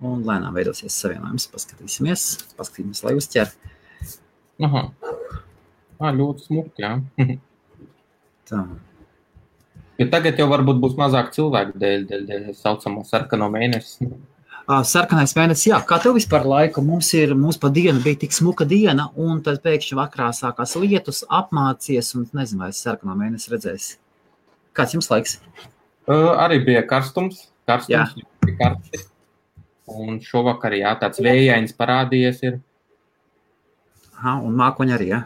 Un lēnām veidosies savienojums. Paskatīsimies, lai uzķer. Aha. Ļoti smuki, jā. Tā. Jo tagad jau varbūt būs mazāk cilvēku dēļ saucamo sarkano mēnesi. Sarkanais mēnesis, jā. Kā tev vispār laika? Mums pa dienu bija tik smuka diena, un tad pēkšņi vakarā sākās lietus, apmācies, un nezinu, vai es sarkano mēnesi redzēsi. Kāds jums laiks? Arī bija karstums bija karsti. Un šovakar, jā, tāds vējains parādījies ir. Aha, un mākoņi arī, jā?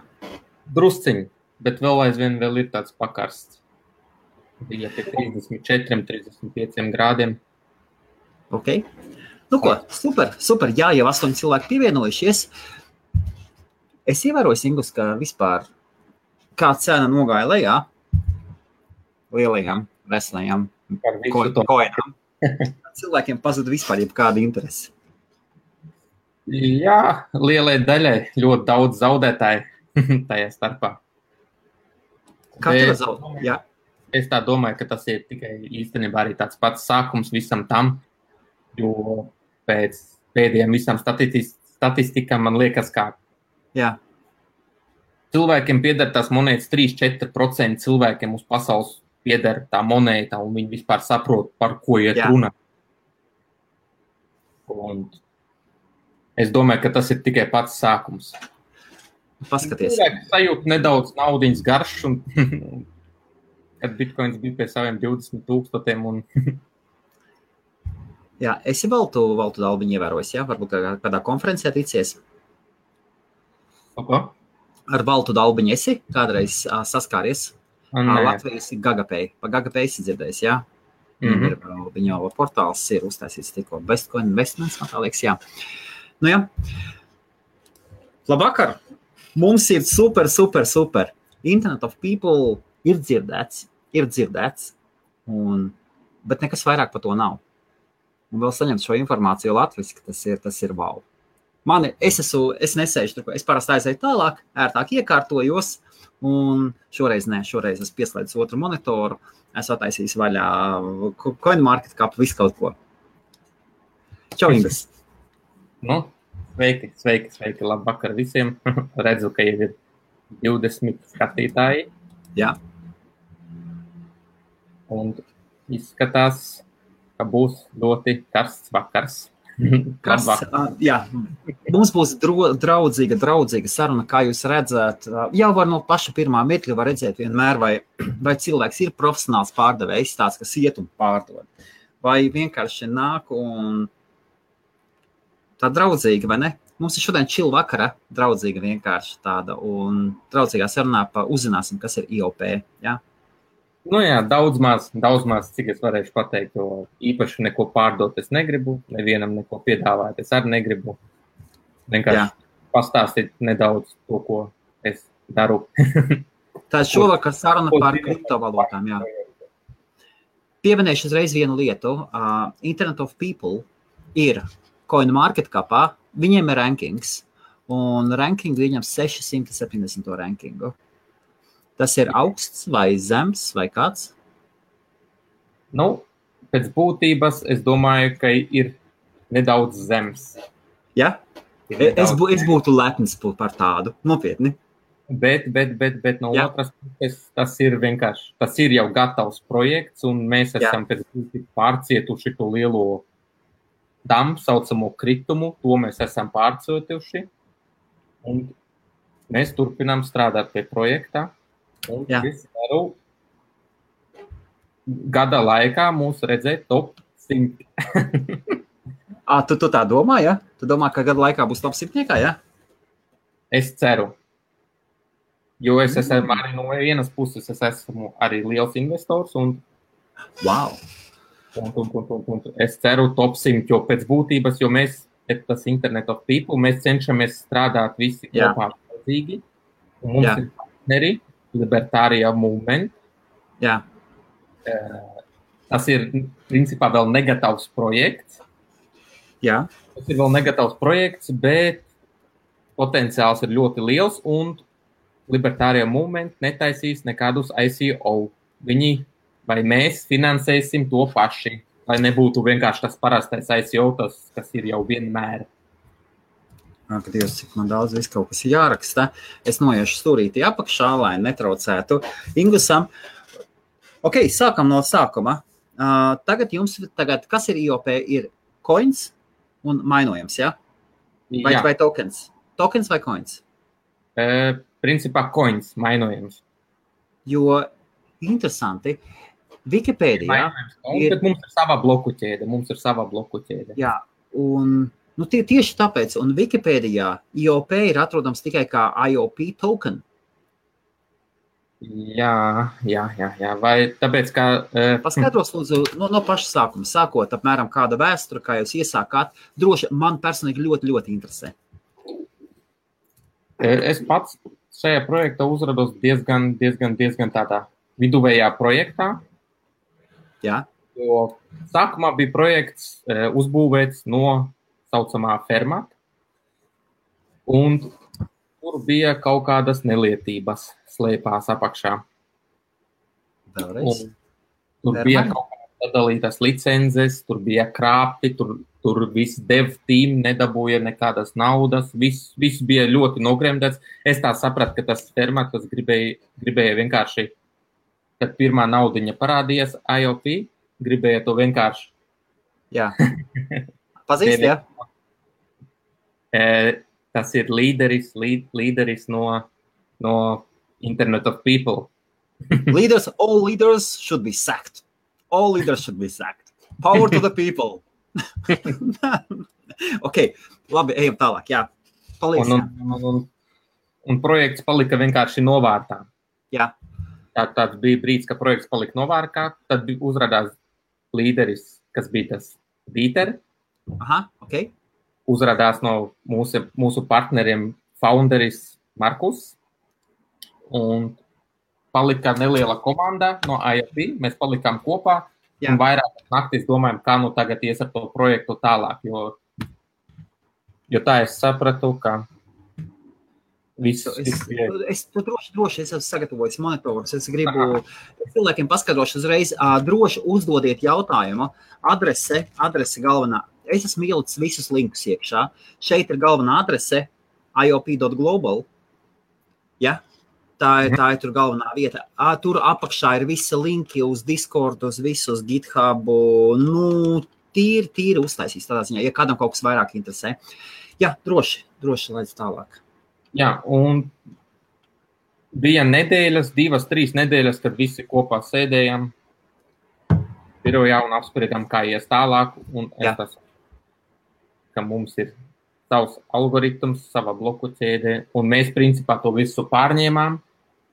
Drusciņi, bet vēl ir tāds pakarsts. Bija pie 34, 35 grādiem. Ok. Nu ko, super. Jā, jau 8 cilvēki pievienojušies. Es ievēroju, Ingus, ka vispār kā cena nogāja lejā lielajām, veselajām koinām. Cilvēkiem pazuda vispār jebkāda interese. Jā, lielai daļai ļoti daudz zaudētāji tajā starpā. Kā tev zaudēt? Jā. Es tā domāju, ka tas ir tikai īstenībā arī tāds pats sākums visam tam, jo pēc pēdējiem visam statistikām man liekas, kā cilvēkiem pieder tās monētas 3-4% cilvēkiem uz pasaules pieder tā monēta, un viņi vispār saprot, par ko iet runa. Un es domāju, ka tas ir tikai pats sākums. Paskaties. Cilvēki sajūt nedaudz naudiņas garš, un kad bitcoins bija pie saviem 20,000 un... Jā, esi valtu dalbiņu ievērojis, jā? Varbūt kādā konferencē ticies? Apa? Ar valtu dalbiņu esi kādreiz saskāries? Latvijas Gagapay. Pa Gagapay esi dzirdējis, jā? Viņa portāls ir uztaisīts tikko. Bestcoin Investments, man tā liekas, jā. Nu jā. Labvakar! Mums ir super. Internet of People ir dzirdēts, bet nekas vairāk par to nav. Un vēl saņemt šo informāciju latviski, tas ir wow. Es nesēžu tur, es parasti aizēju tālāk, ērtāk iekārtojos, un šoreiz es pieslēdzu otru monitoru, es attaisīju vaļā CoinMarketCap, visu kaut ko. Čau, Ingas! Nu, sveiki, labvakar visiem. Redzu, ka jau ir 20 skatītāji. Jā. Un izskatās, ka būs ļoti karsts vakars. Jā, mums būs draudzīga saruna, kā jūs redzat. Jau var no paša pirmā mirkļa var redzēt vienmēr, vai cilvēks ir profesionāls pārdevējs, tāds, kas iet un pārdod. Vai vienkārši nāk un tā draudzīga, vai ne? Mums ir šodien chill vakara, draudzīga vienkārši tāda, un draudzīgā sarunā uzzināsim, kas ir IOP, jā? Nu jā, daudz maz, cik es varēšu pateikt, jo īpaši neko pārdot es negribu, nevienam neko piedāvāt es arī negribu. Vienkārši pastāstīt nedaudz to, ko es daru. Tā šovakar saruna par kriptovalūtām, jā. Pieminēšu uzreiz vienu lietu. Internet of People ir CoinMarketCapā, viņiem ir rankings, un ranking viņam 670 rankingu. Tas ir augsts vai zems vai kāds? Nu, pēc būtības es domāju, ka ir nedaudz zems. Ja? Es būtu lepns par tādu, nopietni. Bet no otras puses tas ir vienkārši, tas ir jau gatavs projekts, un mēs esam pēc būtības pārcietuši to lielo damu, saucamo kritumu, to mēs esam pārcietuši, un mēs turpinām strādāt pie projektā. Un es varu gada laikā mūs redzēt top 100. Tu tā domā, ja? Tu domā, ka gada laikā būs top 100, ja? Es ceru. Jo es esmu arī no vienas puses, es esmu arī liels investors un... Wow! Un es ceru top 100, jo pēc būtības, jo mēs, tas Internet of People, mēs cenšamies strādāt visi kopā līdzīgi. Un mums ir partneri, Libertārijā movement. Jā. Tas ir, principā, vēl negatavs projekts. Jā. Tas ir vēl negatavs projekts, bet potenciāls ir ļoti liels, un Libertārijā movement netaisīs nekādus ICO. Viņi vai mēs finansēsim to paši. lai nebūtu vienkārši tas parastais ICO, kas ir jau vienmēr. Ak, Dievs, cik man daudz viss kaut kas jāraksta. Es noiešu stūrīti apakšā, lai netraucētu Ingusam. Ok, sākam no sākuma. Tagad kas ir IOP? Ir coins un mainojams, ja? Vai tokens? Tokens vai coins? Principā coins, mainojams. Jo interesanti, Wikipēdijā bet mums ir sava bloku ķēde. Jā, un tieši tāpēc, un Wikipēdijā IOP ir atrodams tikai kā IOP token. Jā, vai tāpēc, ka... Paskaidros, lūdzu, no paša sākuma, sākot apmēram kāda vēstura, kā jūs iesākāt, droši man personīgi ļoti, ļoti interesē. Es pats šajā projektā uzrados diezgan tādā viduvējā projektā. Jā. Jo sākumā bija projekts uzbūvēts no saucamā fermata, un tur bija kaut kādas nelietības slēpās apakšā. Vēlreiz? Tur bija kaut kādas sadalītas licences, tur bija krāpti, tur viss dev team nedabūja nekādas naudas, viss bija ļoti nogremdēts. Es tā sapratu, ka tas fermats, kas gribēja vienkārši, kad pirmā naudiņa parādījās IOP, gribēja to vienkārši. Jā. Pazīst, jā? Tas ir līderis no Internet of People. All leaders should be sacked. All leaders should be sacked. Power to the people. Ok, labi, ejam tālāk, jā. Palīdz. Un projekts palika vienkārši novārtā. Jā. Tāds bija brīdis, ka projekts palika novārtā, tad uzrādās līderis, kas bija tas Dieter. Aha, ok. Uzrādās no mūsu partneriem founderis Markus. Un palika neliela komanda no IOP, mēs palikām kopā. Jā. Un vairāk naktis domājam, kā tagad ies ar to projektu tālāk, jo tā es sapratu, ka Es droši esmu sagatavojis monitorus. Es gribu cilvēkiem paskaidrošu uzreiz, droši uzdodiet jautājumu. Adrese galvenā. Es esmu ielicis visus linkus iekšā. Šeit ir galvenā adrese iop.global. Ja? Tā ir tur galvenā vieta. Tur apakšā ir visi linki uz Discord, uz visu, uz GitHub. Tīri uztaisīs tādā ziņā, ja kādam kaut kas vairāk interesē. Jā, droši laidz tālāk. Jā, un bija nedēļas, 2-3 nedēļas, kad visi kopā sēdējām birojā un apspriedām, kā ies tālāk. Un es ka mums ir savs algoritms, sava bloku ķēde, un mēs principā to visu pārņēmām,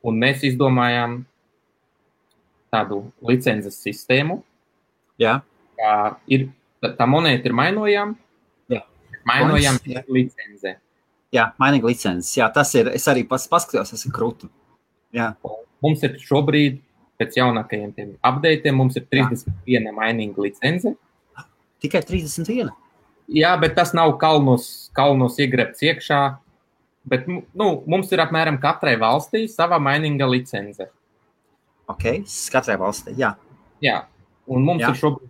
un mēs izdomājām tādu licences sistēmu. Jā. Tā monēta ir mainojama. Jā. Mainojam licenze. Jā, mainīga licences. Jā, tas ir, es arī paskatījos, tas ir krūti. Jā. Mums ir šobrīd, pēc jaunākajiem tiem updateiem, mums ir 31 mainīga licence. Tikai 31? Jā, bet tas nav kalnos iegrebts iekšā, bet mums ir apmēram katrai valstī sava mainīga licence. Ok, katrai valstī, jā. Jā, un mums ir šobrīd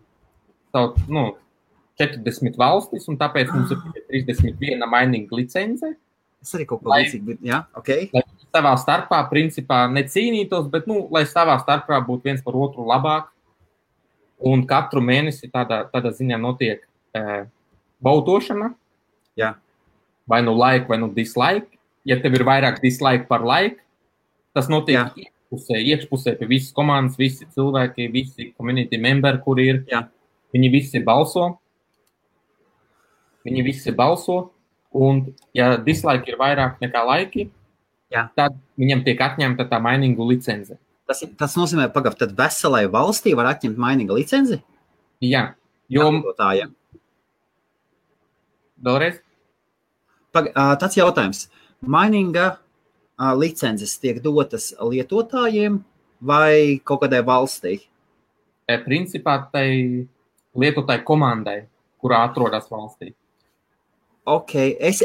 40 valstis, un tāpēc mums ir 31 mainīga licence. Es arī kaut ko līdzīgi, jā, ok. Lai savā starpā, principā, necīnītos, bet, lai savā starpā būtu viens par otru labāk. Un katru mēnesi tādā ziņā notiek bautošana. Jā. Vai like, vai dislike. Ja tev ir vairāk dislike par like, tas notiek iekšpusē pie visas komandas, visi cilvēki, visi community memberi, kuri ir. Jā. Viņi visi balso, un ja dislike ir vairāk nekā laiki, tad viņam tiek atņemta tā mainīgu licence. Tas nozīmē, tad veselai valstī var atņemt mainīgu licenci? Jā. Vēlreiz? Tāds jautājums. Mainīga licences tiek dotas lietotājiem vai kaut kādai valstī? Principā tai lietotāju komandai, kurā atrodas valstī. Ok, es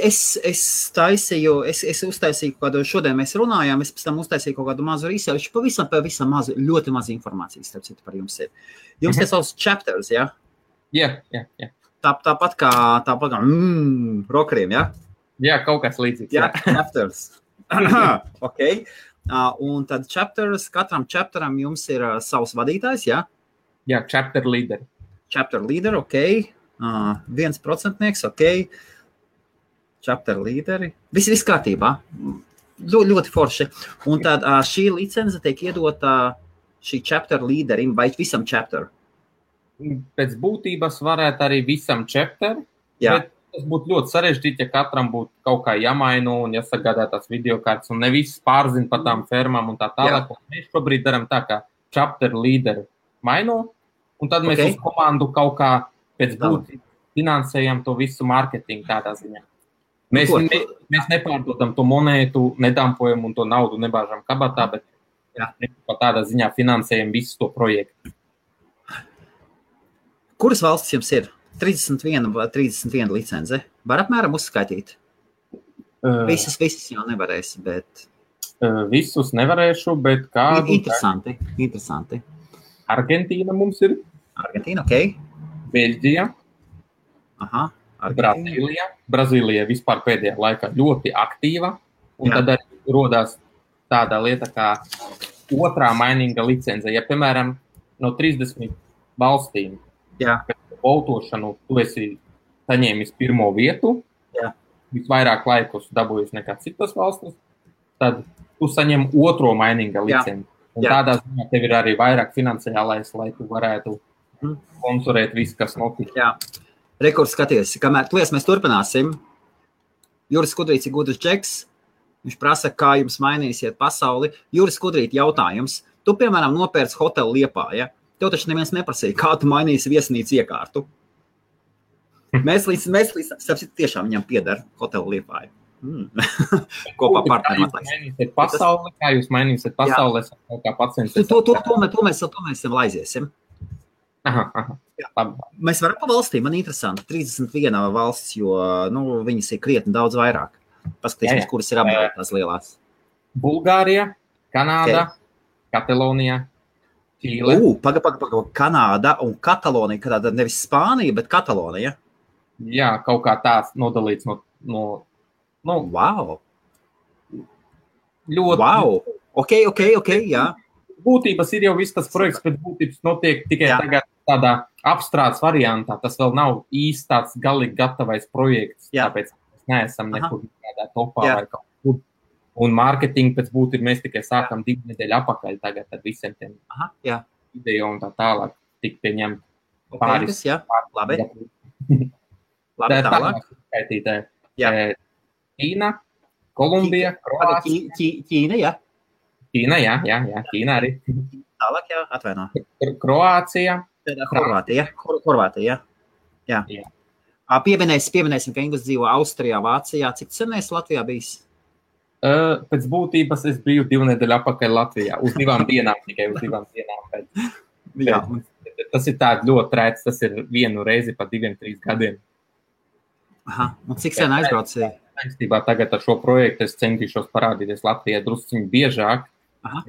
uztaisīju kādu, šodien mēs runājām, es pēc tam uztaisīju kaut kādu mazu research, pavisam mazu, ļoti mazu informācijas, starp citu, par jums ir. Jums ir savs chapters, ja? Jā. Tāpat kā rokeriem, ja? Jā, kaut kas līdzīgs. Jā, chapters. Ok. Un tad katram chapteram jums ir savs vadītājs, ja? Jā, chapter leader. Chapter leader, ok. 1%, ok. Chapter leaderi. Viss kārtībā. Ļoti forši. Un tad šī licence tiek iedota šī chapter leaderim vai visam chapter? Pēc būtības varētu arī visam chapter, bet tas būtu ļoti sarežģīti, ja katram būtu kaut kā jāmaina un jāsagādā tās videokartes un ne viss pārzina par tām fermām un tā tālāk. Mēs šobrīd daram tā, ka chapter leader maino, un tad mēs uz komandu kaut kā pēc būtības finansējam to visu marketingu tādā ziņā. Mēs nepārdodam to monētu, nedampojam un to naudu nebāžam kabatā, bet tādā ziņā finansējam visu to projektu. Kuras valstis jums ir? 31 licence. Var apmēram uzskaitīt? Visas jau nevarēs, bet... Visus nevarēšu, bet kādu... Interesanti. Argentīna mums ir. Argentīna, ok. Beļģija. Aha. Brazīlija vispār pēdējā laikā ļoti aktīva, un tad arī rodās tāda lieta kā otrā mainīga licence. Ja, piemēram, no 30 valstīm pēc votošanu tu esi saņēmis pirmo vietu, visvairāk laikus dabūjis nekā citas valstis, tad tu saņem otro mainīga licenci. Un tādā ziņā tev ir arī vairāk finansiālais, lai tu varētu sponsorēt visu, kas notiek. Jā. Rekords skaties, kamēr mēs turpināsim. Juris Skudrīts ir gudrs džeks. Viņš prasa, kā jums mainīsiet pasauli. Juris Skudrīt, jautājums. Tu, piemēram, nopērci hotelu Liepājā. Tev taču neviens neprasīja, kā tu mainīsi viesnīcu iekārtu. Mēs tiešām viņam pieder hotelu Liepājā. Kopā partneriem atlaist. Kā jūs mainīsiet pasauli? Kā pacients? To mēs laiziesim. Aha. Mēs varam pa valstīm, man interesanti. 31 valsts, jo viņas ir krietni daudz vairāk. Paskatīsimies, kuras ir apdēlētās lielās. Bulgārija, Kanāda, Katalonija, Čīle. Paga. Kanāda un Katalonija, kādā nevis Spānija, bet Katalonija. Jā, kaut kā tās nodalīts no wow. Ļoti. Wow. Ok, jā. Būtības ir jau viss tas projekts, bet būtības notiek tikai tagad tādā apstrādes variantā. Tas vēl nav īsti tāds galīgi gatavais projekts, tāpēc mēs neesam nekur tādā topā vai kaut kur. Un mārketingu pēc būtības mēs tikai sākam 2 nedēļu apakaļ tagad ar visiem tiem video un tā tālāk tik pieņemt pāris. Labi. Tālāk. Ķīna, Kolumbija, Kroācija. Ķīna, Ķīna arī. Tālāk, atvaino. Kroācija. Horvātija. Jā. Pieminēsim, ka Inglis dzīvo Austrijā, Vācijā. Cik sen esi Latvijā bijis? Pēc būtības es biju 2 nedēļu apakaļ Latvijā. Uz 2 dienām, tikai uz 2 dienām. Tas ir tāds ļoti rēts, tas ir 1 reizi pa 2-3 gadiem. Aha, un cik sen aizbraucīja? Tagad ar šo projektu es centīšos parādīties Latvijai drusciņi biežāk,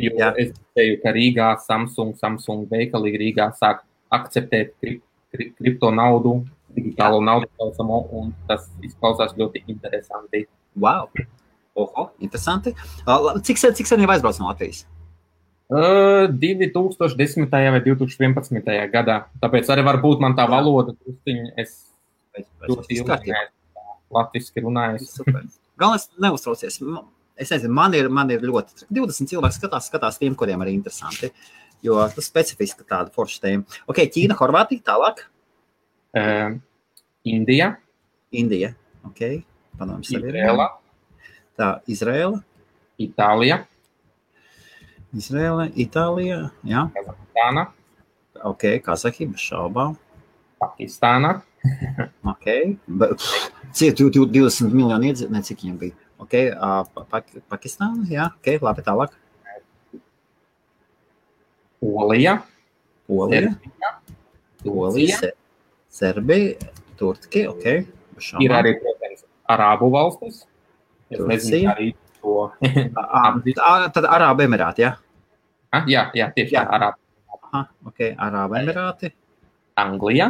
jo es teju, ka Rīgā Samsung veikalīgi Rīgā sāk akceptēt kripto naudu, digitālo naudu saucamo, un tas izklausās ļoti interesanti. Wow! Oho, interesanti. Cik sen jau aizbrauc no Latvijas? 2010. vai 2011. gadā. Tāpēc arī varbūt man tā valoda drusciņi es ļoti ilgi latviski runājis. Galvenais neuztraucies. Es nezinu, man ir ļoti 20 cilvēki skatās tiem, kuriem arī interesanti, jo tas specifiski tāda forša tēma. Ok, Ķīna, Horvātija, tālāk? Indija, ok. Padomāsim sevi. Izrēla. Tā, Izrēla. Itālija, jā. Kazahstāna. Ok, Kazahija, bez šaubām. Pakistāna. Ok. 20 miljoni iedzīvotāji, cik viņiem bija. Ok, Pakistāna, jā. Ok, labi, tālāk. Polija. Serbija, Turcija, ok. Ir arī, protams, Arābu valstis. Es nezinu, arī to. Tad Arābu Emirāti, jā? Jā, tieši tā, Arābu. Aha, ok, Arābu Emirāti. Anglija.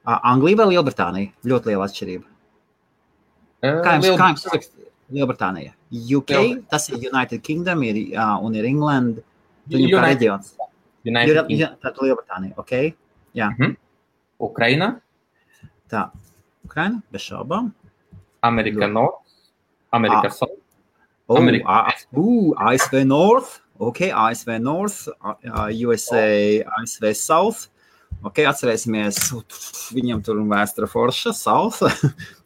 Anglija vai Lielbritānija? Ļoti liela atšķirība. Kā jums sarakst Lielbritānija? UK, tas ir United Kingdom, un ir England, viņu kā reģions. Tātad Lielbritānija, ok? Jā. Ukraina. Tā, Ukraina, bez šaubām. Amerika North, Amerika South. ASV North, ok, ASV North, USA, ASV South. Ok, atcerēsimies, viņam tur vēstura forša, South,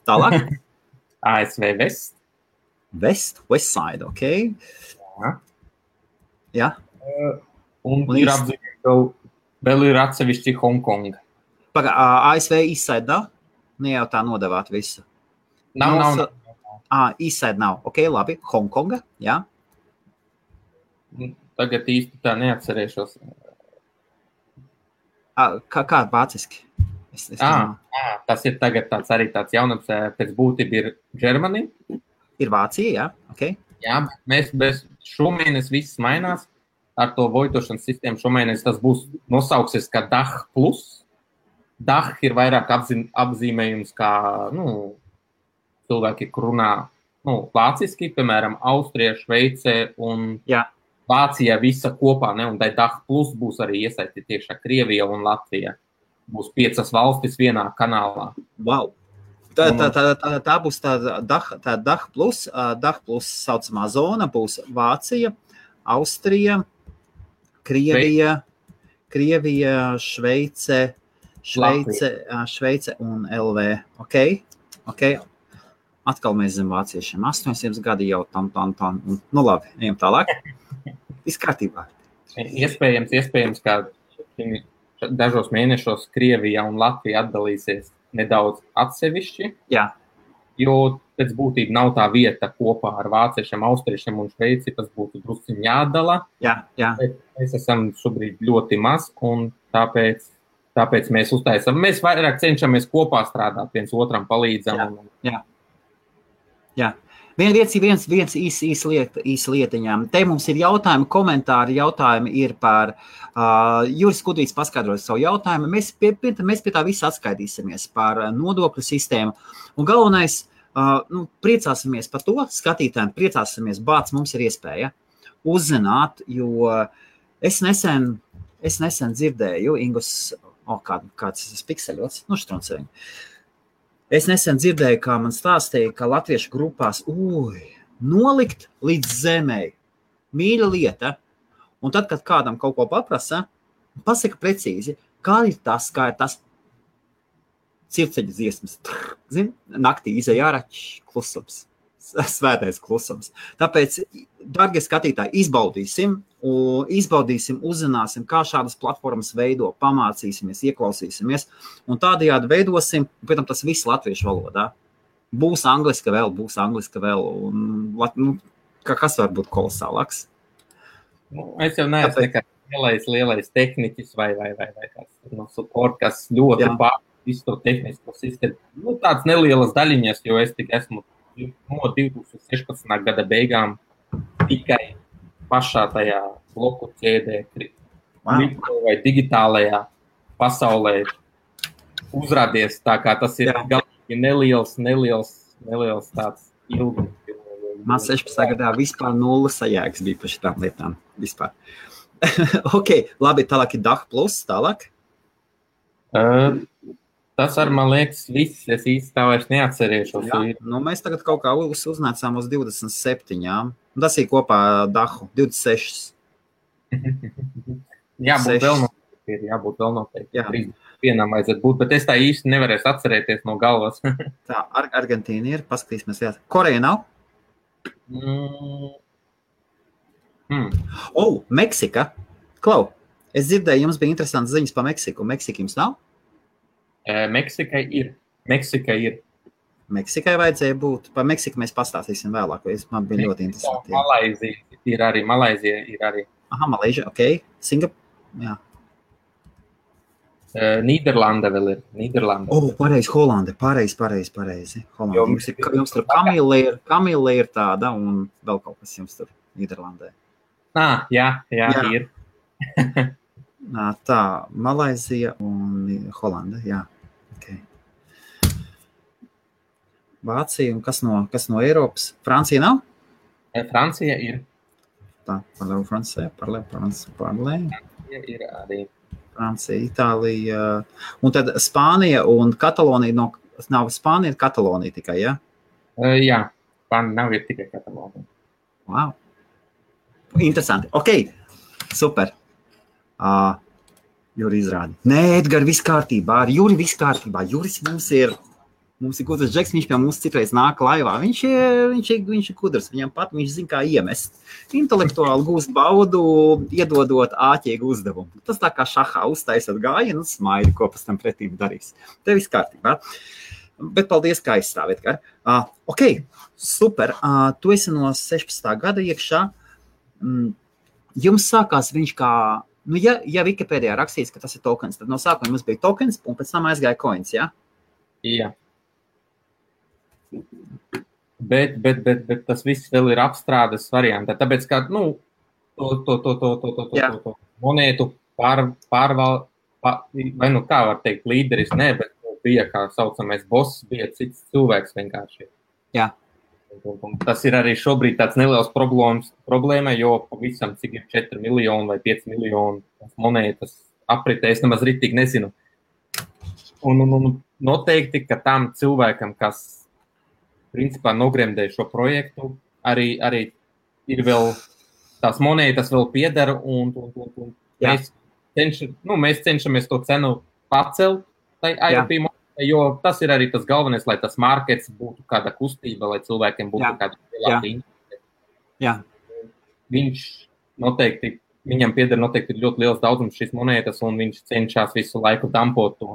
tālāk. ASV West. West side, ok. Jā. Un ir apzīmēt, vēl ir atsevišķi Hongkonga. ASV East side nav? Ne jau tā nodevāt visu. Nav. East side nav, ok, labi. Hongkonga, jā. Tagad īsti tā neatcerēšos. Kā vāciski? Tas ir tagad arī tāds jaunums, pēc būtība ir Germany. Ir Vācija, jā, ok. Jā, mēs šomēnes viss mainās ar to voitošanas sistēmu. Šomēnes tas būs nosauksies kā DACH plus. DACH ir vairāk apzīmējums kā, cilvēki, kur runā, vāciski, piemēram, Austrija, Šveice un Vācija visa kopā, ne? Un tai DACH plus būs arī iesaistīti tiešā Krievija un Latvija. Būs 5 valstis vienā kanālā. Wow! Tā būs tā DACH plus. DACH plus saucamā zona būs Vācija, Austrija, Krievija, Šveice un LV. Ok. Atkal mēs zem vāciešiem. 800 gadi jau tam. Labi, ejam tālāk. Viss kārtībā. Iespējams, ka dažos mēnešos Krievija un Latvija atdalīsies nedaudz atsevišķi. Jā. Jo pēc būtība nav tā vieta kopā ar vāciešiem, austriešiem un Šveici, tas būtu drusciņ jādala. Jā. Mēs esam šobrīd ļoti maz, un tāpēc mēs uztaisam. Mēs vairāk cenšamies kopā strādāt, viens otram palīdzam. Jā. Viens īs lietiņām. Te mums ir jautājumi, komentāri, jautājumi ir par Juris Kudrīts paskaidroja savu jautājumu. Mēs pie tā visu atskaitīsimies par nodokļu sistēmu. Un galvenais, priecāsimies par to, skatītājiem priecāsimies, bāc, mums ir iespēja uzzināt, jo es nesen dzirdēju, Ingus, kāds tas pikseļots, štruncēņi. Es nesen dzirdēju, kā man stāstīja, ka latviešu grupās nolikt līdz zemei. Mīļa lieta. Un tad, kad kādam kaut ko paprasa, pasaka precīzi, kā ir tas circeļa dziesmas. Naktī izej ārā, klusums. Svētais klusums. Tāpēc, dargie skatītāji, izbaudīsim, uzzināsim, kā šādas platformas veido, pamācīsimies, ieklausīsimies, un tādējādi veidosim, pēc tam tas viss latviešu valodā. Būs angliska vēl, un kas var būt kolosālāks? Es jau neesmu nekāds lielais tehniķis vai kāds no support, kas ļoti visu to tehnisko sistēmu. Tāds nelielas daļiņas, jo es tik esmu no 2016. Gada beigām tikai pašā tajā bloku ķēdē, vai digitālajā pasaulē uzrādies, tā kā tas ir galīgi neliels tāds ilgums. Man 16. gadā vispār 0 sajēgas bija par šitām lietām. Vispār. Ok, labi, tālāk ir DACH plus, tālāk. Tas ar, man liekas, viss, es īsti tā vairs neatcerēšos. Mēs tagad kaut kā uznācām uz 27. Tas ir kopā DACHu, 26. Jābūt vēl noteikti. Vienam vajadzētu būt, bet es tā īsti nevarēšu atcerēties no galvas. Tā, Argentīna ir, paskatīsimies. Koreja nav? Meksika. Klau, es dzirdēju, jums bija interesants ziņas par Meksiku. Meksika jums nav? Meksikai ir. Meksikai vajadzēja būt. Par Meksiku mēs pastāstīsim vēlāk, jo man bija ļoti interesanti. Malaizija ir arī. Aha, Malaizija, ok. Singapūra, jā. Nīderlanda vēl ir. Pareizi, Holanda. Pareizi. Holanda. Jums tur Kamila ir tāda un vēl kaut kas jums tur Nīderlandē. Jā, ir. Tā, Malaizija un Holanda, jā. Okay. Vācija un kas no Eiropas? Francija nav? Francija ir. Tā, Francija ir arī. Francija, Itālija, un tad Spānija un Katalonija, nav Spānija, Katalonija tikai, ja? Jā, Spānija nav ir tikai Katalonija. Wow. Interesanti. Ok, super. Juri izrādi. Nē, Edgar, viss kārtībā. Ar Juri viss kārtībā. Juris mums ir gudrs džeks, viņš pie mums citreiz nāk laivā. Viņš ir gudrs, viņam pat viņš zina, kā iemest. Intelektuāli gūst baudu, iedodot āķīgu uzdevumu. Tas tā kā šahā uztaisot gājienu un smaidi, ko pēc tam pretīm darīs. Te viss kārtībā. Bet paldies, kā aizstāv, Edgar. Ok, super. Tu esi no 16. gada iekšā. Jums sākās viņš kā, ja Wikipēdijā rakstīts, ka tas ir tokens, tad no sākuma mums bija tokens un pēc tam aizgāja coins, ja? Jā. Bet tas viss vēl ir apstrādes variantā, tāpēc, ka, to monētu vai kā var teikt, līderis, ne, bet bija, kā saucamais boss, bija cits cilvēks vienkārši. Jā. Un tas ir arī šobrīd tāds neliels problēma, jo pavisam cik ir 4 miljoni vai 5 miljoni monētas apritē, es nemaz ritīgi nezinu. Un noteikti, ka tam cilvēkam, kas principā nogremdēja šo projektu, arī ir vēl tās monētas vēl piedara un mēs cenšamies to cenu pacelt tai IOP monētai, jo tas ir arī tas galvenais, lai tas markets būtu kāda kustība, lai cilvēkiem būtu kāda lielāka interese. Jā. Viņam piedara noteikti ir ļoti liels daudzums šīs monētas un viņš cenšas visu laiku dampot to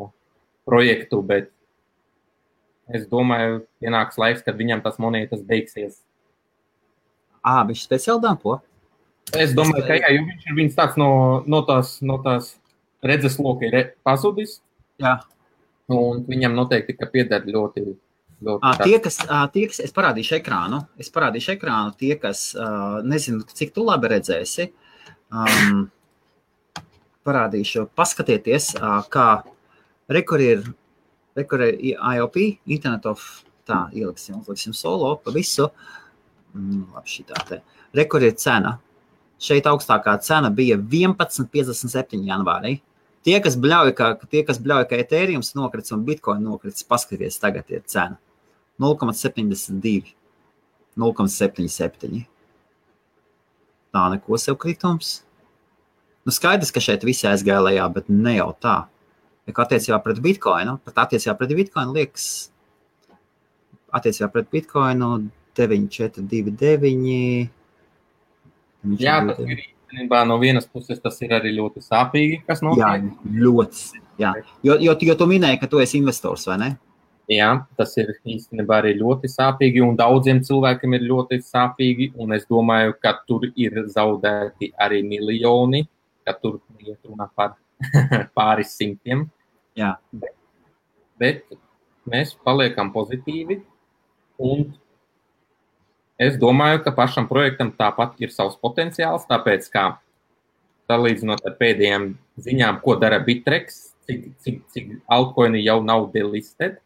projektu, bet es domāju, pienāks laiks, kad viņam tas monētas beigsies. Viņš speciāli dampo? Es domāju, ka jā, jo viņš tāds no tās redzesloka ir pazudis. Jā. Un viņam noteikti, ka pieder ļoti tie, kas, es parādīšu ekrānu, tie, kas, nezinu, cik tu labi redzēsi, parādīšu, paskatieties, kā rekur ir IOP, Internet of, tā, ieliksim solo pa visu, labi šitā te, rekur ir cena, šeit augstākā cena bija 11,57 janvārī, tie, kas bļauja, ka Ethereums nokrits un Bitcoin nokrits, paskaties, tagad ir cena, 0,72, 0,77, tā neko sev kritums, skaidrs, ka šeit visi aizgāja lejā, bet ne jau tā. Attiecībā pret Bitcoinu, liekas, attiecībā pret Bitcoinu 9,429. Jā, tas ir īstenībā no vienas puses, tas ir arī ļoti sāpīgi, kas notiek. Jā, ļoti. Jā. Jo tu minēji, ka tu esi investors, vai ne? Jā, tas ir īstenībā arī ļoti sāpīgi un daudziem cilvēkiem ir ļoti sāpīgi un es domāju, ka tur ir zaudēti arī miljoni, ka tur iet runā par pāris simtiem. Jā. Bet mēs paliekam pozitīvi un es domāju, ka pašam projektam tāpat ir savs potenciāls, tāpēc kā salīdzinot ar pēdējām ziņām, ko dara Bittrex, cik altcoini jau nav delisted.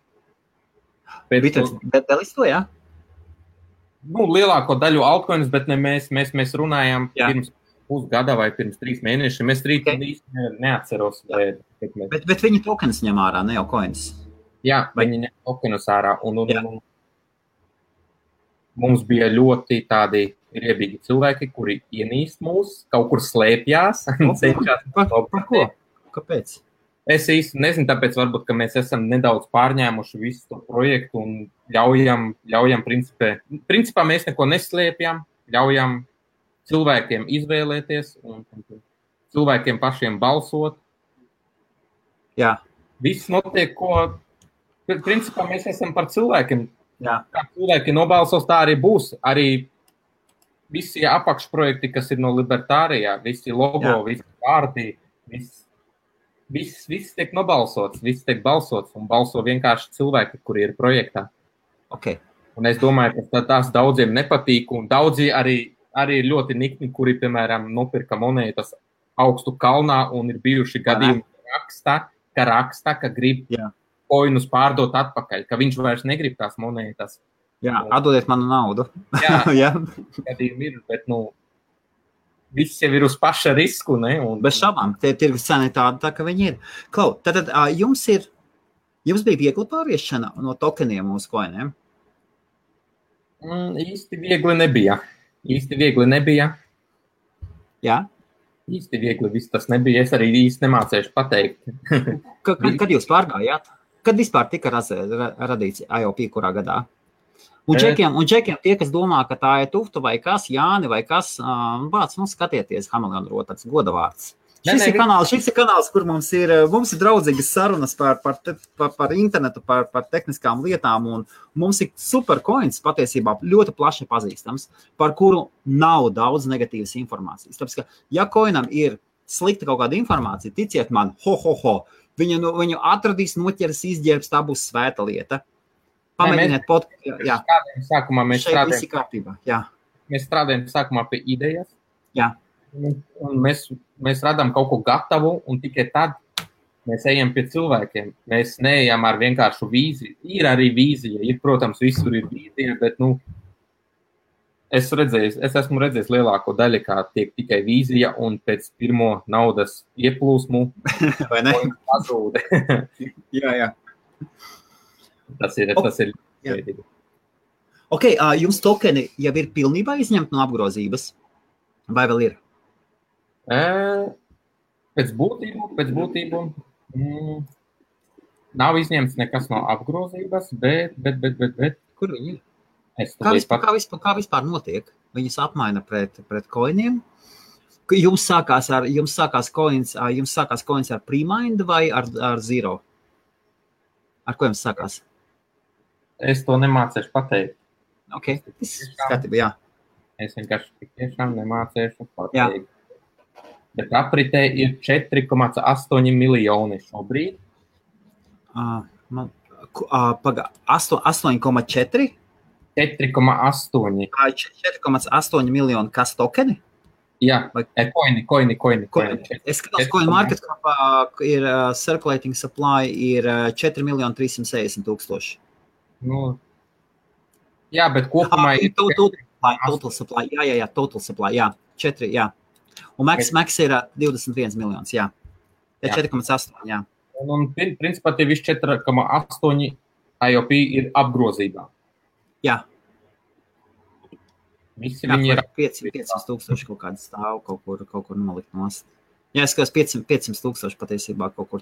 Bittrex delisto, jā? Lielāko daļu altcoins, bet ne mēs runājām pirms pusgada vai pirms 3 mēnešiem. Es īsti neatceros. Bet viņi tokens ņem ārā, ne jau coins? Jā, viņi ņem tokenus ārā. Un mums bija ļoti tādi riebīgi cilvēki, kuri ienīst mūs, kaut kur slēpjās. Par ko? Kāpēc? Es īsti nezinu, tāpēc varbūt, ka mēs esam nedaudz pārņēmuši visu to projektu un ļaujam principā mēs neko neslēpjam, ļaujam cilvēkiem izvēlēties un cilvēkiem pašiem balsot. Jā. Viss notiek, principā mēs esam par cilvēkiem. Jā. Kā cilvēki nobalsos, tā arī būs. Arī visi apakšprojekti, kas ir no Libertārijā, visi logo, visi vārdi, viss tiek nobalsots, viss tiek balsots un balso vienkārši cilvēki, kuri ir projektā. Okay. Un es domāju, ka tās daudziem nepatīk un daudzi arī ļoti nikni, kuri, piemēram, nopirka monētas augstu kalnā un ir bijuši gadījumi, ka raksta, ka grib koinus pārdot atpakaļ, ka viņš vairs negrib tās monētas. Jā, atdodiet manu naudu. Jā, Jā. gadījumi ir, bet, viss jau ir uz paša risku, ne? Bez šaubām, tie tirgus cena ir tāda, tā, ka viņi ir. Klau, tad jums bija viegli pāriešana no tokeniem uz koiniem? Īsti viegli nebija. Jā? Īsti viegli viss tas nebija. Es arī īsti nemācēšu pateikt. Kad jūs pārgājāt? Kad vispār tika radīts IOP, kurā gadā? Un džekiem tie, kas domā, ka tā ir Tufta vai kas, Jāni vai kas, vārds, skatieties, Hameleona rotāts, godavārds. Šis ir kanāls, kur mums ir draudzīgas sarunas par internetu, par tehniskām lietām, un mums ir supercoins patiesībā ļoti plaši pazīstams, par kuru nav daudz negatīvas informācijas. Tāpēc, ka ja coinam ir slikta kaut kāda informācija, ticiet man, viņu atradīs, noķers, izģērbs, tā būs svēta lieta. Pamēģiniet sākumā mēs strādājam sākumā pie idejas. Jā. Un mēs radām kaut ko gatavu, un tikai tad mēs ejam pie cilvēkiem. Mēs neejam ar vienkāršu vīziju. Ir arī vīzija, protams, visur ir vīzija, bet, es esmu redzējis lielāko daļu, kā tiek tikai vīzija, un pēc pirmo naudas ieplūsmu vai ne? Pazūd. Jā. Tas ir. Ok, jums tokeni jau ir pilnībā izņemti no apgrozības? Vai vēl ir? Pēc būtību nav izņemts nekas no apgrozības, bet. Kur viņi ir? Kā vispār notiek? Viņus apmaina pret coiniem? Jums sākās coins ar pre-mind vai ar zero? Ar ko jums sākās? Es to nemācēšu pateikt. Ok, tas skatībā, jā. Es vienkārši tiešām nemācēšu pateikt. Bet apritē ir 4,8 miljoni šobrīd. 8,4? 4,8. 4,8 miljoni kas tokeni? Jā, koini. Es skatos, coin market capā ir circulating supply ir 4,360,000. Jā, bet kopumā ir... Total supply, jā, total supply, jā, 4, jā. Un max ir 21 miljonus, jā. 4,8, jā. Un principā tie visi 4,8 IOP ir apgrozībā. Jā. Visi viņi ir 500,000 kaut kāda stāv, kaut kur nolikt nost. Jā, es skatos 500,000 patiesībā kaut kur,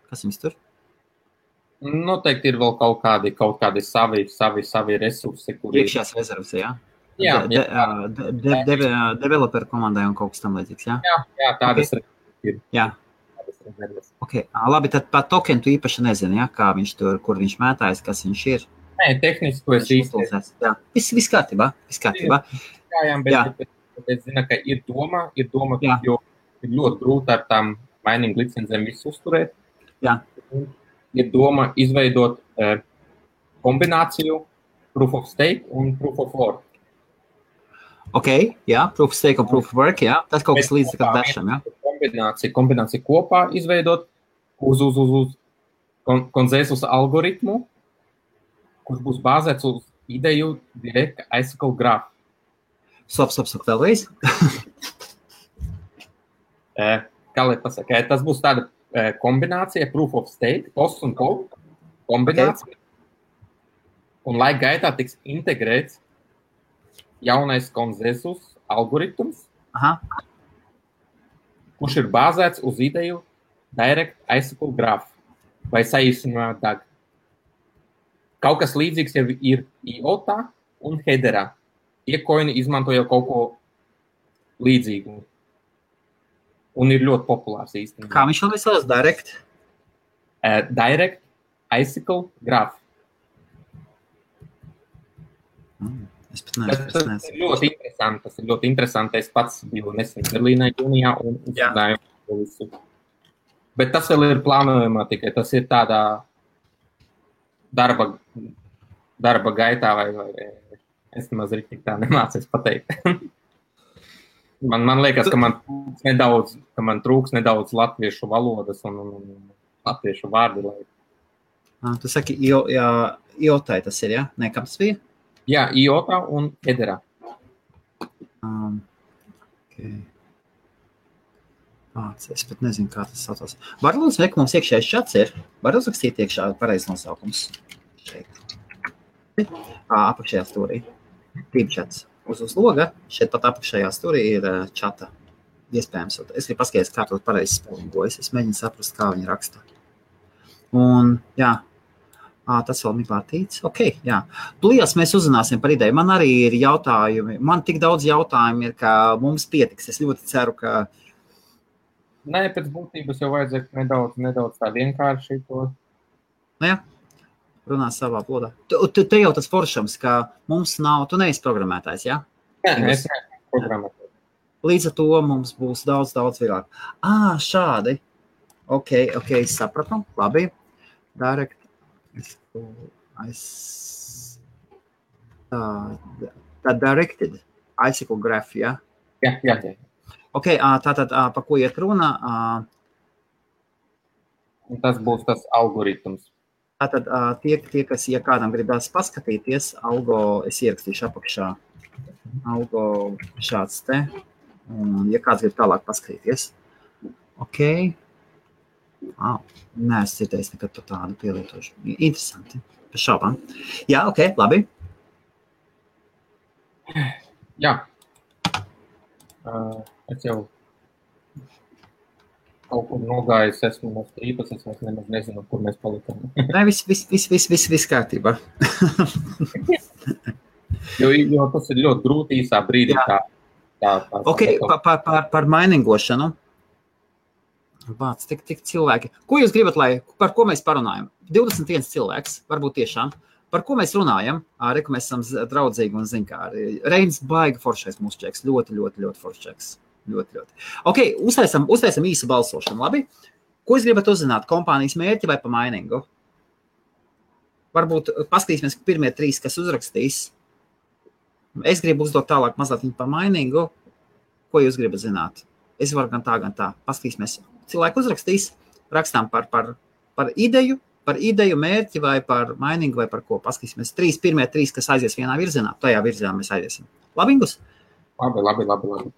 kas jums tur? Noteikti ir vēl kaut kādi savi resursi, kuri... Iekšējās rezervas, jā? Jā. Developer komandai un kaut kas tam līdzīgs, jā? Jā, tādas ir. Jā. Ok, labi, tad par tokenu tu īpaši nezini, jā, kā viņš tur, kur viņš mētājas, kas viņš ir? Nē, tehniski to es īsti. Jā, viss kārtībā. Jā, bet es zinu, ka ir doma, jo ir ļoti grūti ar tām mining licencēm visu uzturēt. Jā. Ir doma izveidot kombināciju proof of stake un proof of work. Ok, jā, proof of stake un proof of work, jā. Tas kaut kas līdz kā dašam, jā. Kombināciju kopā izveidot uz konsensus algoritmu, kurš būs bāzēts uz ideju direct acyclic graph. Stop, vēlreiz. Kā lai pasaka, tas būs tāda kombinācija proof of stake, post un post kombinācija. Okay. Un laika gaitā tiks integrēts jaunais konsensus algoritms, kurš ir bāzēts uz ideju direct acyclic graph vai saīsinājumā DAG. Kaut kas līdzīgs jau ir IOTA un Hedera. Tie koini izmanto jau kaut ko līdzīgu. Un ir ļoti populārs īstenībā. Kā viņš vēl sauc? Direct? Direct acyclic graph. Es pat neesmu. Tas ir ļoti interesanti. Es pats biju nesen Berlīnē jūnijā un uzzinājām to visu. Bet tas vēl ir plānojumā tikai. Tas ir tādā darba gaitā vai es nemaz rīktīgi tā nemācies pateikt. Man liekas, ka man trūks nedaudz latviešu valodas un latviešu vārdu. Tu saki, IoT tas ir, ja? Nē, kam tas bija? Jā, IoT un Hedera. Okay. Es pat nezinu, kā tas saucās. Var lūdzu, ka mums iekšējais čats ir? Var uzrakstīt iekšā pareiz nosaukums? Šeit. Apakšējā stūrī. Tīm čats. Uz loga. Šeit pat apakšējā stūrī ir čata. Iespējams. Es gribu paskatīties, kā to pareizi spēlīgojas. Es mēģinu saprast, kā viņi raksta. Un, jā. Tas vēl bija pārtīts. Ok, jā. Tūlījās mēs uzzināsim par ideju. Man arī ir jautājumi. Man tik daudz jautājumu ir, ka mums pietiks. Es ļoti ceru, ka Nē, pēc būtības jau vajadzētu nedaudz tā vienkārši to. Jā, runā savā valodā. Te jau tas foršams, ka mums nav, tu neesi programmētājs, jā? Nē, es neesmu programmētājs. Līdz ar to mums būs daudz vieglāk. Šādi. Ok, sapratu. Labi. Direct. Tā directed. Icicle graph, jā? Jā. Ok, tātad, pa ko iet runa? Tas būs tas algoritms. Tātad, tie, kas, ja kādam gribās paskatīties, algo, es ierakstīšu apakšā, algo šāds te, un ja kāds grib tālāk paskatīties. Ok. Nē, es dzirdējis nekad par tādu pielietošu. Interesanti. Par šaubām. Jā, ok, labi. Jā. Es jau kaut kur nogājis, esmu no strīpas, es nemaz nezinu, kur mēs palikām. Nē, viss kārtībā. jo tas ir ļoti grūti īsā brīdī. Ok, par mainingošanu. Vāc, tik cilvēki. Ko jūs gribat, par ko mēs parunājam? 21 cilvēks, varbūt tiešām. Par ko mēs runājam? Reku mēs esam draudzīgi un zinkāri. Reins baigi foršais mūsu čeks. Ļoti foršais. Ļoti. Ok, uztaisam īsu balsošanu, labi? Ko jūs gribat uzzināt? Kompānijas mērķi vai pa mainingu? Varbūt paskatīsimies pirmie 3, kas uzrakstīs. Es gribu uzdot tālāk mazliet pa mainingu. Ko jūs gribat zināt? Es varu gan tā. Paskatīsimies. Cilvēki uzrakstīs. Rakstām par ideju. Par ideju, mērķi vai par mainingu vai par ko. Paskatīsimies. Pirmie 3, kas aizies vienā virzienā. Tajā virzienā mēs aiziesim. Labi, Ingus? Labi.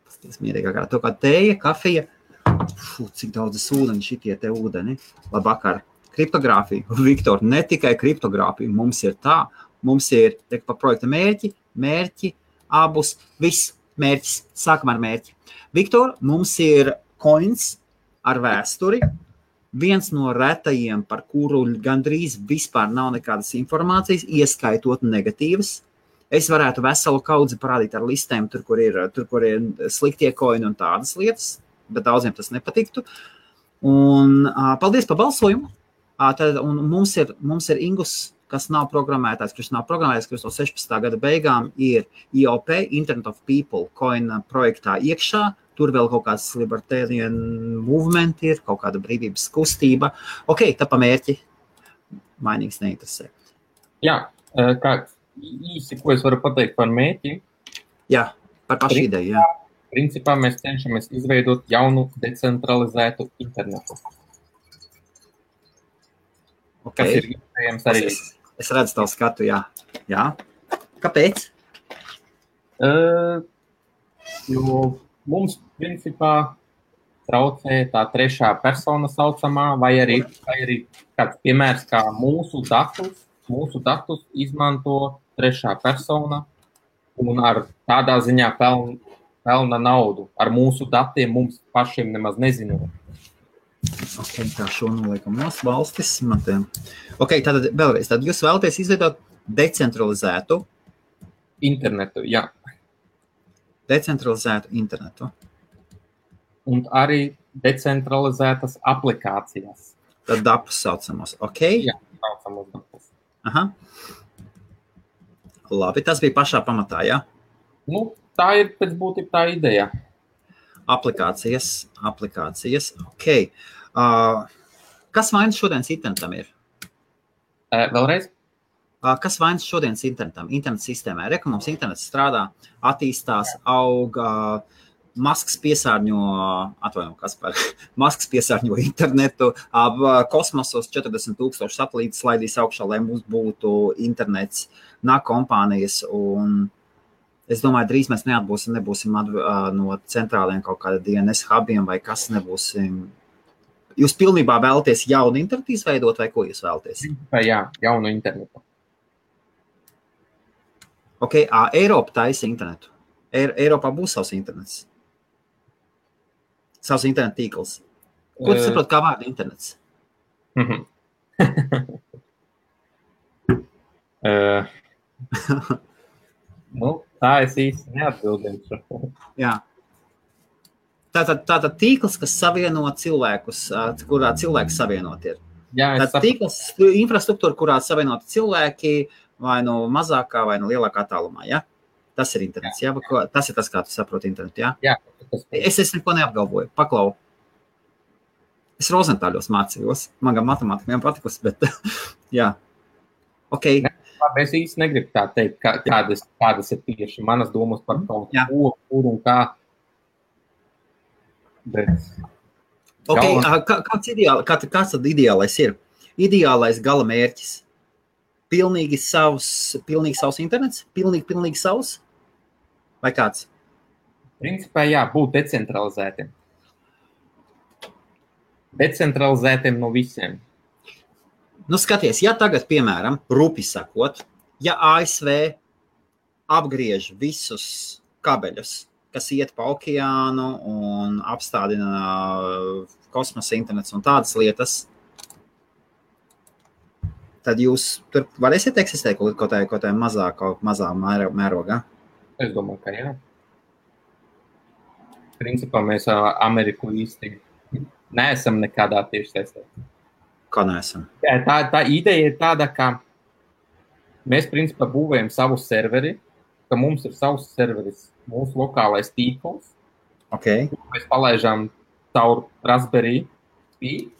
Paskatīsimies mierīgā garā. To kā tēja, kafija. Cik daudz ūdeni šitie te ūdeni. Labvakar. Kriptogrāfija. Viktor, ne tikai kriptogrāfija. Mums ir tā. Mums ir pa projekta mērķi, abus, viss mērķis. Sākam ar mērķi. Viktor, mums ir coins ar vēsturi, viens no retajiem, par kuru gandrīz vispār nav nekādas informācijas, ieskaitot negatīvas. Es varētu veselu kaudzi parādīt ar listēm, tur, kur ir sliktie koini un tādas lietas, bet daudziem tas nepatiktu. Un paldies par balsojumu. Un mums ir Ingus, kas nav programmētājs, kurš nav programmētājs, kurš no 16. gada beigām ir IOP, Internet of People, coin projektā iekšā. Tur vēl kaut kāds libertarian movement ir, kaut kāda brīvības kustība. Ok, tā pa mērķi. Mainīgs neinteresē. Jā, kā īsi, ko es varu pateikt par mērķi? Jā, par pašu ideju, jā. Principā mēs cenšamies izveidot jaunu decentralizētu internetu. Okay. Kas ir iespējams arī. Es redzu tavu skatu, jā. Jā. Kāpēc? Jo mums, principā, traucē tā trešā persona saucamā, vai arī kāds piemērs, kā mūsu datus izmanto trešā persona un ar tādā ziņā pelna naudu. Ar mūsu datiem mums pašiem nemaz nezinot. Ok, tā šo noliekam nos valstis. Ok, tātad vēlreiz. Tad jūs vēlaties izveidot decentralizētu internetu, jā. Decentralizētu internetu. Un arī decentralizētas aplikācijas. Tad dapus saucamos, ok? Jā, saucamos dapus. Aha. Labi, tas bija pašā pamatā, jā? Nu, tā ir pēc būtība tā ideja. Aplikācijas, ok. Kas vainas šodienas internetam ir? Vēlreiz? Kas vainas šodienas internetam, internet sistēmai? Reka mums internets strādā, attīstās, auga, Masks piesārņo, Masks piesārņo internetu, kosmosos 40,000 satelītus slaidīs augšā, lai mums būtu internets, nāk kompānijas, un es domāju, drīz mēs nebūsim no centrāliem kaut kāda DNS hubiem vai kas nebūsim. Jūs pilnībā vēlaties jaunu internetu izveidot, vai ko jūs vēlaties? Jā, jaunu internetu. Ok, Eiropa taisa internetu. Eiropā būs savs internets. Savs internet tīkls. Ko tu saproti, kā vārda internets? Tā es īsti neatbildēšu. Jā. Tātad tīkls, kas savieno cilvēkus, kurā cilvēki savienot ir. Jā, tātad tīkls, infrastruktūra, kurā savienot cilvēki vai no mazākā vai no lielākā tālumā, ja? Tas ir internets, ja? Tas ir tas, kā tu saproti internetu, ja? Jā. Es neko neapgalvoju, paklau. Es Rozentāļos mācījos, man gan matemātika patikusi, bet jā. Ok. Es īsti negribu tā teikt, kādas ir tieši manas domas par kaut ko, kur un kā. Bet... Ok, kāds tad ideālais ir? Ideālais gala mērķis? Pilnīgi savs internets? Pilnīgi savs? Vai kāds? Principā jā, būt decentralizētiem. Decentralizētiem no visiem. Nu, skaties, ja tagad, piemēram, rupi sakot, ja ASV apgriež visus kabeļus, kas iet pa okeānu un apstādina kosmosa internets un tādas lietas, tad jūs tur varēsiet eksistēt kaut kā mazā mērogā? Es domāju, ka jā. Principā mēs Ameriku īsti neesam nekādā tieši saistē. Kā neesam? Tā ideja ir tāda, ka mēs principā būvējam savu serveri, ka mums ir savs serveris, mūsu lokālais tīkls. Okay. Mēs palaižam caur Raspberry Pi,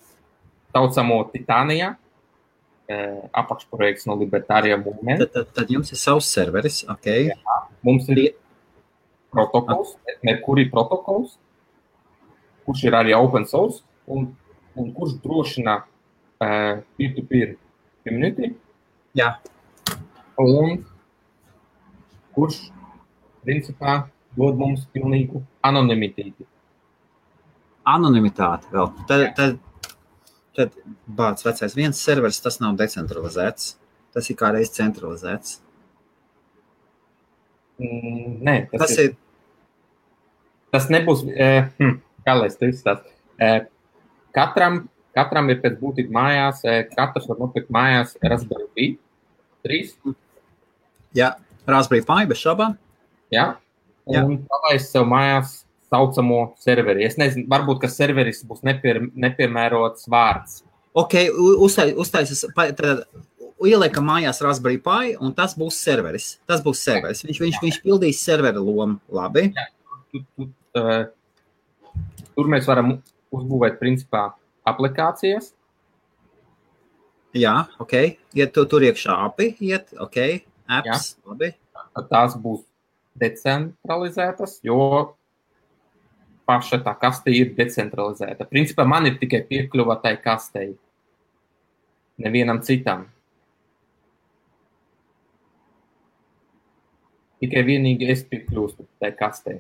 saucamo Titania, apakšprojekts no Libertārijā Movement. Tad jums ir savs serveris, ok. Jā, mums ir protokols, Mercury protokols, kurš ir arī open source, un kurš drošina peer-to-peer community. Jā. Un kurš, principā, dod mums pilnīgu anonimitāti. Anonimitāti vēl. Tad bāc vecais viens serveris, tas nav decentralizēts. Tas ir kā reiz centralizēts. Nē, tas nebūs, kā lai es to izstāstu. Katram ir pēc būtība mājās, katrs var nopirkt mājās Raspberry Pi 3. Jā, Raspberry Pi bez šaubām. Jā, un palaist sev mājās saucamo serveri. Es nezinu, varbūt, ka serveris būs nepiemērots vārds. Ok, uztaisas, tad ieliekam mājās Raspberry Pi, un tas būs serveris. Tas būs serveris. Viņš pildīs servera lomu. Labi. Jā, tur mēs varam uzbūvēt, principā, aplikācijas. Jā, ok. Iet tur iekšā API, ok. Apps, jā. Labi. Tās būs decentralizētas, jo paša tā kaste ir decentralizēta. Principā man ir tikai piekļuva tai kastei. Nevienam citam. Tikai vienīgi es piekļūstu tai kastei.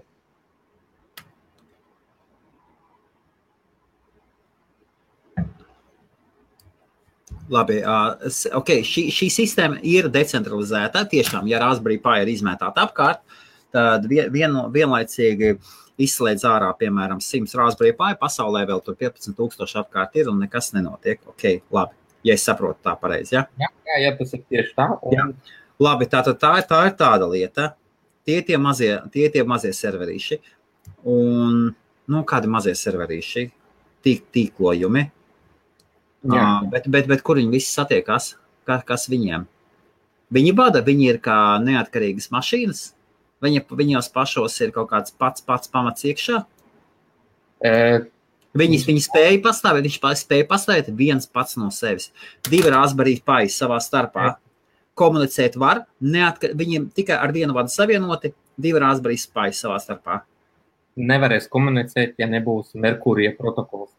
Labi, ok, šī sistēma ir decentralizēta. Tiešām, ja Raspberry Pi ir izmētāta apkārt, tad vienlaicīgi izslēdz ārā, piemēram, 100 Raspberry Pi, pasaulē vēl tur 15,000 apkārt ir un nekas nenotiek. Ok, labi, ja es saprotu tā pareizi, ja? Jā, tas ir tieši tā. Jā. Labi, tā ir tāda lieta. Tie mazie serverīši. Un, kādi mazie serverīši? Tīklojumi. Bet kur viņi visi satiekās? Kas viņiem? Viņi bada, viņi ir kā neatkarīgas mašīnas? Viņos pašos ir kaut kāds pats pamats iekšā? Viņi spēja pastāvēt, viņš spēja pastāvēt viens pats no sevis. 2 Raspberry Pi savā starpā. Komunicēt var, viņiem tikai ar vienu vadu savienoti, 2 Raspberry Pi savā starpā. nevarēs komunicēt, ja nebūs Merkurija protokols.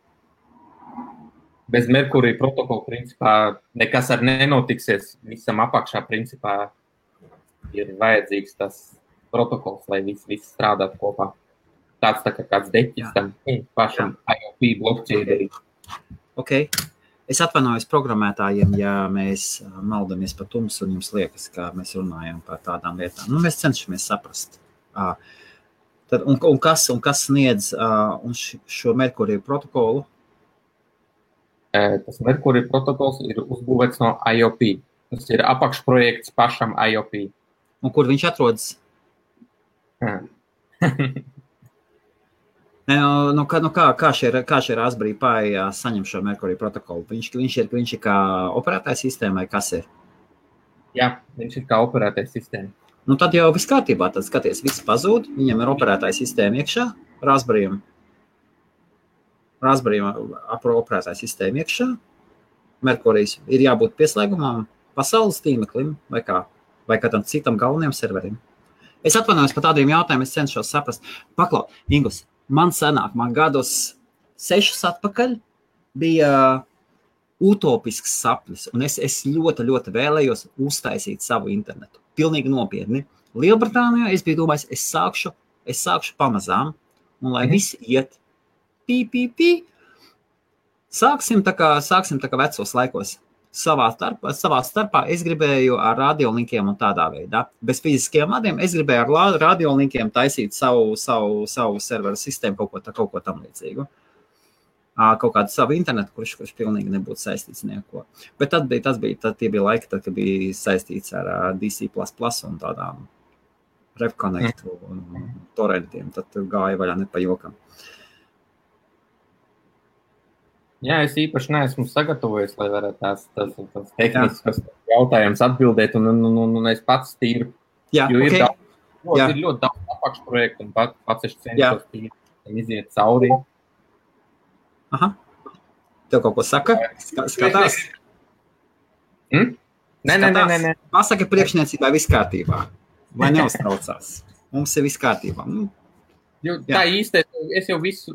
Bez Merkurija protokola, principā, nekas ar nenotiksies. Visam apakšā, principā, ir vajadzīgs tas protokols, lai viss strādātu kopā. Tāds tā kā kāds deķis tam pašam IOP blockchain. Okay. Es atvainojos programmētājiem, ja mēs maldamies par tumsu un jums liekas, ka mēs runājam par tādām lietām. Nu, mēs cenšamies saprast. Tad, un kas sniedz šo Merkurija protokolu? Tas Merkurija protokols ir uzbūvēts no IOP. Tas ir apakšprojekts pašam IOP. Un kur viņš atrodas? Kā šie Raspberry Pi saņem šo Merkurija protokolu? Viņš ir kā operētājs sistēma vai kas ir? Jā, viņš ir kā operētājs sistēma. Nu, tad jau viss kārtībā. Tad skaties, viss pazūd. Viņam ir operētājs sistēma iekšā, Raspberry'am operētājs sistēma iekšā. Merkurijs ir jābūt pieslēgumam pasaules tīmeklim vai kādam citam galvenajam serverim. Es atvainojos par tādiem jautājumiem, es cenšos saprast. Paklau, Ingus, man gados 6 atpakaļ bija utopisks sapnis, un es ļoti, ļoti vēlējos uztaisīt savu internetu. Pilnīgi nopietni. Lielbritānijā es biju domājis, es sākšu pamazām, un lai viss iet Sāksim tā kā vecos laikos. Savā starpā es gribēju ar radiolinkiem un tādā veidā. Bez fiziskiem vadiem es gribēju ar radiolinkiem taisīt savu serveru sistēmu, kaut ko tam līdzīgu. Kaut kādu savu internetu, kurš pilnīgi nebūtu saistīts neko. Bet tie bija laiki, kad bija saistīts ar DC++ un tādām RevConnect un torrentiem. Tad gāja vaļā ne pa jokam. Jā, es īpaši neesmu sagatavojies, lai varētu tās tehniskas jautājumus atbildēt, un es pats tīru. Jā, jo ir ļoti daudz apakšprojektu, un pats es cenšos tīri iziet cauri. Aha. Tev kaut ko saka? Skatās? Nē. Pasaka priekšniecībā viss kārtībā. Vai neuztraucās? Mums ir viss kārtībā. Jo, tā īsti, es jau visu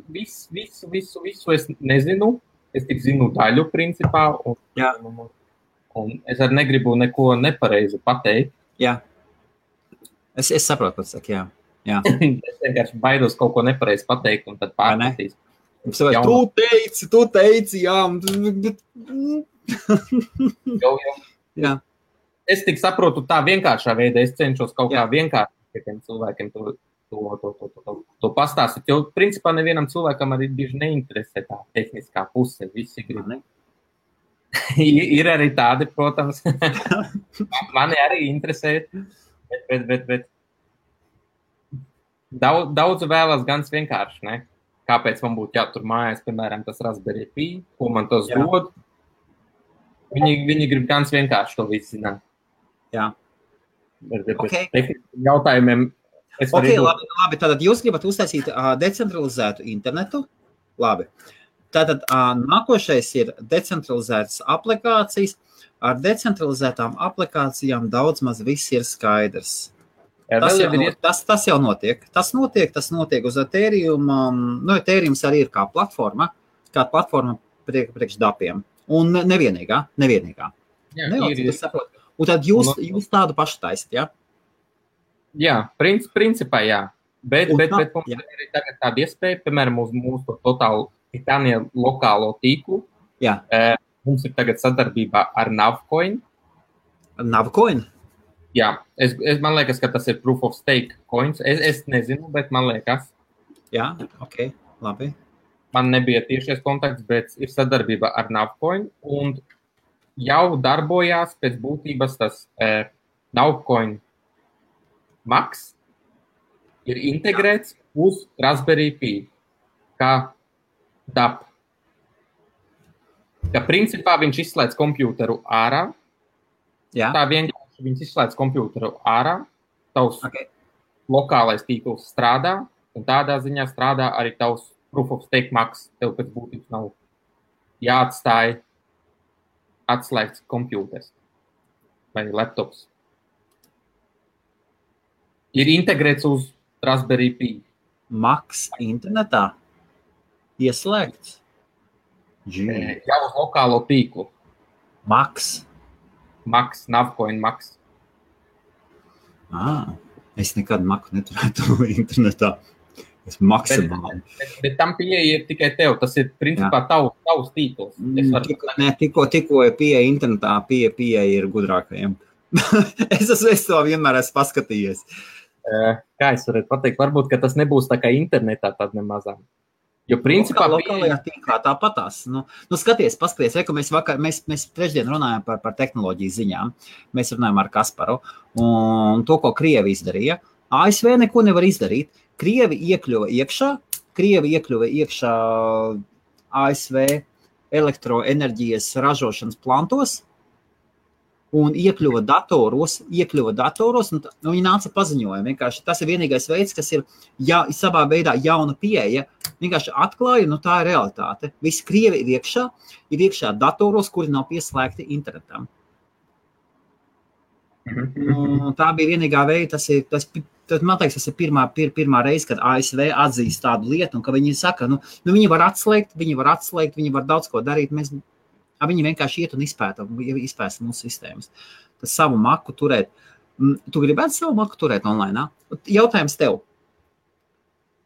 es nezinu. Es tik zinu daļu principā, un es arī negribu neko nepareizi pateikt. Jā. Es saprotu, ko tu saki, jā. Es vienkārši baidos kaut ko nepareizi pateikt, un tad pārmetīs. Tu teici, jā. Jā. Es tik saprotu tā vienkāršā veidā, es cenšos kaut kā vienkārši tiem cilvēkiem to pastāstīt, jo principā nevienam cilvēkam arī bieži neinteresē tā tehniskā puse, visi grib. Ir arī tādi, protams, mani arī interesē, bet daudz vēlas gan vienkārši, ne? Kāpēc man būtu jātur mājās, piemēram, tas Raspberry Pi, ko man tos dod. Viņi grib gan vienkārši to visu zināt. Jā. Bet jautājumiem labi, tātad jūs gribat uztaisīt decentralizētu internetu. Labi. Tātad nākošais ir decentralizētas aplikācijas. Ar decentralizētām aplikācijām daudz maz viss ir skaidrs. Tas jau notiek. Tas notiek uz Ethereum. Ethereum arī ir kā platforma priekš dapiem. Un nevienīgā. Jā, un tad jūs tādu pašu taisat, jā? Jā, principā jā. Bet mums ir arī tagad tāda iespēja, piemēram, uz mūsu totālu Titānija lokālo tīklu. Jā. Mums ir tagad sadarbībā ar Navcoin. Navcoin? Jā, man liekas, ka tas ir proof of stake coins. Es nezinu, bet man liekas. Jā, ok, labi. Man nebija tiešies kontakts, bet ir sadarbība ar Navcoin. Un jau darbojās pēc būtības tas Navcoin Max ir integrēts uz Raspberry Pi kā DAP. Ka principā viņš izslēdz kompjūteru ārā. Jā. Tā vienkārši viņš izslēdz kompjūteru ārā. Tavs lokālais tīkls strādā, un tādā ziņā strādā arī tavs proof of stake Max. Tev pēc būtības nav jāatstāj atslēgts kompjūters vai laptops. Ir integrēts uz Raspberry Pi. Maks internetā ieslēgts. Jau uz lokālo tīklu. Maks, Navcoin Maks. Es nekad Maku neturētu internetā. Es maksimāli. Bet tam pieeja ir tikai tev. Tas ir principā tavs tīkls. Tikko ir pieeja internetā, pieeja ir gudrākajiem. es to vienmēr esmu paskatījies. Kā es varētu pateikt? Varbūt, ka tas nebūs tā kā internetā tad nemazām. Jo principā lokālajā tīklā tāpatās. Skaties, paskaties, ka mēs trešdien runājām par tehnoloģiju ziņām. Mēs runājām ar Kasparu un to, ko Krievi izdarīja. ASV neko nevar izdarīt. Krievi iekļuva iekšā ASV elektroenerģijas ražošanas plantos un iekļuva datoros, un viņi nāca paziņojumi. Vienkārši tas ir vienīgais veids, kas ir savā veidā jauna pieeja. Vienkārši atklāja, tā ir realitāte. Visi Krievi ir iekšā datoros, kuri nav pieslēgti internetam. Tā bija vienīgā veida, man liekas, tas ir pirmā reize, kad ASV atzīst tādu lietu, un ka viņi saka, viņi var atslēgt, viņi var daudz ko darīt, viņi vienkārši iet un izpēta mūsu sistēmas. Tas savu maku turēt. Tu gribētu savu maku turēt online? Jautājums tev.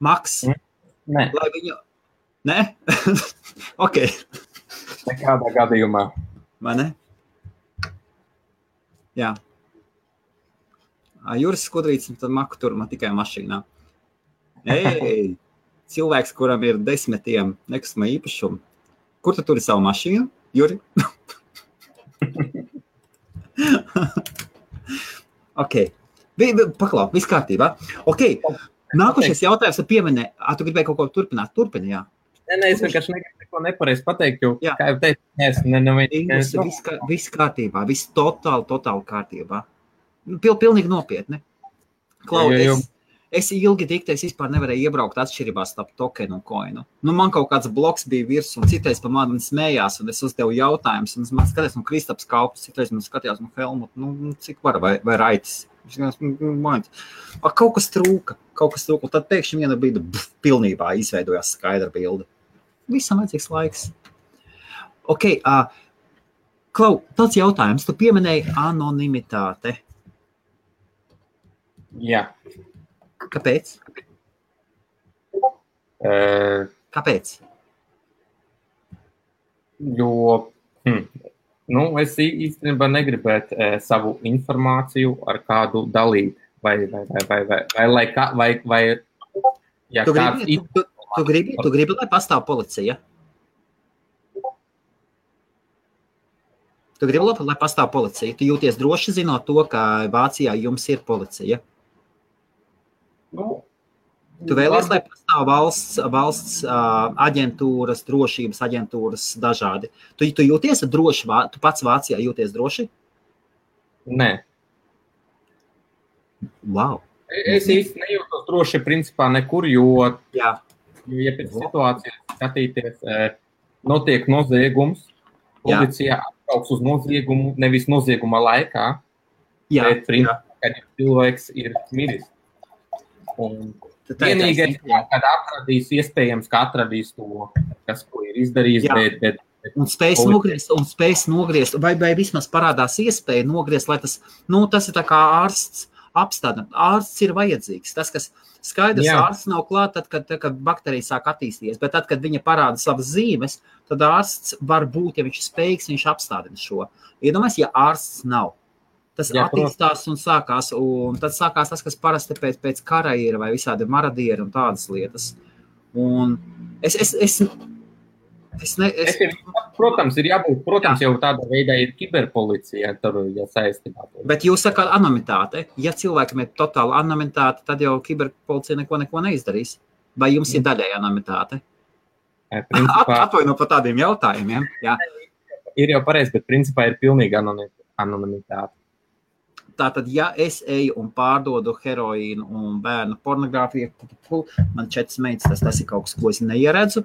Maks? Nē. Lai viņu... Nē? Ok. Nekādā gadījumā. Vai ne? Jā. Juris Skudrīts, tad maku tur man tikai mašīnā. Cilvēks, kuram ir 10 nekustamā īpašumu. Kur tu turi savu mašīnu, Juri? Ok. Paklau, viss kārtībā. Ok. Nākošais jautājums pieminē. Tu gribēji kaut ko turpināt? Turpini, jā. Nē, es vienkārši negribu neko nepareizi pateikt, jo, kā jau teicu, viss kārtībā, viss totāli kārtībā. Pilnīgi nopietni. Klau, es ilgi diktēs vispār nevarēju iebraukt atšķirībās starp tokenu un koinu. Man kaut kāds bloks bija virs, un citreiz pa mani smējās, un es uzdevu jautājumus, un man skatījās, Kristaps Kaupis, citreiz man skatījās, Helmut, cik var, vai Raitis. Kaut kas trūka, un tad pēkšņi viena brīdi pilnībā izveidojās skaidra bilde. Visam vajadzīgs laiks. Ok, Klau, tāds jautājums, tu pieminēji anonimitāte. Jā. Kāpēc? Kāpēc? Jo, es īstenībā negribētu savu informāciju ar kādu dalīt, vai ja tu gribi, lai pastāv policija? Tu gribi, lai pastāv policija? Tu jūties droši zinot to, ka Vācijā jums ir policija? Tu vēlies, lai pastāv valsts aģentūras, drošības aģentūras dažādi. Tu jūties droši, tu pats Vācijā jūties droši? Nē. Wow. Es īsti nejūtos droši principā nekur, jo ja pēc situācijas skatīties, notiek noziegums, policija atbrauks uz noziegumu, nevis nozieguma laikā, bet principā, kad cilvēks ir miris. Un vienīgais, kad iespējams, ka atradīs to, kas ko ir izdarījis, bet un spējas nogriezt, vai vismaz parādās iespēja nogriezt, lai tas ir tā kā ārsts apstādināt. Ārsts ir vajadzīgs. Tas, kas skaidrs, ārsts nav klāt, tad, kad bakterija sāk attīstīties, bet tad, kad viņa parāda savas zīmes, tad ārsts var būt, ja viņš ir spējīgs, viņš apstādina šo. Iedomājies, ja ārsts nav. Tas attīstās un sākās, un tad sākās tas, kas parasti pēc kara ir, vai visādi maradieri un tādas lietas. Un protams, ir jābūt, jau tāda veidā ir kiberpolicija, tur, ja saistībā. Bet jūs sakāt anonimitāte. Ja cilvēkam ir totāla anonimitāte, tad jau kiberpolicija neko neizdarīs. Vai jums ir daļai anonimitāte? Atvaino par tādiem jautājumiem. Jā. Ir jau pareizi, bet principā ir pilnīga anonimitāte. Tātad, ja es eju un pārdodu heroīnu un bērnu pornogrāfiju, man 4 meitas, tas ir kaut kas, ko es neieredzu.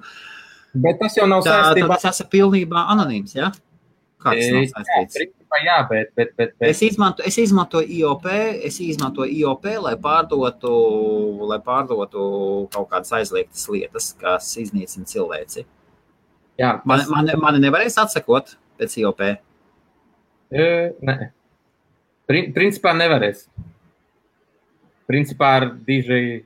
Bet tas jau nav saistībā. Tas ir pilnībā anonīms, ja? Kā tas nav saistīts? Jā, bet... Es izmantoju IOP, lai pārdotu kaut kādas aizliegtas lietas, kas iznīcina cilvēci. Jā, mani nevarēs atsakot pēc IOP? Nē. Principā nevarēs. Principā ar diži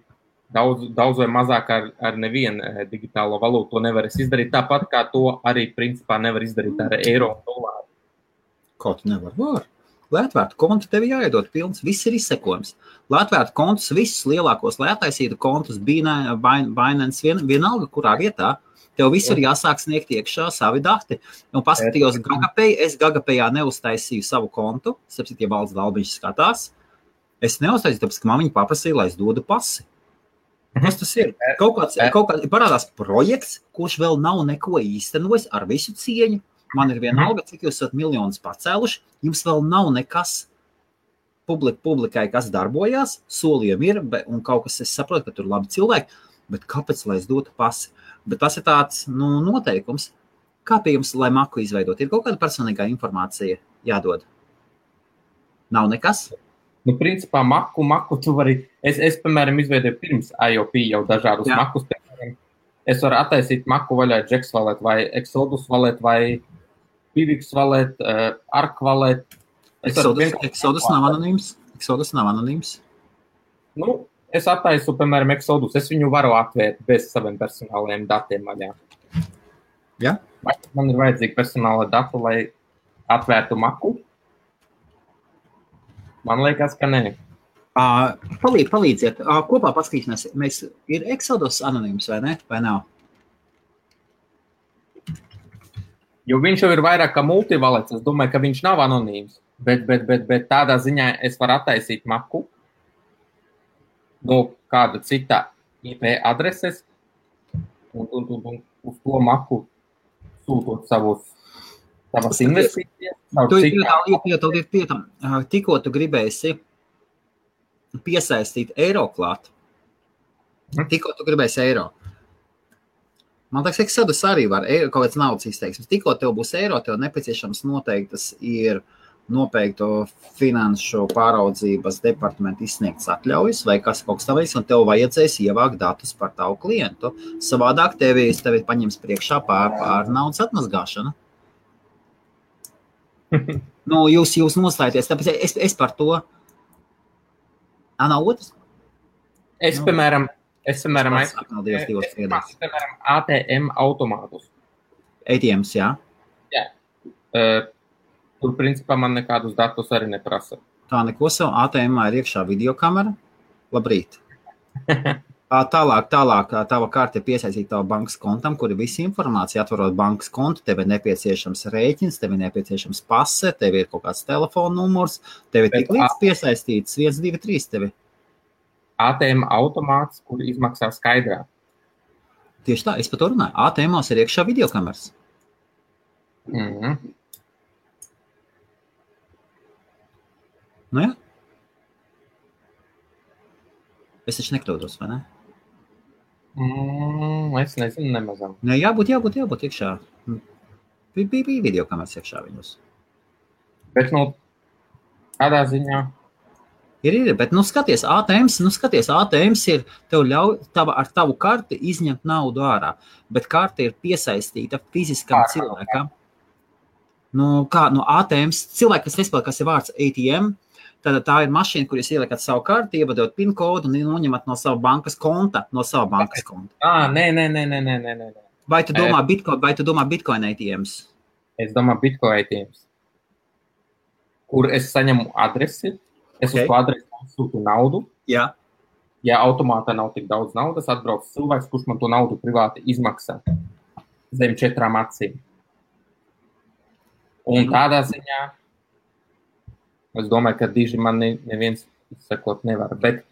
daudz vai mazāk ar nevienu digitālo valūtu to nevarēs izdarīt. Tāpat kā to arī principā nevar izdarīt ar eiro un dolāru. Kā tu nevar? Var. Lai atvērtu kontu, tev jāiedod pilns, viss ir izsekojums. Lai atvērtu kontus, visus lielākos, lai attaisītu kontus, Binance, vienalga, kurā vietā, tev visur jāsāk sniegt iekšā savi dati. Un paskatījos GagaPay, es GagaPayā neuztaisīju savu kontu, sapsit, ja Valds Dalbiņš skatās, es neuztaisīju, tāpēc, ka man viņi paprasīja, lai es dodu pasi. Kas tas ir? Kaut kāds parādās projekts, kurš vēl nav neko īstenojis ar visu cieņu. Man ir vienalga, cik jūs esat miljonus pacēluši, jums vēl nav nekas publikai, kas darbojās, solījumi ir, un kaut kas, es saprotu, ka tur labi cilvēki, bet kāpēc, lai es dotu pasi? Bet tas ir tāds, noteikums. Kā pie jums, lai maku izveidot? Ir kaut kāda personīgā informācija jādod? Nav nekas? Principā maku tu vari, es piemēram, izveidoju pirms IOP jau dažādus makus, piemēram, es varu attaisīt maku vaļā Jax Wallet vai Exodus Wallet vai Pivix Wallet, Arc Wallet. Exodus nav anonīms? Es attaisu, piemēram, Exodus. Es viņu varu atvērt bez saviem personālajiem datiem vaļā. Ja? Vai man ir vajadzīgi personāla datu, lai atvērtu maku? Man liekas, ka nē. Palīdziet. Kopā paskatīsimies. Ir Exodus anonīms vai ne? Vai nav? Jo viņš jau ir vairāk kā multivalets. Es domāju, ka viņš nav anonīms. Bet tādā ziņā es varu attaisīt maku no kāda cita IP adreses un uz to maku sūtot savas investīcijas. Tikko tu gribēsi piesaistīt eiro klāt. Tikko tu gribēsi eiro. Man liekas, Exodus arī var kaut kāds naudas izteiksmes. Tikko tev būs eiro, tev nepieciešams noteiktas ir noteikto finanšu pāraudzības departamentu izsniegts atļaujas vai kas kaut kas tavs, un tev vajadzēs ievākt datus par tavu klientu. Savādāk tevi paņems priekšā pār naudas atmazgāšanu. Jūs noslēties, tāpēc es par to. Nav otrs? Es, piemēram, ATM automātus. ATMs, jā? Jā. Tur, principā, man nekādus datus arī neprasa. Tā neko savu. ATM-ā ir iekšā videokamera. Labrīt. Tālāk, tava kārta ir piesaistīt tavu bankas kontam, kur ir visa informācija. Atvarot bankas kontu, tev ir nepieciešams rēķins, tev ir nepieciešams pase, tev ir kaut kāds telefona numurs, tev ir tik līdz piesaistīts 1, 2, 3 tevi. ATM automāts, kur izmaksā skaidrā. Tieši tā, es par to runāju. ATM-ās ir iekšā videokameras. Nu jā. Es taču nekļūdos, vai ne? Es nezinu, nemazam. Ne, jābūt iekšā. Bija videokameras iekšā viņus. Bet, kādā ziņā? Ir, bet, skaties, ATMs ir, tev ļauj ar tavu karti izņemt naudu ārā, bet karta ir piesaistīta fiziskam cilvēkam. ATMs, cilvēki, kas nespēlē, kas ir vārds ATM, tad tā ir mašīna, kur jūs ieliekat savu karti, ievadot PIN kodu un noņemat no sava bankas konta, Nē. Vai tu domā Bitcoin ATMs? Es domāju Bitcoin ATMs, kur es saņemu adresi. Es uz to adresi sūtu naudu. Jā. Ja automātā nav tik daudz naudas, atbrauc cilvēks, kurš man to naudu privāti izmaksā zem 4 acīm. Un tādā ziņā es domāju, ka diži man neviens izsekot nevar. Bet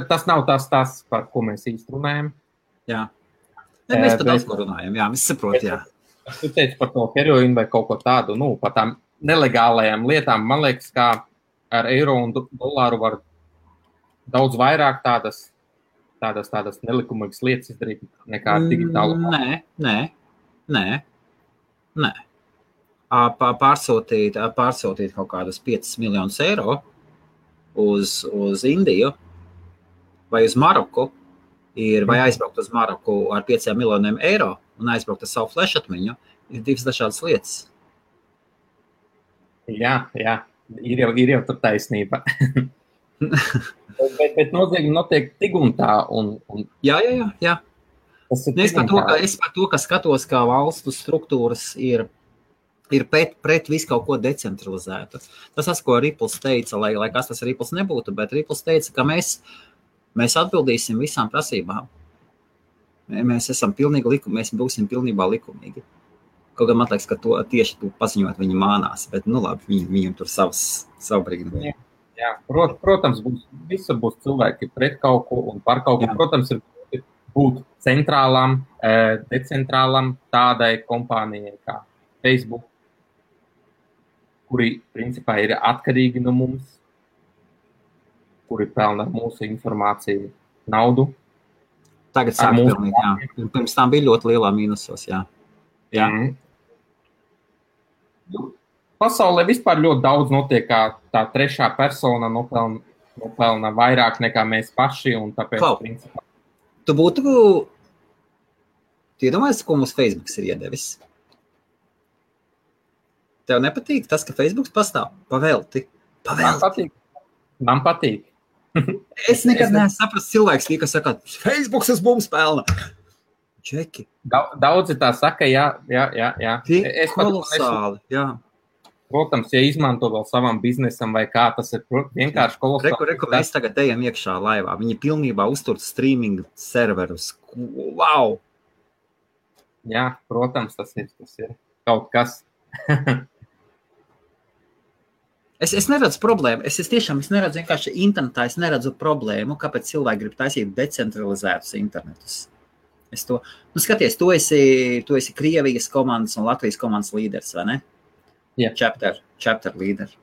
tas nav tas, par ko mēs īsti runājam. Jā. Mēs par daudz ko runājam. Jā, mēs saprot, jā. Tu teici par to heroīnu vai kaut ko tādu, par tām nelegālajām lietām. Man liekas, kā ar eiro un dolāru var daudz vairāk tādas nelikumīgas lietas izdarīt nekā ar digitālu. Nē. pārsūtīt kaut kādus 5 miljonus eiro uz Indiju vai uz Maroku, vai aizbraukt uz Maroku ar 5 miljoniem eiro un aizbraukt ar savu flash atmiņu, ir divas dažādas lietas. Jā, ir jau tur taisnība. bet nozīme notiek tik un tā. Jā. Es par to, ka skatos, kā valstu struktūras ir pret visu kaut ko decentralizētu. Tas, ko Ripples teica, lai kas tas Ripples nebūtu, bet Ripples teica, ka mēs atbildīsim visām prasībām. Mēs būsim pilnībā likumīgi. Kaut gan man liekas, ka tieši to paziņot viņi mānās, bet labi, viņiem tur savu brīnumu. Jā, protams, visur būs cilvēki pret kaut ko un par kaut ko. Protams, ir būt centrālam, decentrālam tādai kompānijai kā Facebook, kuri principā ir atkarīgi no mums, kuri pelna mūsu informāciju naudu. Tagad sāk pelnīt, jā. Pirms tam bija ļoti lielā mīnusos, jā. Pasaulē vispār ļoti daudz notiek, kā tā trešā persona nopelna vairāk nekā mēs paši, un tāpēc, principā. Tu iedomājies, ko mums Facebooks ir iedevis? Tev nepatīk tas, ka Facebooks pastāv? Pavelti. Man patīk. Es nekad neesmu saprast cilvēks, kas saka, Facebooks uz mums pelna. Čeki. Daudzi tā saka, jā. Kolosāli, jā. Protams, ja izmanto vēl savam biznesam vai kā, tas ir vienkārši kolosāli. Reku, mēs tagad ejam iekšā laivā. Viņi pilnībā uztur streaming serverus. Wow! Jā, protams, tas ir kaut kas. Es neredzu problēmu. Es neredzu vienkārši internetā, es neredzu problēmu, kāpēc cilvēki grib taisīt decentralizētus internetus. Skaties, tu esi Krievijas komandas un Latvijas komandas līderis, vai ne? Jā. Chapter līderi.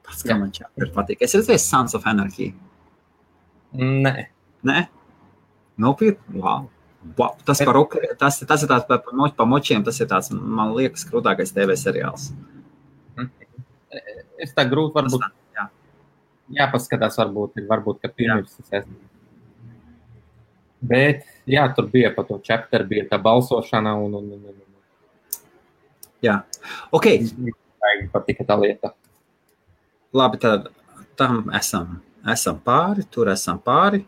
Pats, kā man chapter patīk. Es redzēju Sons of Anarchy. Nē? Nopietni? Wow. Tas ir tāds pa močiem, tas ir tāds, man liekas, krūtākais TV seriāls. Es tā grūti varbūt. Jāpaskatās varbūt, ka pirms es. Bet, jā, tur bija pa to chapter, bija tā balsošana un. Jā. Ok. Patika tā lieta. Labi, tad tam esam pāri, tur esam pāri.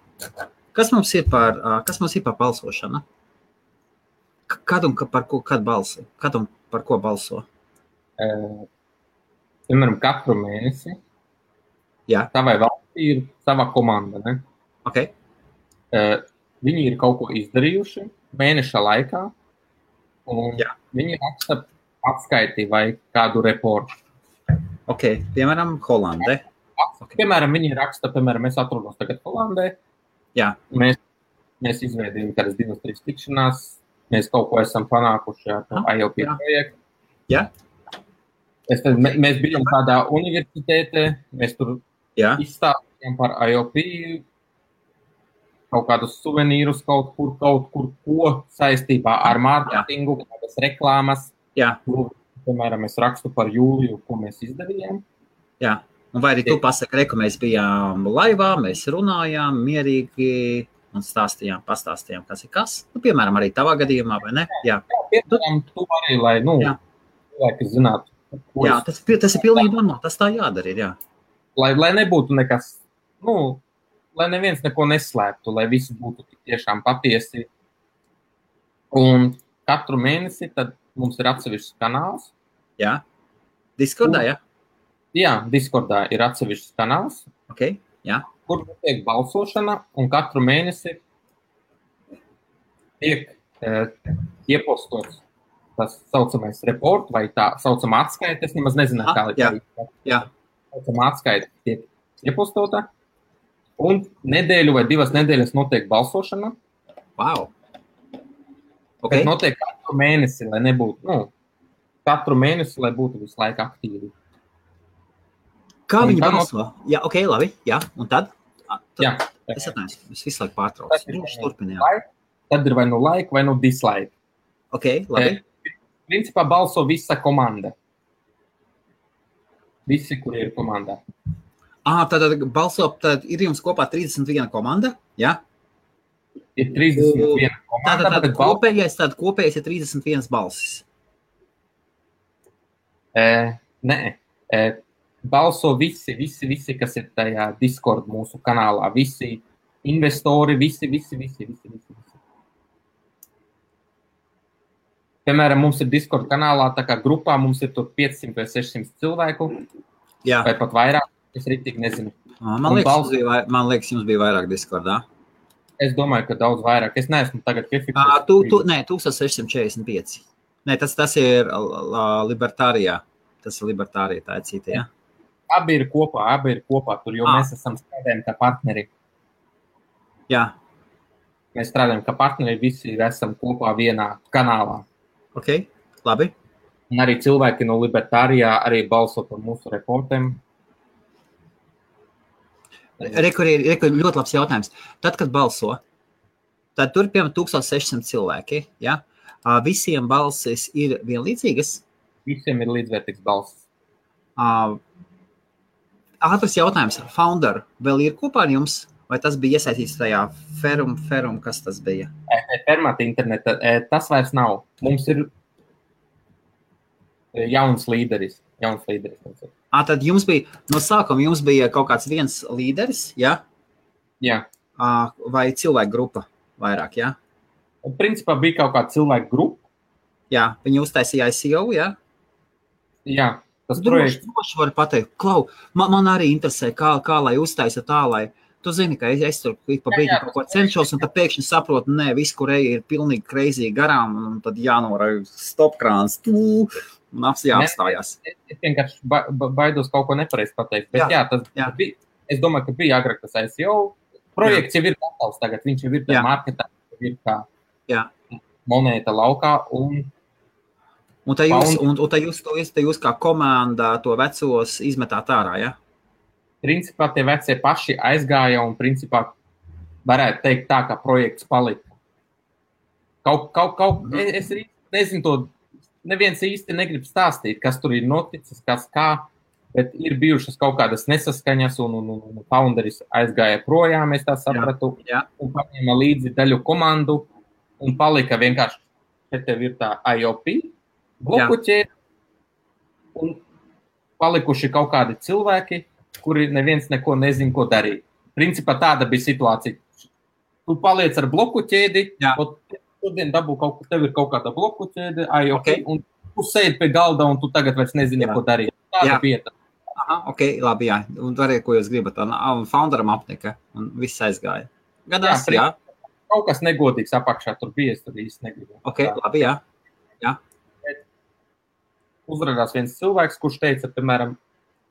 Kas mums ir par balsošanu? Kad un par ko balso? Piemēram, katru mēnesi. Jā. Tavai valstī ir sava komanda, ne? Ok. Viņi ir kaut ko izdarījuši mēneša laikā, un viņi raksta atskaiti vai kādu reportu. Ok, piemēram, Holandē. Okay. Piemēram, viņi raksta, mēs atrodamies tagad Holandē. Jā. Mēs izveidījām kādas 2-3 tikšanās, mēs kaut ko esam panākuši ar IOP projektu. Jā. Mēs bijām kādā universitātē, mēs tur izstāstījām par IOP, kaut kādus suvenīrus kaut kur ko saistībā ar mārketingu, kādas reklāmas. Jā. Piemēram, es rakstu par jūliju, ko mēs izdarījām. Jā. Un vai arī tu pasaki, ka mēs bijām laivā, mēs runājām mierīgi un pastāstījām, kas ir kas. Piemēram, arī tavā gadījumā, vai ne? Jā. Piemēram, tu arī, lai, cilvēki zinātu. Jā, tas ir pilnīgi normāli, tas tā jādara ir, jā. Lai nebūtu nekas, lai neviens neko neslēptu, lai visi būtu tiešām patiesi. Un katru mēnesi tad mums ir atsevišķs kanāls. Jā. Discordā, jā? Jā, Discordā ir atsevišķs kanāls. Ok, jā. Kur notiek balsošana, un katru mēnesi tiek iepostots tas saucamais report vai tā saucamā atskaita. Es nemaz nezinu, kā Jā. Saucamā atskaita tiek iepostota, un nedēļu vai 2 nedēļas notiek balsošana. Wow. Okay. Bet notiek katru mēnesi, lai nebūtu, katru mēnesi, lai būtu visu laiku aktīvi. Kā viņi balso? Jā, ok, labi, jā, un tad? Jā. Es atnēsu, es visu laiku pārtraucu. Tad ir vai nu like, vai nu dislike. Ok, labi. Principā balso visa komanda. Visi, kuri ir komandā. Tad balso, tad ir jums kopā 31 komanda, jā? Ir 31 komanda, tad kopējais ir 31 balsis. Nē, balso visi, kas ir tajā Discord mūsu kanālā. Visi investori, visi. Piemēram, mums ir Discord kanālā, tā kā grupā mums ir tur 500 vai 600 cilvēku. Jā. Vai pat vairāk, es rītīgi nezinu. Man liekas, jums bija vairāk Discordā. Es domāju, ka daudz vairāk. Es neesmu tagad piefiksējis. Nē, 1645. Nē, tas ir Libertārijā. Tas ir Libertārijā, tā ir cita, jā? Abi ir kopā tur, jo mēs esam strādājam kā partneri. Jā. Mēs strādājam kā partneri, visi esam kopā vienā kanālā. Ok, labi. Un arī cilvēki no Libertārijā arī balso par mūsu reportiem. Rekur ļoti labs jautājums. Tad, kad balso, tad tur, piemēram, 1600 cilvēki, ja? Visiem balsis ir vienlīdzīgas? Visiem ir līdzvērtīgs balsis. Ātrs jautājums. Founder vēl ir kopā ar jums? Vai tas bija iesaistīts tajā Ferum, kas tas bija? Fermata interneta, tas vairs nav. Mums ir jauns līderis. Tad jums bija, no sākuma jums bija kaut kāds viens līderis, ja? Jā. Vai cilvēku grupa vairāk, ja? Principā bija kaut kāda cilvēku grupa. Jā, viņi uztaisīja ICO, ja? Jā. Droši var pateikt, Klau, man arī interesē, kā lai uztaisa tā, lai tu zini, ka es tur pa brīdi kaut ko cenšos, un tad pēkšņi saprotu, nē, viss, kur ir pilnīgi crazy garām, un tad jānorauj stopkrāns, un jāapstājās. Es vienkārši baidos kaut ko nepareizi pateikt, bet tas bija, es domāju, ka bija agrāk tas ICO, projekts jau ir gatavs tagad, viņš jau ir tā marketā, ir kā monēta laukā, un tā jūs kā komanda to vecos izmetāt ārā, ja? Principā tie vecie paši aizgāja un principā varētu teikt tā, ka projekts palika. Es nezinu to, neviens īsti negrib stāstīt, kas tur ir noticis, kas kā, bet ir bijušas kaut kādas nesaskaņas un founderis aizgāja projām, es tā sapratu, un paņēma līdzi daļu komandu un palika vienkārši, te tev ir tā IOP, blokuķēri un palikuši kaut kādi cilvēki, kuri neviens neko nezin, ko darīt. Principā tāda bija situācija. Tu paliec ar bloku ķēdi, šodien dabū tev ir kaut kāda bloku ķēde, un tu sēdi pie galda, un tu tagad vairs nezini, ko darīt. Tāda vieta. Ok, labi, jā. Un dariet, ko jūs gribat. Un founderam apnika, un viss aizgāja. Gadās, jā. Kaut kas negodīgs apakšā tur bija, es tur īsti negribu. Ok, labi, jā. Uzrādās viens cilvēks, kurš teica, piemēram,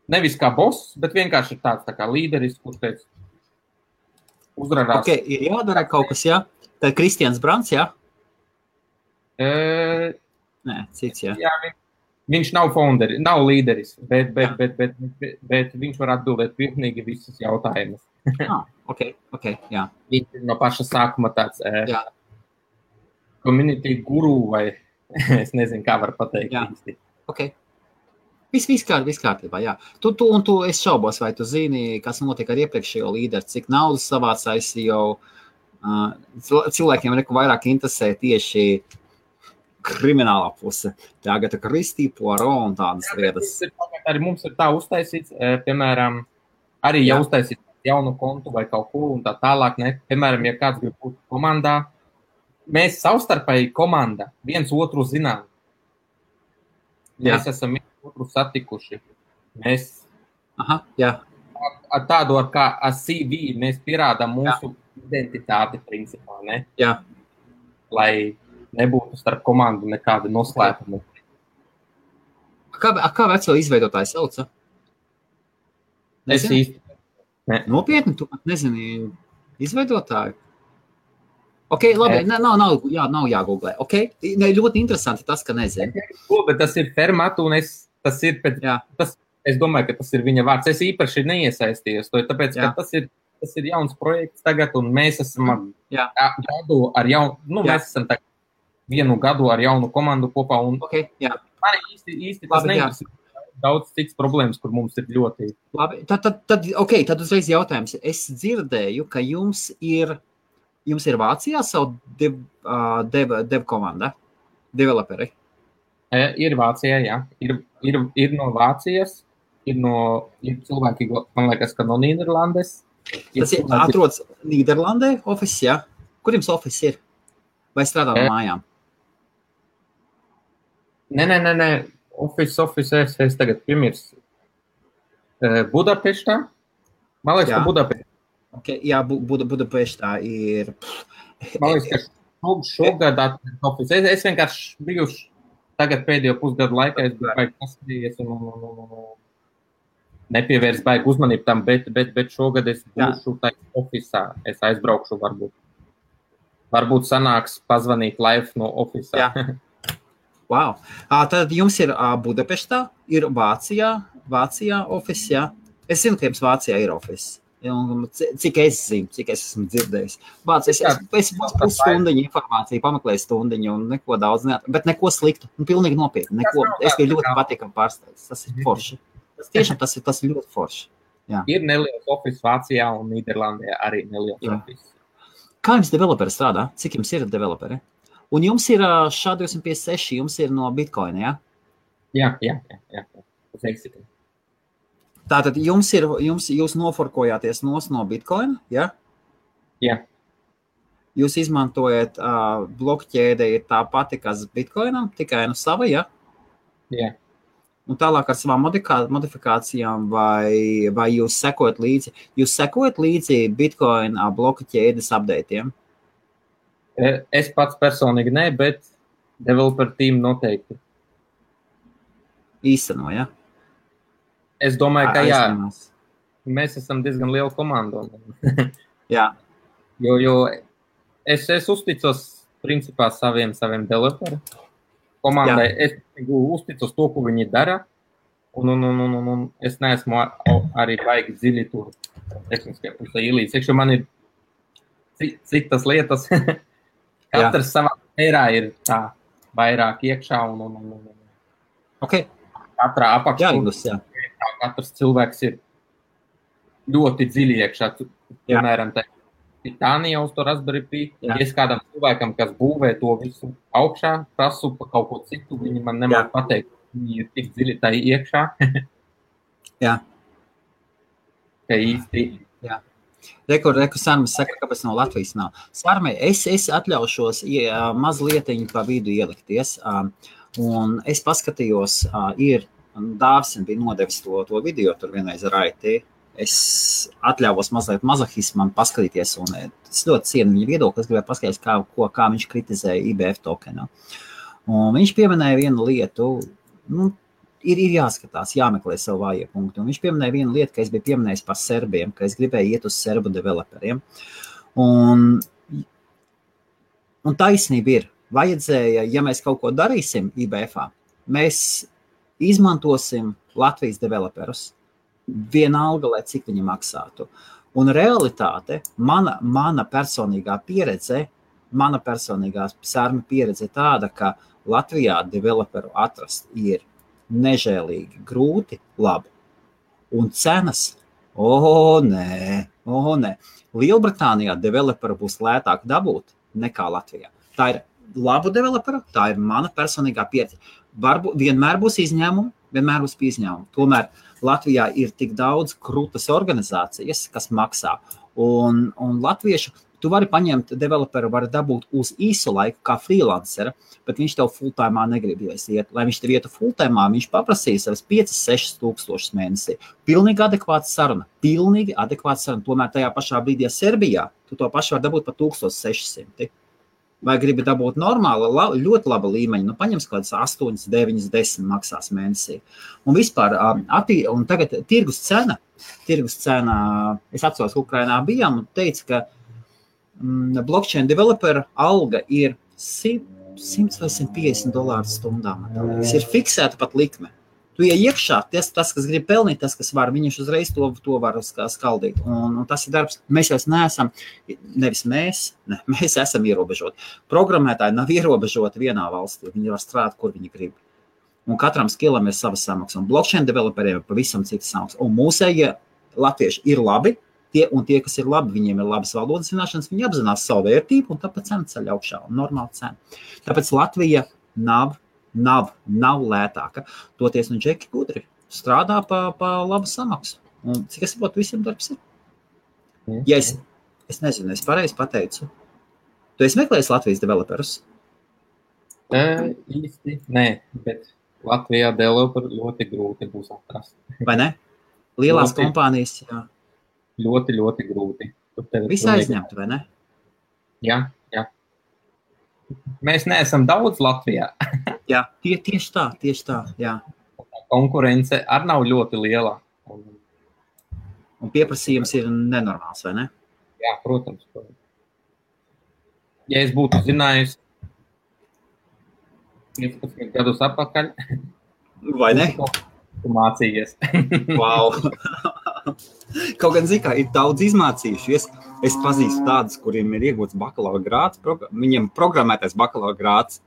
nevis kā boss, bet vienkārši tāds tā kā līderis, kurš teica, uzrādās. Ok, ir jādara kaut kas, jā? Tad Kristians Brants, jā? Nē, cits, jā. Jā, viņš nav founderi, nav līderis, bet viņš var atbildēt pilnīgi visus jautājumus. Ok, jā. Viņš ir no paša sākuma tāds community guru vai es nezinu, kā var pateikt. Jā, ok. Viss kārtībā, jā. Es šaubos, vai tu zini, kas notiek ar iepriekšējo līderi, cik naudas savāc ICO. Cilvēkiem vairāk interesē tieši kriminālā puse. Tagad Kristī, Poirot un tādas lietas. Arī mums ir tā uztaisīts, piemēram, arī jau uztaisīt jaunu kontu vai kaut ko un tā tālāk. Ne? Piemēram, ja kāds grib būt komandā, mēs savstarpēji komanda viens otru zinām. Mēs esam otru satikuši. Mēs ar tādu kā CV mēs pierādām mūsu identitāti principā, ne? Jā. Lai nebūtu starp komandu nekāda noslēpuma. Kā veco izveidotāju sauca? Es īsti. Ne. Nopietni, tu pat nezini izveidotāju? Ok, labi, nav jāgooglē. Ok, ļoti interesanti tas, ka nezinu. Bet tas ir Fermat un es domāju, ka tas ir viņa vārds. Es īpaši neiesaistījos, tāpēc, ka tas ir jauns projekts tagad, un mēs esam mēs esam vienu gadu ar jaunu komandu kopā. Un man īsti tas neinteresē. daudz cits problēmas, kur mums ir ļoti... Labi, tad uzreiz jautājums. Es dzirdēju, ka jums ir Vācijā savu dev komanda, developeri. Ir Vācijā, jā. Ir no Vācijas, ir cilvēki, man liekas, ka no Nīderlandes. Tas ir atrodas Nīderlandē office, jā? Kur jums office ir? Vai strādā no mājām? Nē. Office, es tagad piemirs. Budapeštā? Man liekas, ka Budapeštā. Okay, jā, Budapeštā ir... Man liekas, ka šogad office. Es vienkārši bijuši tagad pēdējo pusgadu laikā, es biju baigi paskatījies un nepievērs baigi uzmanību tam, bet šogad es būšu taisa officā. Es aizbraukšu varbūt. Varbūt sanāks pazvanīt live no officā. Jā. Wow. Tad jums ir Budapeštā, ir Vācijā office, jā? Es zinu, ka jums Vācijā ir office. Cik es zinu, cik es esmu dzirdējis. Es pusstundiņu informāciju, pameklēju stundiņu un neko daudz bet neko sliktu. Pilnīgi nopietni. Es biju ļoti patīkam pārsteigts. Tas ir forši. Tas ir ļoti forši. Jā. Ir neliels office Vācijā un Nīderlandē arī neliels office. Kā jums developeri strādā? Cik jums ir developeri? Un jums ir SHA-256, jums ir no Bitcoin, jā? Jā. Tas eksistē. Tātad jūs noforkojāties no Bitcoin, jā? Jā. Jūs izmantojat blokķēde ir tā pati, kas Bitcoinam, tikai no sava, jā? Jā. Un tālāk ar savām modifikācijām vai jūs sekojat līdzi? Jūs sekojat līdzi Bitcoin bloku ķēdes updateiem? Es pats personīgi ne, bet developer team noteikti. Īsteno, ja? Es domāju, ka jā. Mēs esam diezgan liela komanda. Jā. Jo es uzticos principā saviem developeriem. Komandai es uzticos to, ko viņi dara, un es neesmu arī baigi dziļi tur tehniskajā pusē ielīdz. Iekšā man ir citas lietas. Katrs savā mērā ir tā vairāk iekšā un katrā apakšā. Katrs cilvēks ir ļoti dziļi iekšā. Piemēram, Titānija uz to Raspberry Pi. Ja es kādam cilvēkam, kas būvē to visu augšā, prasu pa kaut ko citu, viņi man nemāk pateikt, viņi ir tik dziļi tā iekšā. Jā. Ka īsti. Jā. Reku Sarmas saka, kāpēc no Latvijas nav. Sarmai, es atļaušos mazlietiņu pa vidu ielikties, un es paskatījos, Dāvis bija nodevis to video tur vienreiz ar IT. Es atļāvos mazliet mazohismam paskatīties, un es ļoti cienu viņa viedokli, es gribēju paskatīties, kā viņš kritizēja IBF tokenu. Un viņš pieminēja vienu lietu, ir jāskatās, jāmeklē savu vājie punktu. Un viņš pieminēja vienu lietu, ka es biju pieminējis par serbiem, ka es gribēju iet uz serbu developeriem. Un taisnība ir, vajadzēja, ja mēs kaut ko darīsim IBF-ā, mēs izmantosim Latvijas developerus. Vienalga, lai cik viņi maksātu. Un realitāte, mana personīgā pieredze, Sarma pieredze tāda, ka Latvijā developeru atrast ir nežēlīgi grūti, labi. Un cenas, nē. Lielbritānijā developeru būs lētāk dabūt nekā Latvijā. Tā ir labu developeru, tā ir mana personīgā pieredze. Vienmēr būs izņēmumi, Tomēr Latvijā ir tik daudz krūtas organizācijas, kas maksā. Un latviešu, tu vari paņemt developeru, vari dabūt uz īsu laiku kā freelancera, bet viņš tev full-timā negribēs iet. Lai viņš tev ietu full-timā, viņš paprasīs savas 5-6 tūkstošus mēnesī. Pilnīgi adekvāta saruna. Tomēr tajā pašā brīdī Serbijā tu to pašu var dabūt pa 1600. Vai gribi dabūt normāli, ļoti laba līmeņa, paņems kādas 8, 9, 10 maksās mēnesī. Un vispār, un tagad tirgus cena, es atceros, ka Ukrainā bijām un teica, ka blockchain developer alga ir $100 vai $150 stundā. Ir fiksēta pat likme. Tu iekšā, tas, kas grib pelnīt, tas, kas var, viņš uzreiz to var skaldīt. Un tas ir darbs. Mēs jau neesam, mēs esam ierobežoti. Programmētāji nav ierobežoti vienā valstī. Viņi var strādāt, kur viņi grib. Un katram skillam ir savas samaksas. Un blockchain developeriem ir pavisam citas samaksas. Un mūsējie latvieši ir labi, tie, kas ir labi, viņiem ir labas valodas zināšanas, viņi apzinās savu vērtību, un tāpēc cena ceļ augšā, un normāla cena. Tāpēc Latvija nav lētāka. Toties un džeki gudri strādā pa labu samaksu. Un cik es saprotu, visiem darbs ir? Ja es nezinu, es pareizi pateicu. Tu esi meklējis Latvijas developerus? Īsti, nē, bet Latvijā developeru ļoti grūti būs atrast. Vai ne? Lielās kompānijas, jā. Ļoti, ļoti grūti. Visi aizņemti, vai ne? Jā. Mēs neesam daudz Latvijā. Jā, tieši tā, jā. Konkurence arī nav ļoti liela. Un pieprasījums ir nenormāls, vai ne? Jā, protams. Ja es būtu zinājis 15 gadus atpakaļ, vai ne? Tu mācījies. Wow. Kaut gan zikā ir daudz izmācījušies. Es pazīstu tādus, kuriem ir iegūts bakalaura grāds, viņiem programmētais bakalaura grāds.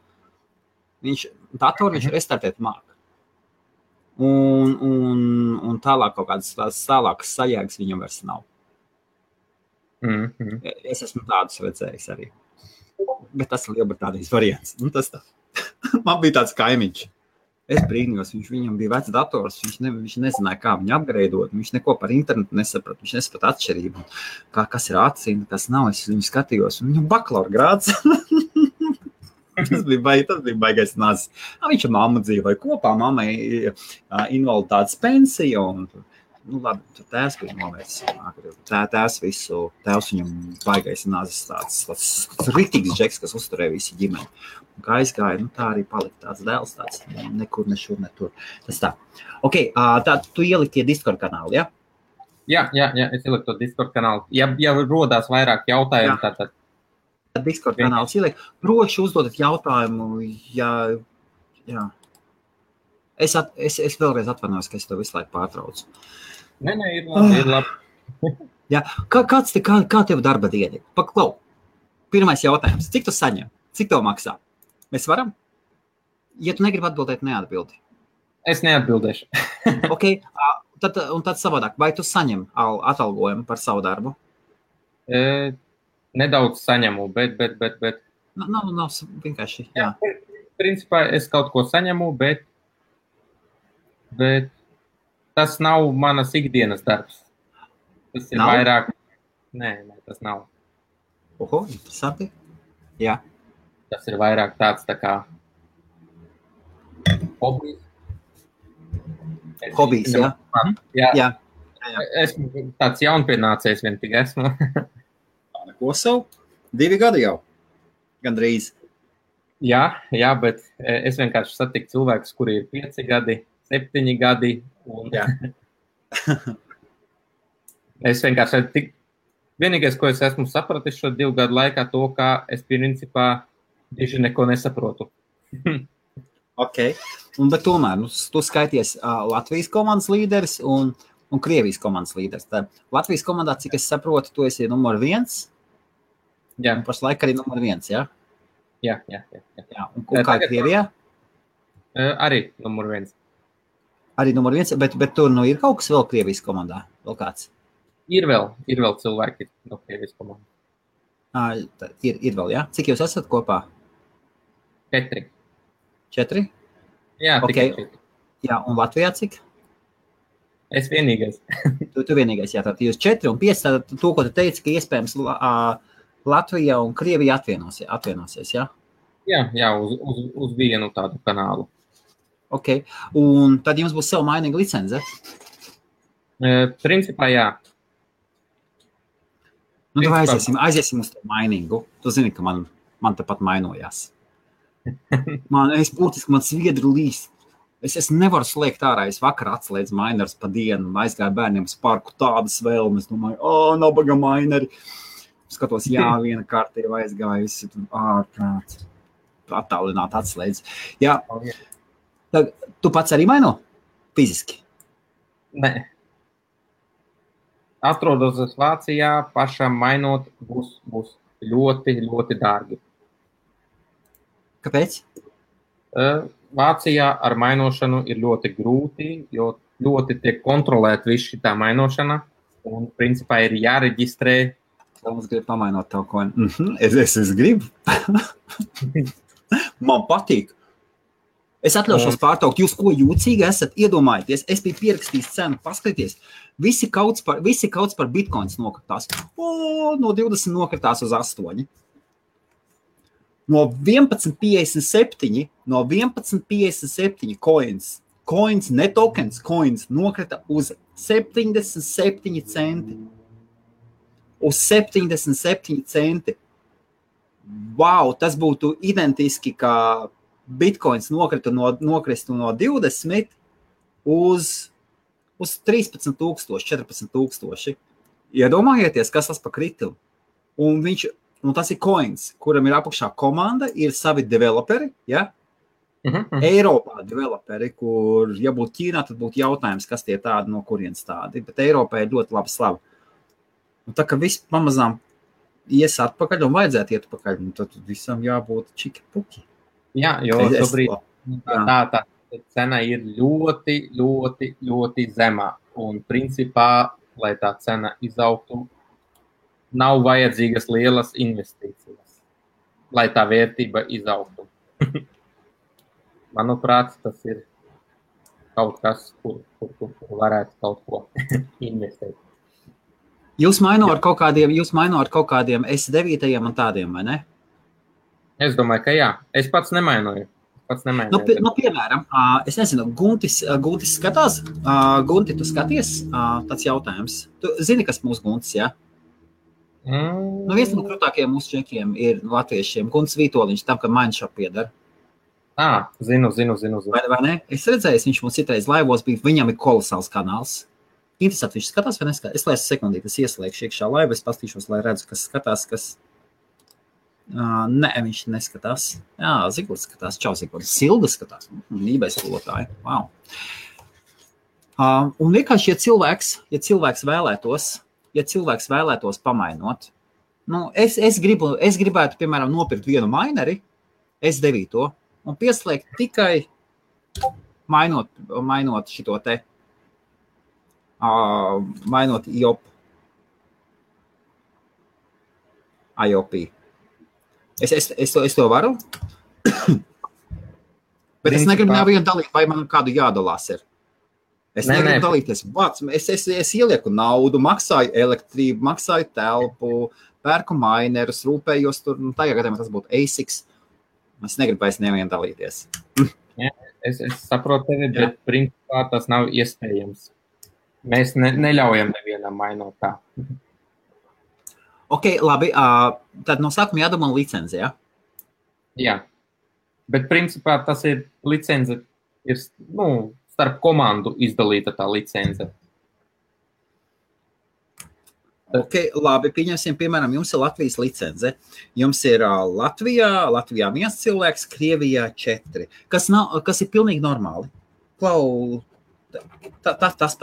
Viņš restartēt māk. Un tālāk kaut kādas tālākas sajēgas viņam vairs nav. Es esmu tādus redzējis arī. Bet tas ir Lielbritānijas variants. Tas tā. Man bija tāds kaimiņš. Es brīnījos, viņam bija vecs dators, viņš nezināja, kā viņu upgradeot, viņš neko par internetu nesaprata, viņš nesaprata atšķirību, kas ir atsina, kas nav, es viņu skatījos, un viņam bakalaura grāds. Tas bija baigais nazis. Viņš ar mammu dzīvoja kopā, mammai invaliditātes pensija, un labi, tur tēvs bija novērts. Tēvs viņam baigais nazis tāds riktīgs džeks, kas uzturēja visi ģimeni. Un kā aizgāja, tā arī palika tāds dēls, tāds nekur, ne šur, ne tur. Tas tā. Ok, tā tu ieliki tie Discord kanāli, ja? Jā, es ieliku to Discord kanālu. Ja rodās vairāk jautājumu, tad... Discord kanāls ieliek. Droši uzdodat jautājumu, jā. Es vēlreiz atvainojos, ka es to visu laiku pārtraucu. Nē, ir labi. Jā, kā tev darba diena? Paklau, pirmais jautājums. Cik tu saņem? Cik tev maksā? Mēs varam? Ja tu negribi atbildēt, neatbildi. Es neatbildēšu. Ok, tad savādāk. Vai tu saņem atalgojumu par savu darbu? Nedaudz saņemu, bet... Nav vienkārši, jā. Principā es kaut ko saņemu, bet tas nav manas ikdienas darbs. Tas ir vairāk... Nē, tas nav. Oho, interesanti. Jā. Tas ir vairāk tāds tā kā hobijs. Hobijs, jā. Jā. Esmu tāds jaunpienācējs vien tik esmu. Neko savu? 2 gadi jau. Gandrīz. Jā, bet es vienkārši satiku cilvēkus, kuri ir 5 gadi, 7 gadi. Un... Es vienkārši vienīgais, ko es esmu sapratis šo 2 gadu laikā, to, ka es principā tieši neko nesaprotu. Ok. Bet tomēr, tu skaities Latvijas komandas līderis un Krievijas komandas līderis. Tā Latvijas komandā, cik es saprotu, tu esi numur 1. Jā. Un pašlaik arī numur 1, jā? Jā. Un kā Krievijā? Arī numur 1. Arī numur 1, bet tur ir kaut kas vēl Krievijas komandā? Vēl kāds? Ir vēl cilvēki no Krievijas komandas. Ir vēl, jā? Cik jūs esat kopā? 4. 4? Jā, okay. Tikai 4. Jā, un Latvijā cik? Es vienīgais. Tu vienīgais, jā, tātad jūs 4 un 5, tātad to, ko tu teici, ka iespējams Latvija un Krievija atvienosies, jā? Jā, uz vienu tādu kanālu. Ok, un tad jums būs sev mainīga licence? Principā, jā. Tad aiziesim uz to mainīgu. Tu zini, ka man tepat mainojās. Man sviedri līst. Es nevaru slēgt ārā. Es vakar atslēdzu mainers pa dienu, aizgāju bērniem uz parku, tādas vēlmes. Domāju, nabaga maineri. Skatos, jā, viena kārta jau aizgājusi. Ārprāt. Attālināt atslēdz. Jā. Tad, tu pats arī maino? Fiziski? Nē. Atrodos Vācijā, pašam mainot būs ļoti, ļoti dārgi. Kāpēc? Vācijā ar mainošanu ir ļoti grūti, jo ļoti tiek kontrolēt visu šitā mainošana, un principā ir jāreģistrē. Mums grib pamainot tavu koinu. Es gribu. Man patīk. Es atļaušos pārtraukt. Jūs ko jūcīgi esat? Iedomājieties, es biju pierakstījis cenu, paskaties. Visi kauts par bitcoins nokritās. No 20 nokritās uz 8. No 11,57 coins, ne tokens, coins nokrita uz 77 centi. Uz 77 centi. Wow, tas būtu identiski, kā bitcoins nokristu no 20 uz 13,000, 14,000. Iedomājieties, kas tas pa kritumu. Un tas ir coins, kuram ir apakšā komanda, ir savi developeri, ja? Eiropā developeri, kur, ja būtu Ķīnā, tad būtu jautājums, kas tie tādi, no kurienes tādi. Bet Eiropā ir ļoti laba slava. Un tā, ka viss pamazām ies atpakaļ un vajadzētu iet atpakaļ, un tad visam jābūt čiki puki. Jā, jo šobrīd tā cena ir ļoti, ļoti, ļoti zemā. Un principā, lai tā cena izaugtu, nav vajadzīgas lielas investīcijas, lai tā vērtība izaugtu. Manuprāt, tas ir kaut kas, kur varētu kaut ko investēt. Jūs maino ar kaut kādiem S9 un tādiem, vai ne? Es domāju, ka jā. Es pats nemainoju. Piemēram, es nezinu, Guntis skatās? Gunti, tu skaties? Tāds jautājums. Tu zini, kas mūsu Guntis, jā? Viens no krūtākajiem mūsu čekiem ir latviešiem. Guntis Vītoliņš, tam, ka Mindshop piedara. Zinu. Vai ne? Es redzēju, viņš mums citreiz laivos bija, viņam ir kolosāls kanāls. Interesanti, viņš skatās vai neskatās? Es laisu sekundīti, es ieslēgšu iekšā laivu, es pastīšos, lai redzu, kas skatās, kas... Nē, viņš neskatās. Jā, Zigords skatās. Čau, Zigords. Silda skatās. Nībēs skolotāji. Wow. Un vienkārši, ja cilvēks vēlētos pamainot, es gribētu, piemēram, nopirkt vienu maineri, S9, un pieslēgt tikai mainot šito te, mainot IOP. Es to varu, bet es negribu nevienu dalīt, vai man kādu jādalās ir. Es negribu dalīties. Es ielieku naudu, maksāju elektrību, maksāju telpu, pērku mainerus, rūpējos tur, tajā gadījumā tas būtu ASICs. Es negribu vairs nevienu dalīties. Es saprotu tevi, bet principā tas nav iespējams. Mēs neļaujam nevienam mainot tā. Ok, labi, tad no sākuma jādomā licenci, jā? Jā, bet principā tas ir licence, ir, starp komandu izdalīta tā licence. Ok, labi, pieņemsim, piemēram, jums ir Latvijas licence. Jums ir Latvijā 1 cilvēks, Krievijā 4, kas ir pilnīgi normāli. Tas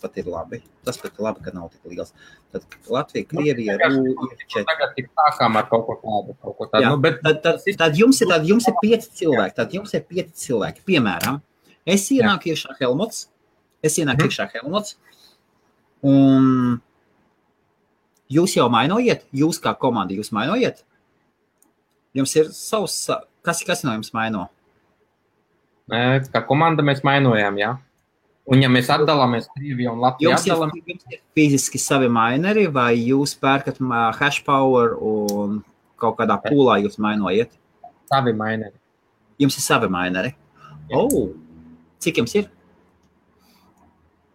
pat ir labi. Tas pat ir labi, ka nav tik liels. Tad Latvija, Krievija, ir 4. Tagad tik sākām ar kaut ko tādu. Jā, tad jums ir 5 cilvēki. Tad jums ir 5 cilvēki. Piemēram, es ienāku iekšā Helmuts. Un jūs jau mainojiet? Jūs kā komanda, jūs mainojiet? Jums ir savs... Kas no jums maino? Kā komanda mēs mainojām, jā. Un ja mēs atdalāmies Krieviju un Latviju atdalām... Jums ir fiziski savi maineri, vai jūs pērkat hash power un kaut kādā pūlā jūs mainojiet? Savi maineri. Jums ir savi maineri? Cik jums ir?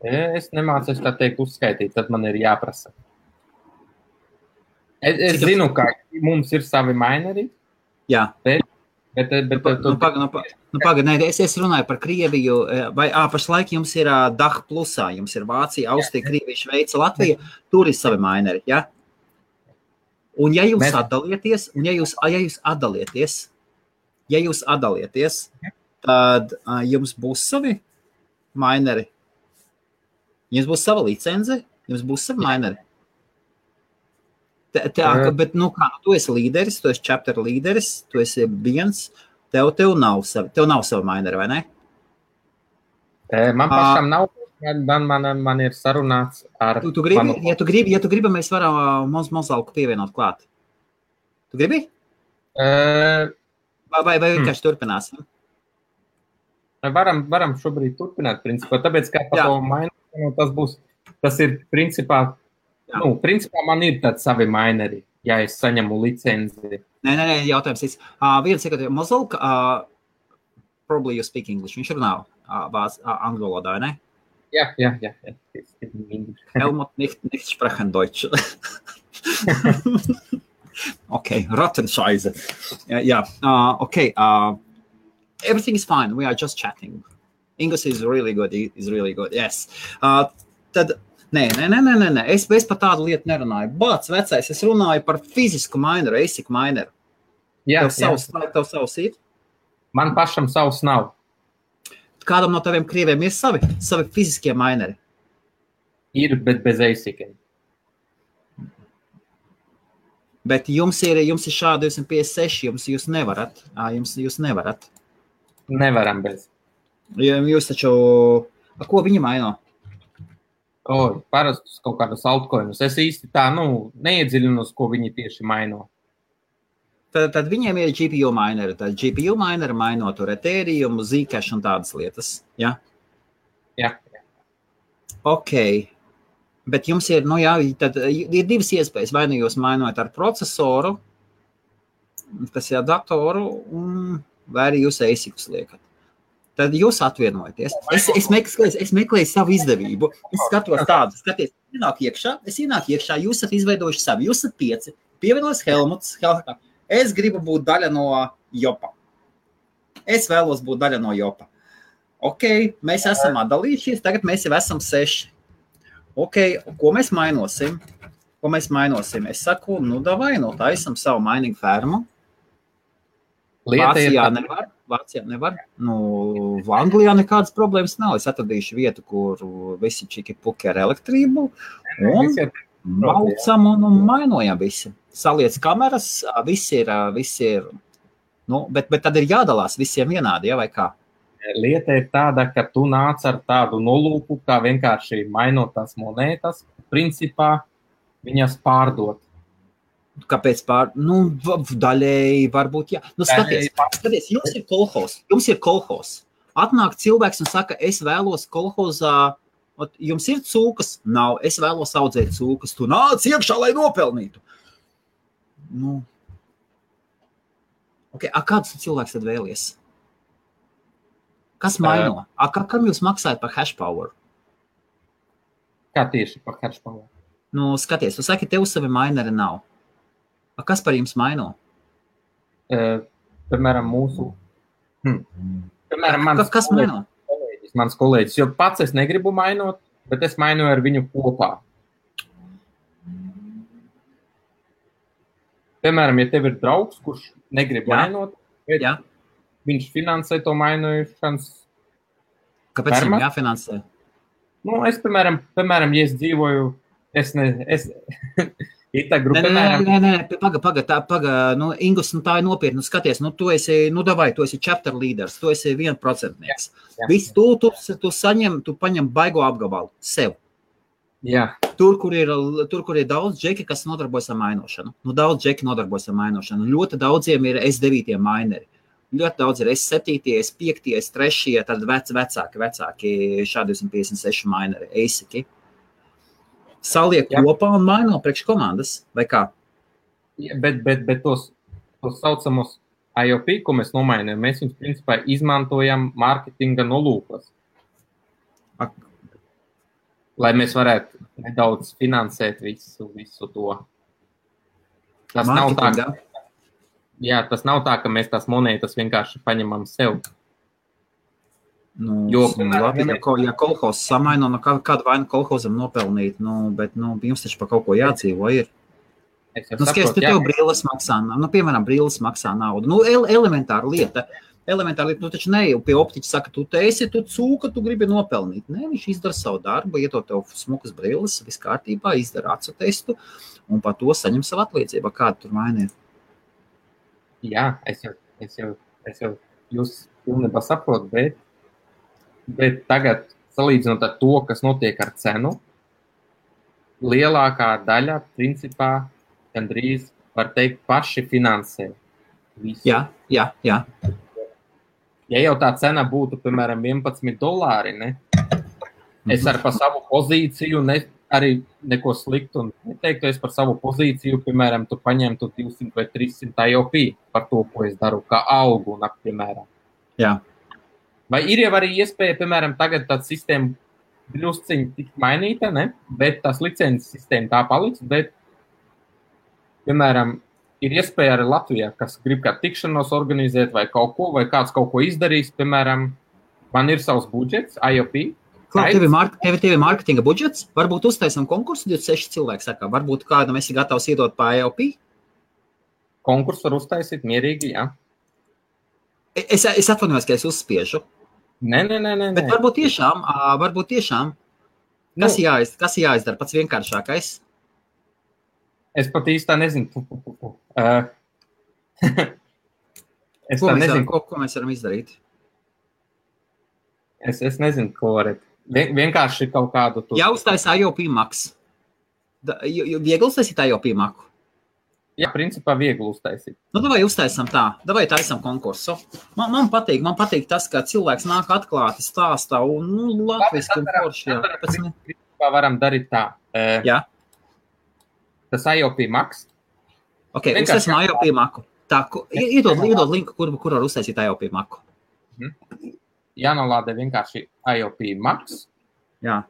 Es nemācos tā teikt uzskaitīt, tad man ir jāprasa. Es zinu, ka mums ir savi maineri. Jā. Pagaid, es runāju par Krieviju, vai pašlaik jums ir DAH plusā, jums ir Vācija, Austrija, Krievija, Šveica, Latvija, tur ir savi maineri, ja? Un ja jūs atdalieties, tad jums būs savi maineri, jums būs sava licence, jums būs savi maineri. Bet, tu esi līderis, tu esi chapter līderis, tu esi viens, Tev nav sava maineri, vai ne? Man pašam nav, man ir sarunāts ar... Tu gribi, ja tu gribi, mēs varam Mozalku pievienot klāt. Tu gribi? Vai vienkārši turpināsim? Varam šobrīd turpināt, principā, tāpēc, kā par to maineri, tas ir, principā, principā man ir tāds savi maineri, ja es saņemu licenzi. Nē, jautājums ir. Viena sekundē, Mozalka, probably you speak English. Viņš runā angļu valodā, ne? Ja. Helmut nicht sprechen Deutsch. Okay, Rattenscheiße. Yeah. Okay. Everything is fine. We are just chatting. English is really good. Yes. Tad, nē. Es par tādu lietu nerunāju. Bāc, vecais, es runāju par fizisku maineru, ASIC maineru. Tev savs ir? Man pašam savs nav. Kādam no taviem krieviem ir savi fiziskie maineri? Ir, bet bez ASIC-iem. Bet jums ir šādi 256, jūs nevarat. Jūs nevarat. Nevaram bez. Jūs taču... Ko viņi maino? Parastus kaut kādus altcoinus. Es īsti tā, neiedziļinos, ko viņi tieši maino. Tad viņiem ir GPU mineri. Tad GPU mineri maino tur Ethereum, Zcash un tādas lietas. Ja? Jā. Ok. Bet jums ir, tad ir divas iespējas. Vai jūs mainojat ar procesoru, kas ir datoru, vai arī jūs ASIC-us liekat. Tad jūs atvienojaties. Es meklēju savu izdevību. Es skatos tādu. Es ienāku iekšā, jūs esat izveidojuši savu. Jūs esat 5. Pievienojas Helmuts. Es gribu būt daļa no Jopa. Es vēlos būt daļa no Jopa. Ok, mēs esam atdalījušies, tagad mēs jau esam 6. Ok, ko mēs mainosim? Es saku, davai, taisam savu mining fermu. Vācijā nevar. Anglijā nekādas problēmas nav. Es atradīšu vietu, kur visi čiki puki ar elektrību. Un maucam un mainojam visi. Saliec kameras, visi ir bet tad ir jādalās visiem vienādi, vai kā? Lieta ir tāda, ka tu nāc ar tādu nolūku, kā vienkārši mainot tās monētas, principā viņas pārdot. Kāpēc daļēji varbūt, jā. Skaties, jums ir kolhos. Atnāk cilvēks un saka, es vēlos kolhozā, jums ir cūkas? Nav, es vēlos audzēt cūkas. Tu nāc iekšā, lai nopelnītu. Okay, kāds cilvēks tad vēlies? Kas maino? Kam jūs maksājat par hash power? Kā tieši par hash power? Skaties, tu saki, tev savi maineri nav. Kas par jums maino? Piemēram, mūsu... Piemēram, mans kolēģis, jo pats es negribu mainot, bet es mainoju ar viņu kopā. Piemēram, ja tev ir draugs, kurš negrib mainot, bet viņš finansē to mainojušanas. Kāpēc viņam jāfinansē? Es, piemēram, ja es dzīvoju, Paga, Ingus, tā ir nopietni, skaties, tu esi chapter leaders, tu esi 1%. Viss, tu paņem baigo apgabalu sev. Jā. Tur, kur ir daudz džeki, kas nodarbojas ar mainošanu. Daudz džeki nodarbojas ar mainošanu. Ļoti daudziem ir S9 maineri. Ļoti daudz ir S7, S5, S3, tad vecāki šādi 256 maineri, ASIC. Saliek kopā un maino priekš komandas, vai kā? Bet tos saucamos IOP, ko mēs nomainām, mēs viņus principā izmantojam marketinga nolūkos. Lai mēs varētu nedaudz finansēt visu to. Tas nav tā, tas nav tā, ka mēs tās monētas vienkārši paņemam sev. Ja kolhozs samaino, kādu vainu kolhozam nopelnīt, bet jums taču par kaut ko jādzīvo ir. Skaties, tev brīles maksā, piemēram, brīles maksā naudu. Elementāra lieta. Tu taču ne pie optiķa saka, tu cūka, tu gribi nopelnīt. Nē, viņš izdara savu darbu, ieto tev smukas brilles, viss kārtībā, izdara acu testu un par to saņem savu atliecību. Kāda tur vaina ir? Jā, es Es jau jūs pilnībā saprotu, bet tagad, salīdzinot ar to, kas notiek ar cenu, lielākā daļa, principā, gandrīz, var teikt, paši finansē visu. Jā. Ja jau tā cena būtu, piemēram, $11, ne? Es ar par savu pozīciju arī neko sliktu un neteiktu, es par savu pozīciju, piemēram, tu paņemtu 200 vai 300 IOP par to, ko es daru, kā augu, piemēram. Jā. Vai ir jau arī iespēja, piemēram, tagad tā sistēma drusciņi tik mainīta, ne? Bet tās licences sistēma tā paliks, bet, piemēram, ir iespēja arī Latvijā, kas grib kā tikšanos organizēt vai kaut ko, vai kāds kaut ko izdarīs, piemēram, man ir savs budžets, IOP. Tev ir mārketinga budžets, varbūt uztaisam konkursu, 26 cilvēki saka, varbūt kādam esi gatavs iedot pa IOP? Konkursu var uztaisīt mierīgi, jā. Es atvainojos, ka es uzspiežu. Nē. Bet varbūt tiešām, kas jāizdara pats vienkāršākais? Es pat īstā nezinu. Ko mēs varam izdarīt? Es nezinu, ko varat. Vienkārši kaut kādu... Jāuztais IOP maks. Viegli uztaisīt IOP maku? Jā, principā viegli uztaisīt. Davai uztaisam tā. Davai taisam konkursu. Man patīk tas, ka cilvēks nāk atklāti stāstā un, latviski un forši. Principā varam darīt tā. Jā. Tas IOP maks. Ok, uztaisim IOP maku. Tā, iedod linku, kur var uztaisīt IOP maku. Jānolādē vienkārši IOP maks. Jā.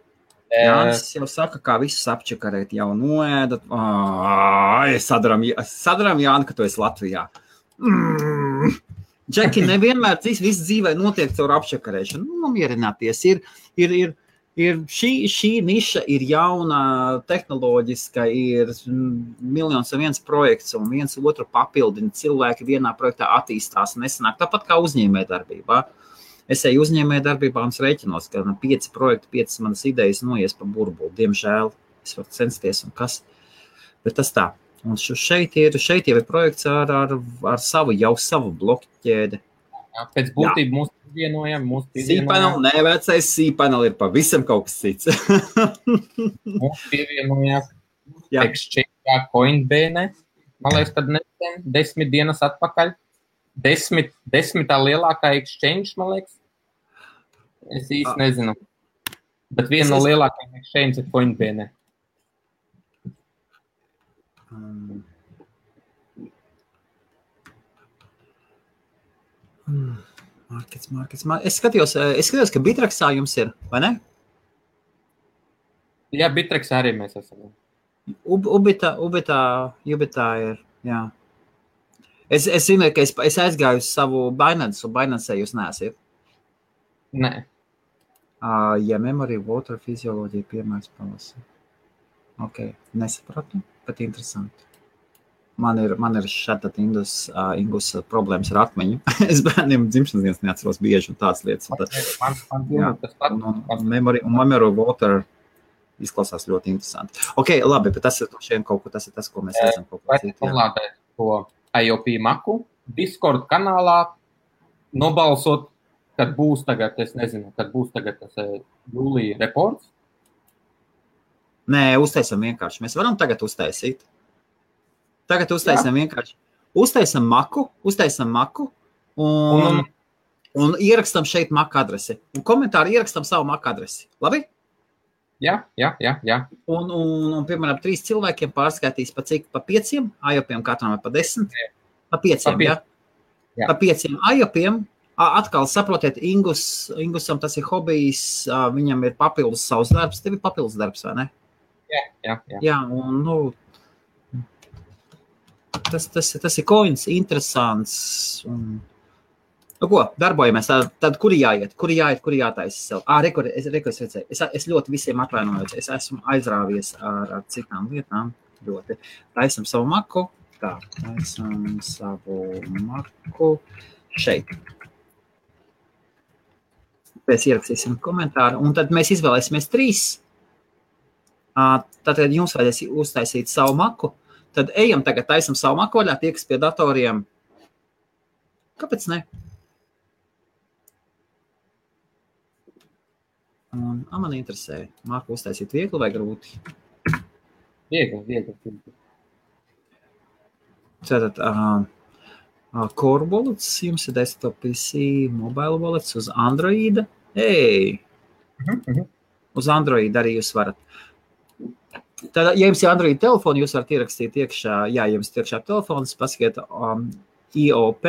Jānis jau saka, kā visus apčakarēt jau noēdat. Sadaram Jāni, ka tu esi Latvijā. Džeki, nevienmēr viss dzīvē notiek caur apčakarēšanu. Nomierināties. Šī niša ir jauna, tehnoloģiska, ir 1,1 projekts un viens otru papildina. Cilvēki vienā projektā attīstās un nesanāk. Tāpat kā uzņēmējdarbībā. Es eju uzņēmējdarbībā un rēķinos, ka 5 projekti, 5 manas idejas noies pa burbuli. Diemžēl es varu censties un kas. Bet tas tā. Un šeit jau ir projekts ar savu bloķēdi. Pēc būtību mūs pievienojam. Cpanel, nevecais Cpanel ir pavisam kaut kas cits. Mūs pievienojās Exchange Coinbase. Man liekas, kad 10 dienas atpakaļ. 10. lielākā exchange, man liekas. Es īsti nezinu. Bet viena no lielākajām exchange ir Coinbase. Markets. Es skatījos, ka Bitrexā jums ir, vai ne? Jā, Bitrexā arī mēs esam. Ubitā ir, jā. Es zinu, ka es aizgāju uz savu Binance, un Binance jūs neesiet. Nē. Ja memory, water, fizioloģija, piemērs palasa. Ok, nesapratu, bet interesanti. Man ir šāda Ingus problēmas ar atmiņu. Es bērniem dzimšanas dienas neatceros bieži un tādas lietas. Memory, water izklausās ļoti interesanti. Ok, labi, bet tas ir tas, ko mēs redzam. Ko IOP maku, Discord kanālā nobalsot, kad būs tagad, es nezinu, kad būs tagad tas jūlija reports? Nē, uztaisam vienkārši. Mēs varam tagad uztaisīt. Tagad uztaisam vienkārši. Uztaisam maku un ierakstam šeit maku adresi. Un komentāru ierakstam savu maku adresi. Labi? Jā. Un piemēram, 3 cilvēkiem pārskaitīs pa cik? Pa 5? IOPiem katram vai pa 10? Pa 5, jā? Pa 5 IOPiem. Atkal saprotiet, Ingusam tas ir hobijs, viņam ir papildus savs darbs. Tev ir papildus darbs, vai ne? Jā. Jā, un, tas ir coins, interesants. Un, ko, darbojamies. Tad kuri jātaisa sev? Es redzēju. Es ļoti visiem atvainojos. Es esmu aizrāvies ar citām lietām. Ļoti. Taisam savu maku. Tā, taisam savu maku šeit. Pēc ierakstīsim komentāru. Un tad mēs izvēlēsimies 3. Tad jums vajadzēs uztaisīt savu maku. Tad ejam tagad taisam savu maku vaļā, tie, kas pie datoriem. Kāpēc ne? Man interesē, Marku uztaisīt viegli vai grūti? Viegli. Tātad, Core Wallets, jums ir desktop PC, mobile wallets uz Androida. Uz Android arī jūs varat. Tad, ja jums ir Android telefoni, jūs varat ierakstīt iekšā, ja jums ir iekšā telefons, pasakiet IOP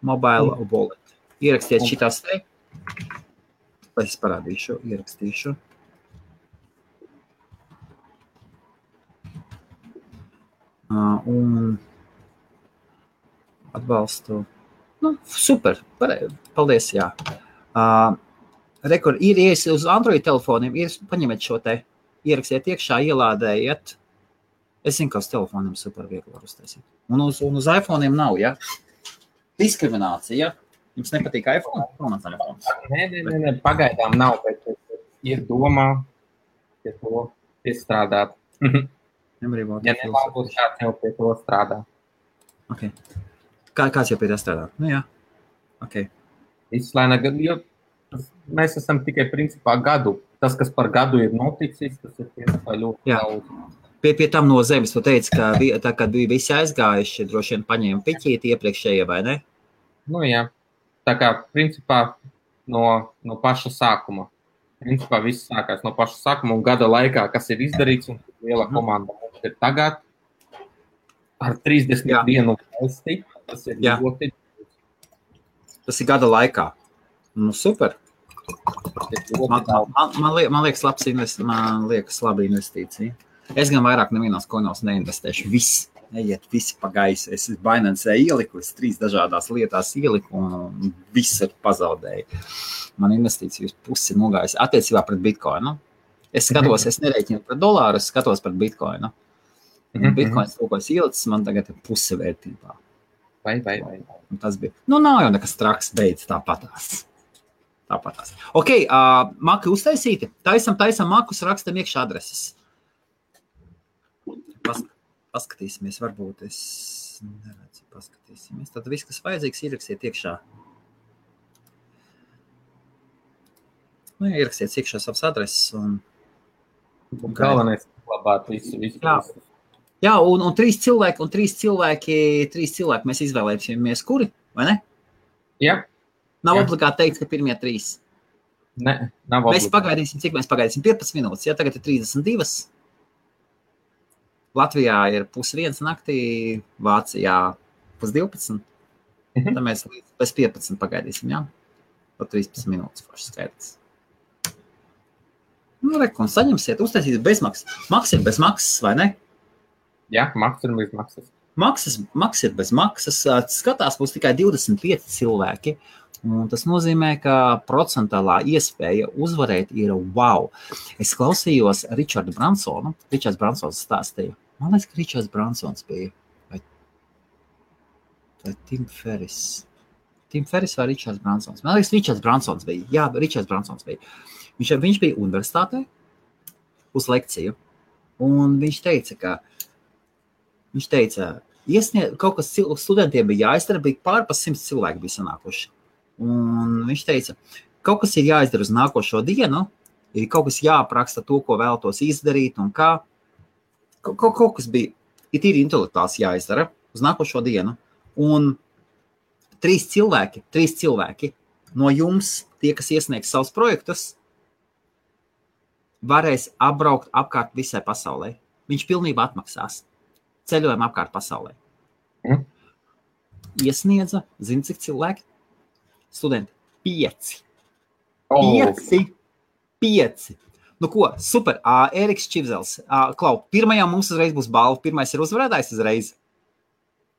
mobile wallet. Ierakstiet šitās te. Es parādīšu, ierakstīšu. Un atbalstu. Super, paldies, jā. Ir uz Android telefoniem, paņemiet šo te, ierakstiet iekšā, ielādējiet. Es zinu, ka uz telefoniem super viegli var uztaisīt. Un uz iPhone'iem nav, ja? Diskriminācija, ja? Jums nepatīk iPhone? Nē, pagaidām nav, bet ir domā, pie to piestrādāt. Ja nebūs kāds jau pie to strādā. Okay. Kāds jau pie tā strādā? Jā. Okay. Izslēna, jo mēs esam tikai principā gadu. Tas, kas par gadu ir noticis, tas ir principā ļoti daudz. Pie tam no zemes tu teici, ka tā, kad bija visi aizgājuši, droši vien paņēma piķīti iepriekšējie, vai ne? Jā. Tā kā principā no paša sākuma. Principā viss sākās no paša sākuma un gada laikā, kas ir izdarīts un liela komanda mums ir tagad ar 31 valsti. Tas ir ļoti. Tas ir gada laikā. Super. Man liekas laba investīcija. Es gan vairāk nevienos koinos neinvestēšu. Visi pa gaisu. Es Binance ieliku, es 3 dažādās lietās ieliku un visu pazaudēju. Man investīcijas pusi nogājas attiecībā pret Bitcoinu. Es skatos, es nerēķinu pret dolāru, es skatos pret Bitcoinu. Bitcoins to, ko es ielicis, man tagad ir puse vērtībā. Vai. Tas bija. Nav jau nekas traks, beidz tāpatās. Ok, maki uztaisīti. Taisam makus, rakstam iekšā adreses. Paskatīsimies, varbūt es neredzu, paskatīsimies. Tad viss, kas vajadzīgs, ierakstiet iekšā. Ierakstiet iekšā savas adreses un galvenais labāt visu. Jā, un 3 cilvēki mēs izvēlēsimies, kuri, vai ne? Jā. Nav obligāti teikt, ka pirmie 3. Ne, nav obligāti. Cik mēs pagaidīsim? 15 minūtes, ja tagad ir 32. Latvijā ir 1:30 naktī, Vācijā 11:30. Tad mēs līdz 15 pagaidīsim, jā? Pa 13 minūtes forši skaidrs. Un saņemsiet, uztaisīt bezmaksas. Maks ir bez maksas, vai ne? Jā, maks ir bez maksas. Maks ir bez maksas. Skatās būs tikai 25 cilvēki. Un tas nozīmē, ka procentālā iespēja uzvarēt ir wow. Es klausījos Richardu Bransonu. Richards Bransons stāstīja. Man liekas, ka Richards Bransons bija. Vai Tim Ferris? Tim Ferris vai Richards Bransons? Man liekas, Richards Bransons bija. Jā, Richards Bransons bija. Viņš bija universitātē uz lekciju. Un viņš teica, kaut kas studentiem bija jāizdara, bija pār pa 100 cilvēki bija sanākuši. Un viņš teica, kaut kas ir jāizdara uz nākošo dienu, ir kaut kas jāapraksta to, ko vēlētos izdarīt un kā. Kaut kas bija, ir tīri intelektuāls jāizdara uz nākošo dienu. Un 3 cilvēki no jums, tie, kas iesniegs savus projektus, varēs apbraukt apkārt visai pasaulē. Viņš pilnībā atmaksās ceļojumu apkārt pasaulē. Iesniedza, zini, cik cilvēki? Studenti, 5. 5. Nu ko, super. Ēriks Čivzels. Klau, pirmajā mums uzreiz būs balva. Pirmais ir uzvarētājs uzreiz.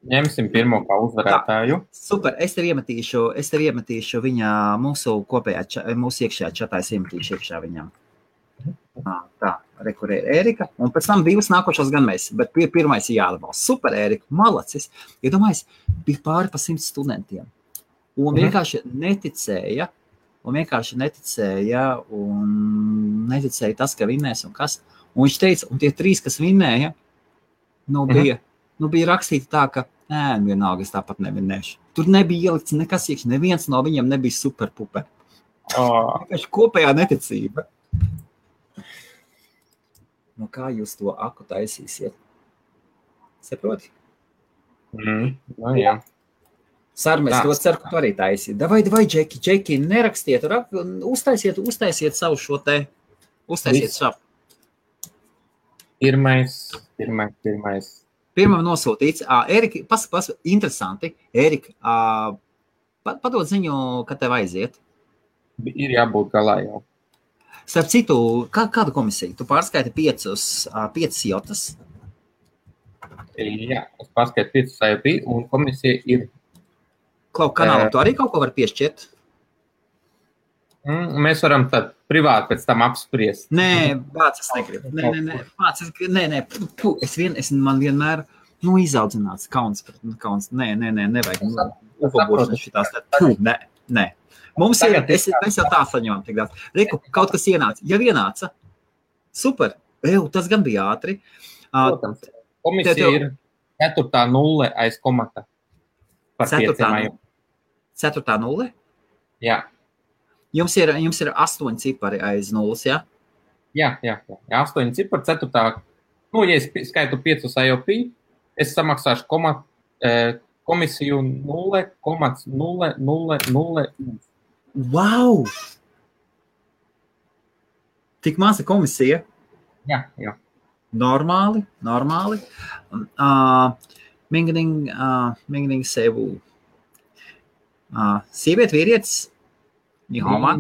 Ņemsim pirmo kā uzvarētāju. Super. Es tev iemetīšu viņa mūsu iekšējā čatā. Es iemetīšu iekšā viņam. Tā, kur ir Ērika. Un pēc tam 2 nākošos gan mēs. Bet pirmais ir jāatbalsta. Super, Ērika. Malacis. Iedomājies, bija pāri pa 100 studentiem. Un vienkārši neticēja tas, ka vinnēs un kas. Un viņš teica, un tie 3, kas vinnēja, bija rakstīti tā, ka vienalga, es tāpat nevinnēšu. Tur nebija ielikts nekas iekšā, neviens no viņiem nebija superpuper. Vienkārši kopējā neticība. No kā jūs to aku taisīsiet? Saproti? No jā. Sarmēs, to ceru, ka tu arī taisīt. Davai, Džeki, nerakstiet, uztaisiet savu šo te, uztaisiet šapu. Pirmais. Pirmam nosūtīts. Erika, interesanti. Erika, padod ziņu, kad tev aiziet. Ir jābūt galā jau. Starp citu, kādu komisiju? Tu pārskaiti 5 jotas? Jā, es pārskaitu 5 IOP, un komisija ir... Klau, kanālam tu arī kaut ko var piešķirt? Mēs varam tad privāti pēc tam apspriest. Nē, Vāc, es negribu. Man vienmēr, izaudzināts kauns. Nevajag. Upobošanas šitās. Nē. Mums ir, mēs jau tā saņemam tik daudz. Reku, kaut kas ienāca. Jau ienāca. Super. Tas gan bija ātri. Protams. Komisija ir 4. nulle aiz komata. Par 5. 4. nulle? Jā. Jums ir 8 cipari aiz nulles, jā? Jā. 8 cipari, 4. Ja es skaitu 5 IOP, es samaksāšu komisiju 0,000. Wow! Tik maza komisija? Jā. Normāli. Mingning sevu. Sieviet, vīrietis? Nihoma?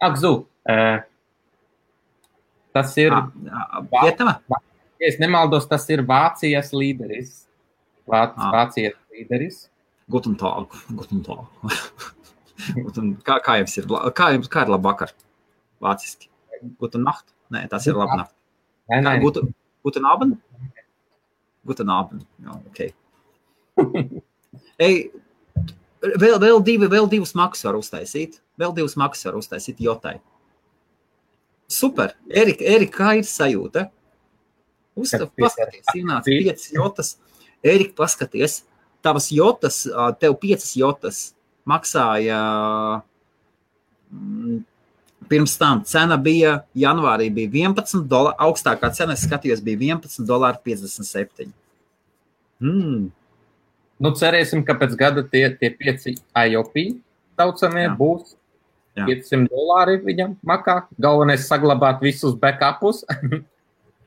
Akzu. Tas ir... Vietama? Ja es nemaldos, tas ir Vācijas līderis. Vācijas līderis. Guten Tag. Kā jums ir? Kā ir labvakar? Vāciski. Guten Nacht? Nē, tas ir labnacht. Nē. Guten Abend? Guten Abend. Ok. Vēl divus makus var uztaisīt. Jotai. Super. Erika, kā ir sajūta? Paskaties, ienāca 5 jotas. Erika, paskaties, tavas jotas, tev 5 jotas maksāja pirms tam. Cena bija, janvārī bija $11, augstākā cena, es skatījos, bija $11.57. Cerēsim, ka pēc gada tie 5 IOP saucamie būs $500 viņam makā. Galvenais saglabāt visus backupus.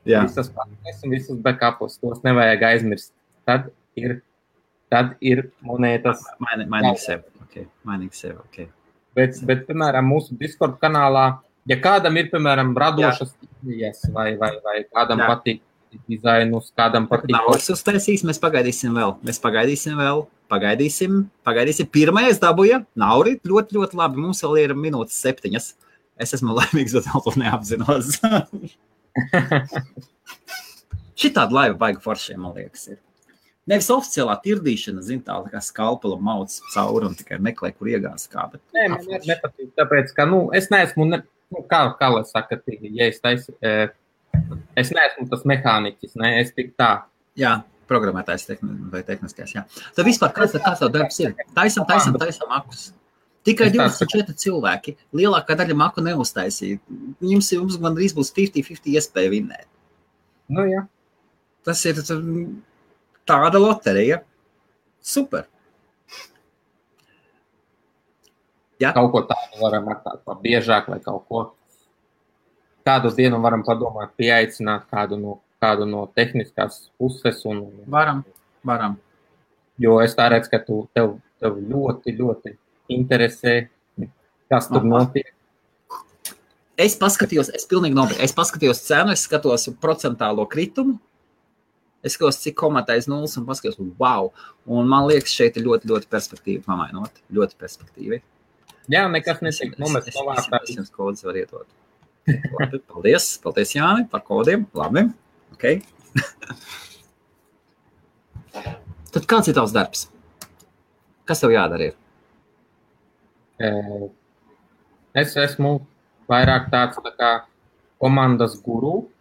Visas pārnes un visus backupus. Tos nevajag aizmirst. Tad ir monētas. Mainīgi sev, ok. Bet, piemēram, mūsu Discord kanālā, ja kādam ir, piemēram, radošas idejas vai kādam patīk dizainus, kādam patīk... Naudas uztaisīs, mēs pagaidīsim vēl. Pagaidīsim. Pirmais dabūja. Nauri, ļoti, ļoti labi. Mums vēl ir minūtes 7. Es esmu laimīgs, bet vēl to neapzinos. Šitāda laiva baiga foršiem, man liekas, ir. Nevis oficiālā tirdīšana, tā kā skalpela mauc cauri un tikai meklē, kur iegās kā. Bet nē, man nepatīk, tāpēc, ka, es neesmu, kā lai saka, ja es neesmu tas mehāniķis, es tik tā. Jā, programmētājs vai tehniskais, jā. Tad vispār, kāds tev darbs ir? Taisam makus. Tikai 24 cilvēki. Lielākā daļa maku neuztaisīja. Jums gandrīz būs 50-50 iespēja vinnēt. Jā. Tas ir tāda loterija. Super. Jā. Kaut ko tādu varam atstāt biežāk vai kaut ko. Kādu dienu varam padomāt, pieaicināt kādu no tehniskās puses. Varam. Jo es tā redzu, ka tev ļoti, ļoti interesē, kas tur notiek. Es pilnīgi nopietni. Es paskatījos cenu, es skatos procentālo kritumu, es skatos, cik komatais nulles un paskatījos, wow. Un man liekas, šeit ir ļoti, ļoti perspektīvi pamainot. Ļoti perspektīvi. Jā, nekas netiek nomest novārtā. Es jums kodus var iedot. Labi, paldies Jāni par kodiem. Labi, ok. Tad kāds ir tavs darbs? Kas tev jādara ir? Es esmu vairāk tāds tā kā komandas guru.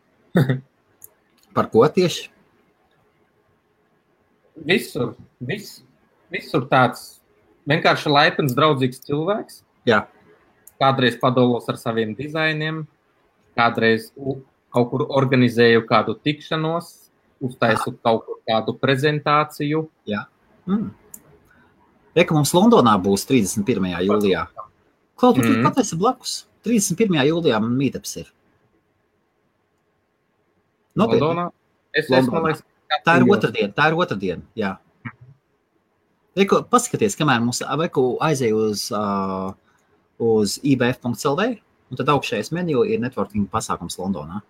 Par ko tieši? Visur tāds vienkārši laipns, draudzīgs cilvēks. Jā. kādreiz padalos ar saviem dizainiem, kādreiz kaut kur organizēju kādu tikšanos, uztaisu kaut kur kādu prezentāciju. Jā. Reka, mums Londonā būs 31. jūlijā. Klau, tu pat esi blakus. 31. jūlijā man meetups ir. Londonā? Es esmu, lai... Tā ir otrdiena, jā. Reku, paskaties, kamēr mums aizēja uz ibf.lv, un tad augšējais menu ir networking pasākums Londonā.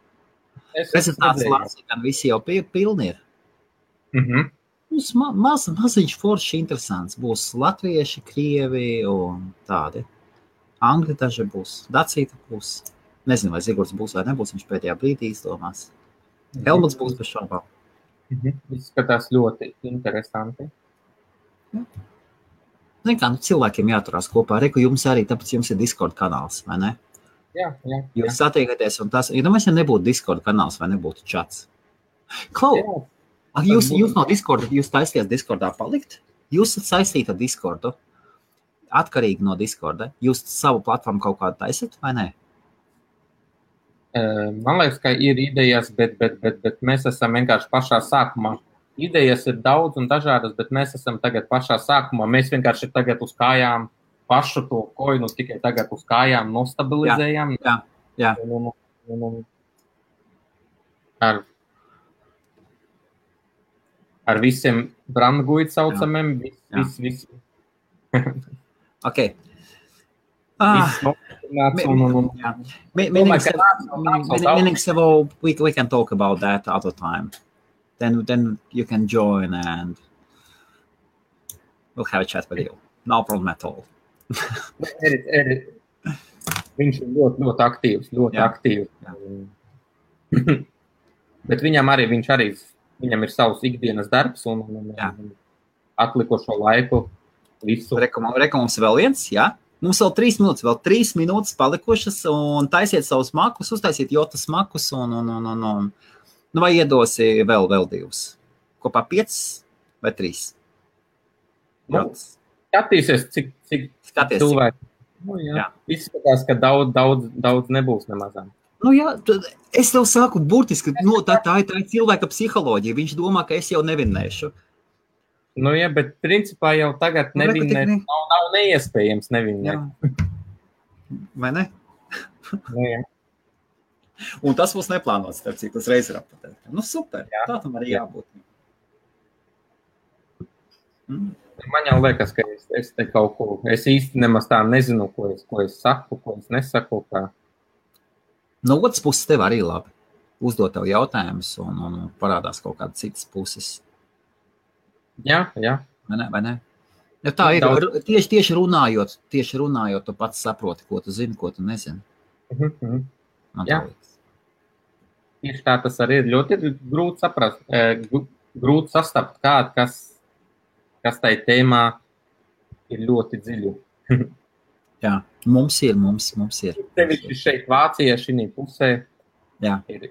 Prezentācijas gan visi jau pilni ir. Būs maziņš forši interesants. Būs latvieši, krievi un tādi. Angļi daži būs, Dacīta būs. Nezinu, vai Zigurds būs vai nebūs, viņš pēdējā brīdī izdomās. Helmuts būs bez šaubām. Izskatās ļoti interesanti. Zin kā, cilvēkiem jāturās kopā. Reku, jums arī, tāpēc jums ir Discord kanāls, vai ne? Jā. Jūs satiekaties un tas, ja nebūtu Discord kanāls vai nebūtu čats. Klau, jūs no Discorda, jūs taisties Discordā palikt? Jūs esat saistīti ar Discordu, atkarīgi no Discorda. Jūs savu platformu kaut kādu taisat, vai ne? Man liekas, ka ir idejas, bet mēs esam vienkārši pašā sākumā. Idejas ir daudz un dažādas, bet mēs esam tagad pašā sākumā. Mēs vienkārši tagad uz kājām pašu to koinu tikai tagad uz kājām nostabilizējam. Jā. Ar visiem brandguid saucamiem. Viss. Ok. We can talk about that other time. Then you can join and we'll have a chat with you. No problem at all. Viņš ir ļoti aktīvs, aktīvs. Bet viņam ir savs ikdienas darbs un atlikušo laiku visu. Reka, mums vēl viens, jā? Mums vēl 3 minūtes, vēl 3 minūtes palikušas un taisiet savus makus, uztaisiet jotas makus un vai iedosi vēl 2? Kopā 5 vai 3? Skatīsies, cik cilvēki. Izskatās, ka daudz nebūs nemazām. Es tev saku burtiski, tā ir cilvēka psiholoģija. Viņš domā, ka es jau nevinnēšu. Bet principā jau tagad nevinnēt nav neiespējams nevinnēt. Vai ne? Un tas būs neplānots, cik tas reiz ir apatēt. Super, tā tam arī jābūt. Man jau liekas, ka es te kaut ko, es īsti nemaz tā nezinu, ko es saku, ko es nesaku. No otras puses tev arī labi. Uzdot tev jautājumus un parādās kaut kāda citas puses. Jā. Vai ne? Ja tā ir, tieši runājot, tu pats saproti, ko tu zini, ko tu nezini. Jā. Tieši tā tas arī ir ļoti grūti saprast, grūti sastapt kādu, kas tai tēmā ir ļoti dziļu. Jā, mums ir. Tevišķi šeit Vācijā šī pusē ir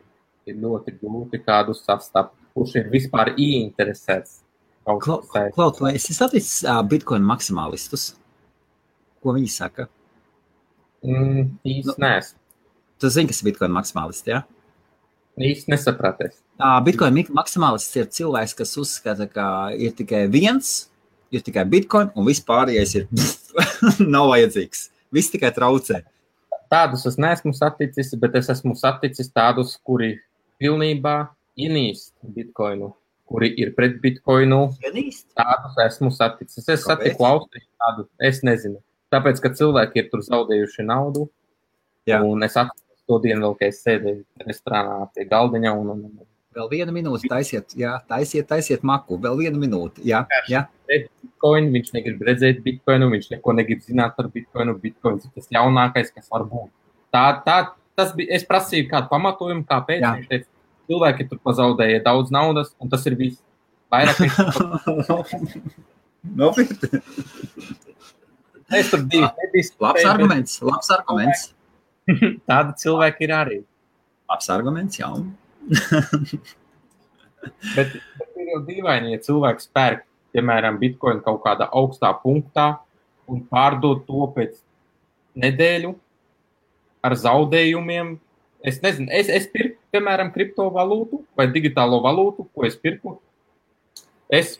ļoti grūti kādu sastapt, kurš ir vispār ieinteresēts. Klaut, vai esi saticis Bitcoin maksimālistus? Ko viņi saka? Īsti neesmu. Tu zini, kas ir Bitcoin maksimālisti, jā? Īsti nesapraties. Bitcoin maksimālists ir cilvēks, kas uzskata, ka ir tikai viens, ir tikai Bitcoin, un viss pārējais ir nav vajadzīgs. Viss tikai traucē. Tādus es neesmu saticis, bet es esmu saticis tādus, kuri pilnībā ienīst Bitcoinu. Kuri ir pret Bitcoinu, tādus esmu saticis. Es satiku Austriju tādu, es nezinu. Tāpēc, ka cilvēki ir tur zaudējuši naudu, un es atceros to dienu vēl, ka es sēdēju restorānā pie galdiņa un... Vēl 1 minūte taisiet maku, vēl 1 minūte, jā. Bitcoin, viņš negrib redzēt Bitcoinu, viņš neko negrib zināt par Bitcoinu, Bitcoins ir tas jaunākais, kas var būt. Es prasīju kādu pamatojumu, kāpēc, viņš teica, cilvēki tur pazaudēja daudz naudas, un tas ir viss. Vairāk Nopietni. Es tur Labs arguments. Tādi cilvēki ir arī. Labs arguments, jā. Bet ir jau dīvaini, ja cilvēks pērk, piemēram, Bitcoin kaut kādā augstā punktā un pārdod to pēc nedēļu ar zaudējumiem. Es nezinu, es pirku, piemēram, kriptovalūtu vai digitālo valūtu, ko es pirku. Es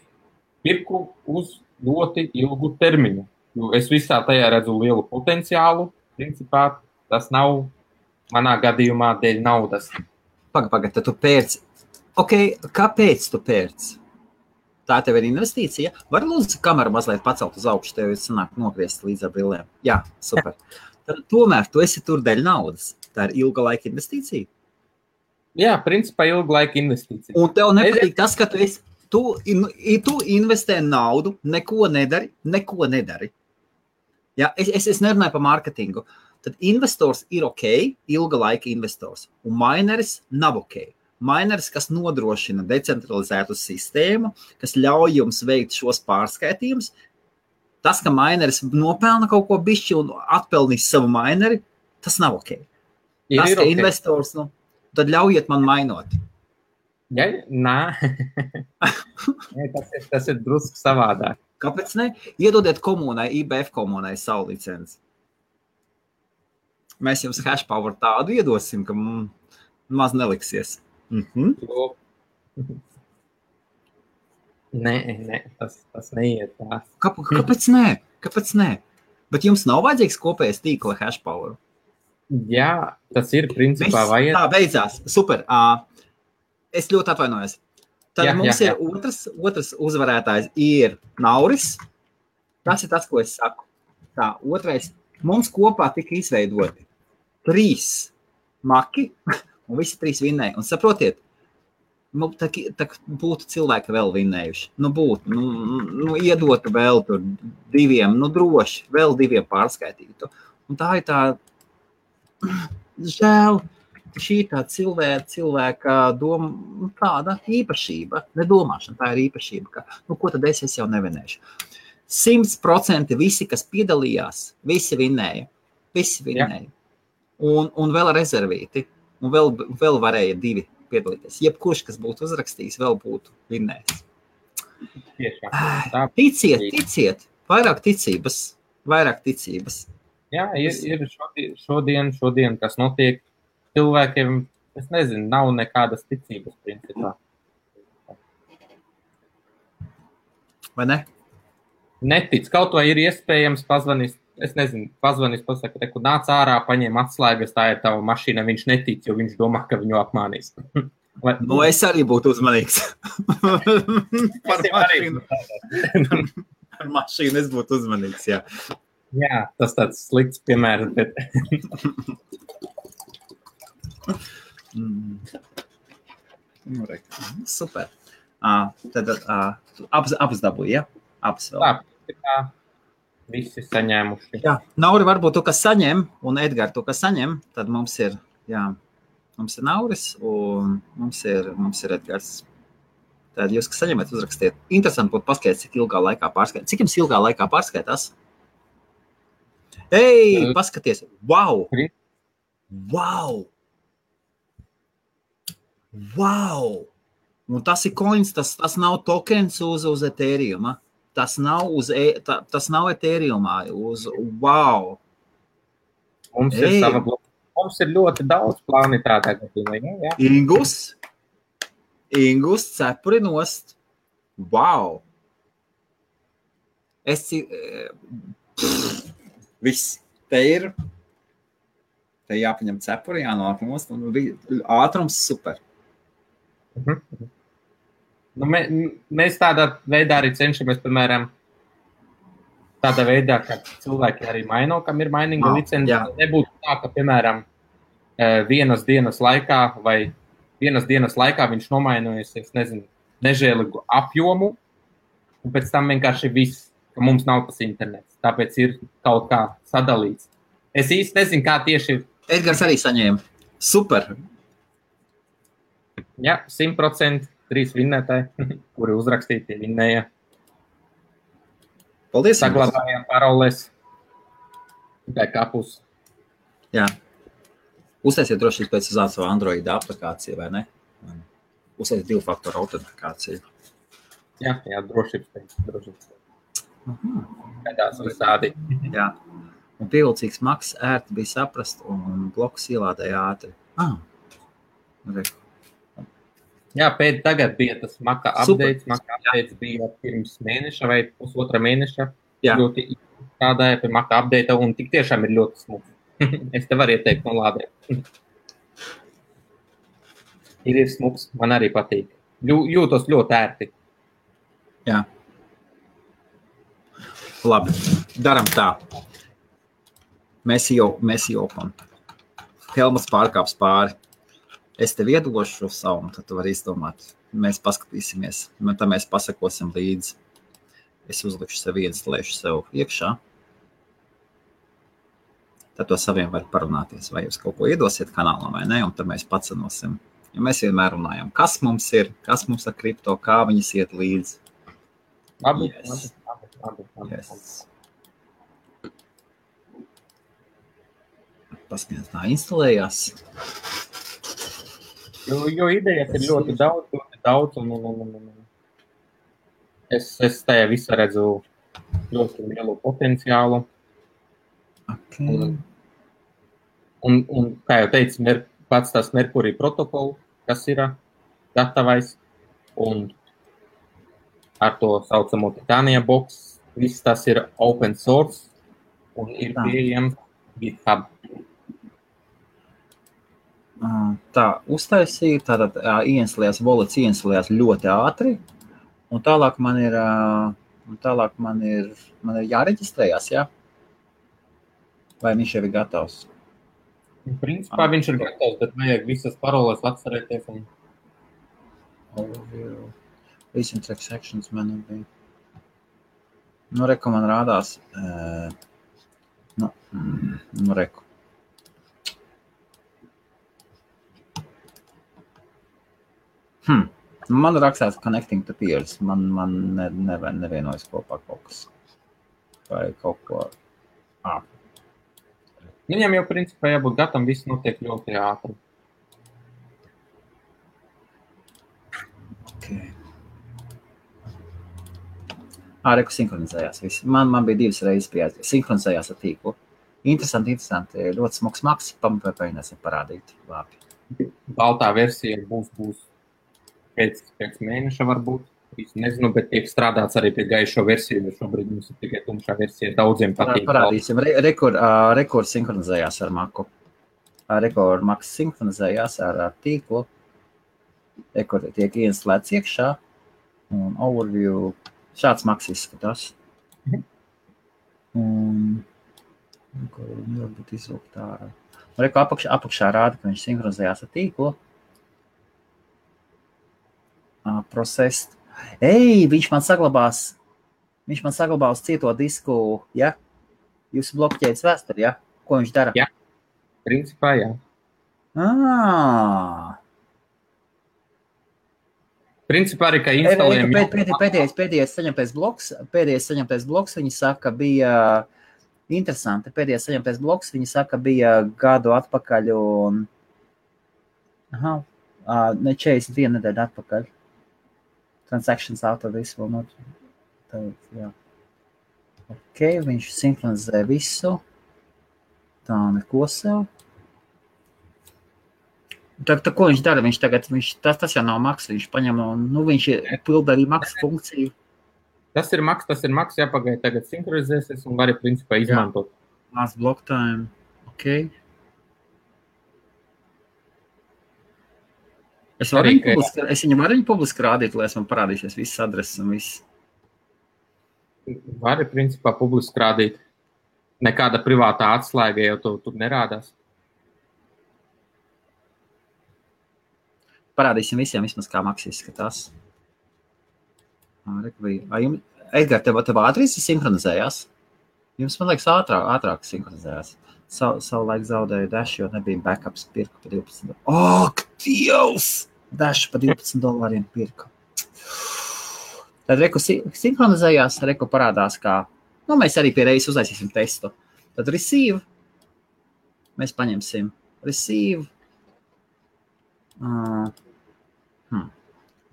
pirku uz ļoti ilgu termiņu. Es visā tajā redzu lielu potenciālu. Principā tas nav manā gadījumā dēļ naudas. Pagaid, tad tu pērci. Ok, kāpēc tu pērci? Tā tev ir investīcija? Var lūdzu kameru mazliet pacelt uz augšu, tev ir sanāk nogriezt līdz ar brillēm. Jā, super. Tad, tomēr tu esi tur dēļ naudas. Tā ir ilga laika investīcija. Jā, principā ilga laika investīcija. Un tev nepatīk tas, ka tu investē naudu, neko nedari. Jā, es nerunāju par mārketingu. Tad investors ir ok, ilga laika investors, un mineris nav ok. Mineris, kas nodrošina decentralizētu sistēmu, kas ļauj jums veikt šos pārskaitījumus, tas, ka mineris nopelna kaut ko bišķi un atpelnīs savu mineri, tas nav ok. Tas, ka investors, tad ļaujiet man mainot. Ja, nā. tas ir drusku savādāk. Kāpēc ne? Iedodiet komunai, IBF komunai savu licenci. Mēs jums hashpower tādu iedosim, ka maz neliksies. Nē, tas neiet tā. Kāpēc nē? Bet jums nav vajadzīgs kopējais tīkla hashpower? Jā, tas ir principā vajag. Tā beidzās. Super. Es ļoti atvainojos. Tad mums ir otrs uzvarētājs ir Nauris. Tas ir tas, ko es saku. Tā, otrais. Mums kopā tika izveidoti 3 maki. Un visi 3 vinnēja. Un saprotiet, tā būtu cilvēki vēl vinnējuši. Iedotu vēl tur 2, droši, vēl 2 pārskaitītu. Un tā ir tā, žēl, šī tā cilvēka doma, tāda īpašība, nedomāšana, tā ir īpašība, ka, ko tad es jau nevinēšu. 100% visi, kas piedalījās, visi vinnēja. Un vēl rezervīti. Un vēl varēja 2 piedalīties. Jebkurš, kas būtu uzrakstījis, vēl būtu vinnējis. Ticiet. Vairāk ticības. Jā, ir šodien, kas notiek cilvēkiem, es nezinu, nav nekādas ticības principā. Vai ne? Netic. Kaut vai ir iespējams pazvanīs, pasaka, ka nāc ārā, paņem atslēgas, tā ir tava mašīna, viņš netic, jo viņš domā, ka viņu apmānīs. Es arī būtu uzmanīgs. Par mašīnu es būtu uzmanīgs, jā. Jā, tas tāds slikts piemērs, bet... Super. Tad abas dabūja, ja? Abas vēl. Tā. Visi saņēmuši. Jā, Nauri varbūt tu, kas saņem, un Edgar tu, kas saņem, tad mums ir Nauris, un mums ir Edgars. Tad jūs, kas saņemat, uzrakstiet. Interesanti būtu paskaidrs, cik ilgā laikā pārskaitās. Cik jums ilgā laikā pārskaitās? Ei, paskaties! Wow! Un tas ir coins, tas nav tokens uz Ethereum, Tas nav Ethereumā, wow! Mums ir ļoti daudz plāni tādā gadījumā, jā. Ingus cepuri nost. Wow! Viss. Te jāpaņem cepuri, jānāk nost, un ātrums super. Mēs tādā veidā arī cenšamies, piemēram, tādā veidā, ka cilvēki arī maino, kam ir mainīga licence. Nebūtu tā, ka, piemēram, vienas dienas laikā viņš nomainojas, es nezinu, nežēlīgu apjomu, un pēc tam vienkārši viss, ka mums nav tas internets. Tāpēc ir kaut kā sadalīts. Es īsti nezinu, kā tieši... Edgars arī saņēma. Super! Jā, 100%. 3 vinnētāji, kuri uzrakstīti, vinnēja. Paldies! Saglabājām paroles. Backupus. Jā. Uztaisiet droši pēc uz savu Android aplikāciju, vai ne? Uztaisiet 2-faktoru autentifikāciju. Jā, drošības. Kādās visādi. Jā. Un pievilcīgs maks ērti bija saprast, un blokus ielādēja ātri. Jā, pēc tagad bija tas Maka updates. Maka updates bija pirms mēneša vai pusotra mēneša. Ļoti strādāja pie Maka update, un tik tiešām ir ļoti smuks. Es te varu ieteikt no lādē. Ir smuks, man arī patīk. Jūtos ļoti ērti. Jā. Labi, daram tā. Mēs jopam. Helmuts pārkāps pāri. Es tev iedošu šo savu, un tad tu vari izdomāt. Mēs paskatīsimies, un tad mēs pasakosim līdzi. Es uzlikšu sev ieinstallēšu sev iekšā. Tad to saviem var parunāties, vai jūs kaut ko iedosiet kanālam vai ne, un tad mēs pacenosim. Jo mēs vienmēr runājam, kas mums ir, kas mums ar kripto, kā viņas iet līdzi. Labi. Yes. Paskatās, tā instalējās. Jo idejas ir ļoti daudz, un es tajā visā redzu ļoti lielu potenciālu. Okay. Un kā jau teicu, pats tas Mercury protokolu, kas ir gatavais, un ar to saucamo Titania box, viss tas ir open source, un ir pieejams GitHub. Tā, uztaisīja, tātad wallets ļoti ātri, un tālāk man ir jāreģistrējās, jā? Vai viņš jau ir gatavs? Principā viņš ir gatavs, bet vajag visas paroles atcerēties. Recent transactions man bija. Reku man rādās. Reku. Man rakstās connecting to peers. Man nevienojas kopā kaut kas. Vai kaut ko. Viņam jau principā jābūt gatavam, viss notiek ļoti ātri. Okay. Reku sinhronizējās viss. Man bija 2 reizes pieaizīt. Sinhronizējās ar tīklu. Interesanti. Ļoti smuks maks. Pamēģināsim parādīt. Labi. Baltā versija būs pēc mēneša varbūt. Nezinu, bet tiek strādāts arī pie gaišo versiju, jo šobrīd mums ir tikai tumšā versija. Daudziem patīk. Parādīsim. Rekord sinhronizējās ar maku. Rekord maks sinhronizējās ar tīklu. Rekord tiek ieinstalēts iekšā. Un overview. Šāds maks izskatās. Un varbūt izlūkt ārā. Rekord apakšā rāda, ka viņš sinhronizējās ar tīklu. Processed. Viņš man saglabās cieto disku, ja? Jūsu blokķēdes vēsturi, ja? Ko viņš dara? Jā, principā, jā. Principā arī, ka instalējam... Pēdējais saņemtais bloks, viņi saka, bija interesanti. Pēdējais saņemtais bloks, viņi saka, bija gadu atpakaļ un... 41 nedēļu atpakaļ. Transactions out of this will not... Jā. Ok, viņš sinhronizē visu. Tā, neko sev. Tā ko viņš dara? Tas jau nav maks, viņš paņem un, viņš pilda arī maks funkciju. Tas ir maks, jāpagaid tagad sinhronizēsies un vari principā izmantot. Last block time, ok. Es viņu varu publiski rādīt, lai es man parādīsies visas adreses un viss. Vari principā publiski rādīt. Nekāda privātā atslēga jau tur nerādās. Parādīsim visiem vismaz kā maks izskatās. Edgar, tev ātri sinhronizējās? Jums, man liekas, ātrāk sinhronizējās. Savu laiku zaudēju Dash, jo nebija backups, pirku pa $12. Ak, Dievs! Dash pa $12 pirku. Tad Reku sinhronizējās, Reku parādās kā, mēs arī pie reizes uzlaisīsim testu. Tad receive, mēs paņemsim receive,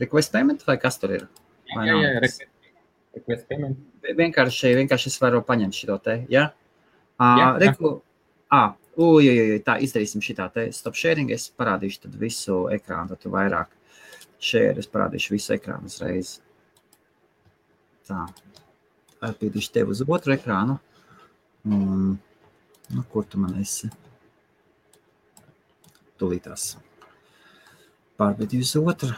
request payment vai kas tur ir? Jā, request payment. Vienkārši es varu paņemt šito te, ja? Tā izdarīsim šitā te stop sharing, es parādīšu tad visu ekrānu, tad tu vairāk share, es parādīšu visu ekrānu uzreiz. Tā, pīdīšu tev uz otru ekrānu. Kur tu man esi? Tūlītās. Pārbīdīju uz otru.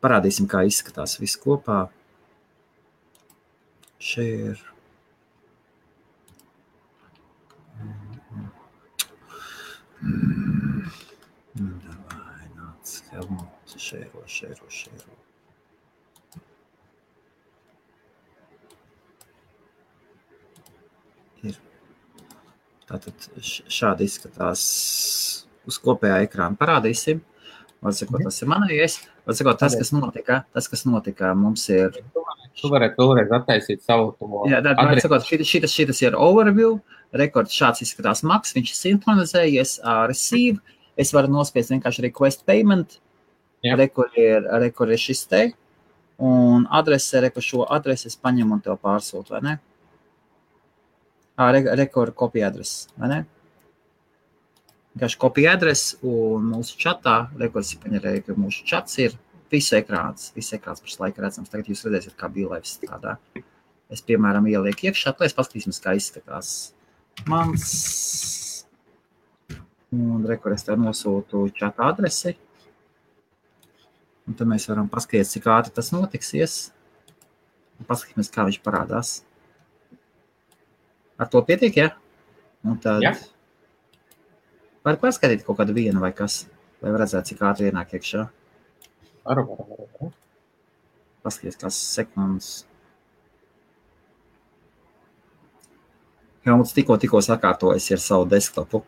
Parādīsim, kā izskatās viss kopā. Share. Davai, nāc, Helmut, šēro. Ir. Tātad šādi izskatās uz kopējā ekrāna parādīsim. Var sakot, tas ir manējais. Var sakot, tas, kas notika, mums ir... Tu varētu vēlreiz attaisīt savu to adresi. Šitas ir overview, rekords šāds izskatās Max, viņš ir sinhronizējies, receive, es varu nospiest vienkārši request payment, rekur ir šis te, un adrese, šo adresi es paņemu un tev pārsūtu, vai ne? Rekur kopija adresi, vai ne? Vienkārši kopija adresi, un mūsu čatā, rekords ir paņerēja, ka mūsu čats ir viss ekrāns pašs laika redzams. Tagad jūs redzēsiet, kā BeLive strādā. Es, piemēram, ielieku iekšā, lai es paskatīsimies, kā izskatās mans. Un rekur es tev nosūtu čata adresi. Un tad mēs varam paskatīt, cik ātri tas notiksies. Un paskatīsimies, kā viņš parādās. Ar to pietiek, ja? Un tad var paskatīt kaut kādu vienu vai kas, lai redzētu, cik ātri ienāk iekšā. Varu. Paskaties, kāds sekundes. Helmuts tikko sakārtojas ar savu desktopu.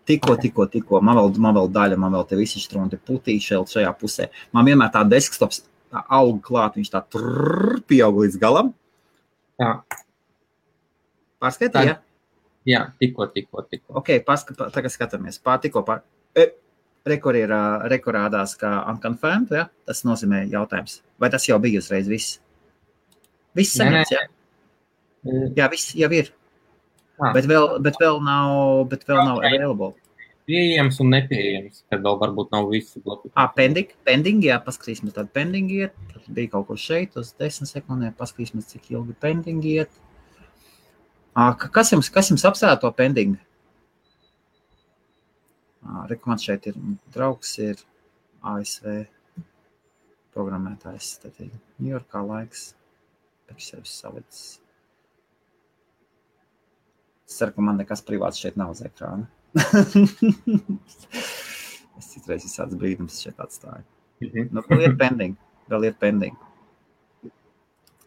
Tikko. Man vēl daļa, man vēl te visi štrunti putīši šajā pusē. Man vienmēr tā desktops aug klāt, viņš tā pieaug līdz galam. Jā. Pārskatīja? Jā, tikko. Ok, tagad skatāmies. Rekorādās kā unconfirmed, ja? Tas nozīmē jautājums. Vai tas jau bija uzreiz viss? Viss saņemts, ja? Jā, viss jau ir. Bet vēl nav available. Pieejams un nepieejams, kad vēl varbūt nav visi bloki. Pending, jā, paskatīsimies tādu pending iet. Tad bija kaut ko šeit uz 10 sekundēm, paskatīsimies, cik ilgi pending iet. Kas jums apsēra to pending? Man šeit ir draugs, ir ASV programmētājs, tad ir Ņujorkā laiks, pēc sevis salicis. Es ceru, ka man nekas privāts šeit nav uz ekrāna. Es citreiz visāds brīdums šeit atstāju. Vēl ir pending.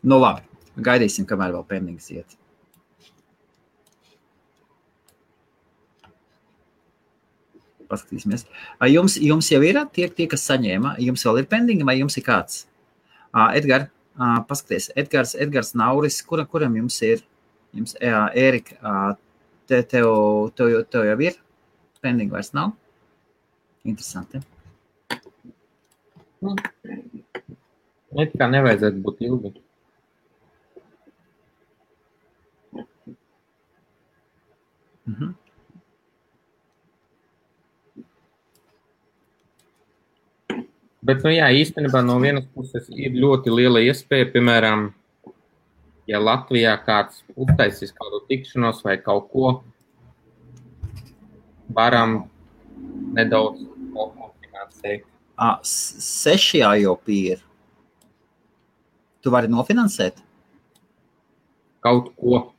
Nu labi, gaidīsim, kamēr vēl pendings iet. Paskatīsimies. Jums jau ir tie, kas saņēma? Jums vēl ir pendingi, vai jums ir kāds? Edgar, paskaties. Edgars Nauris, kuram jums ir? Ērika, tev jau ir? Pendingi vairs nav? Interesanti. Kā nevajadzētu būt ilgi. Bet, īstenībā no vienas puses ir ļoti liela iespēja, piemēram, ja Latvijā kāds uztaisīs kādu tikšanos vai kaut ko, varam nedaudz nofinansēt. 6 jau ir. Tu vari nofinansēt? Kaut ko.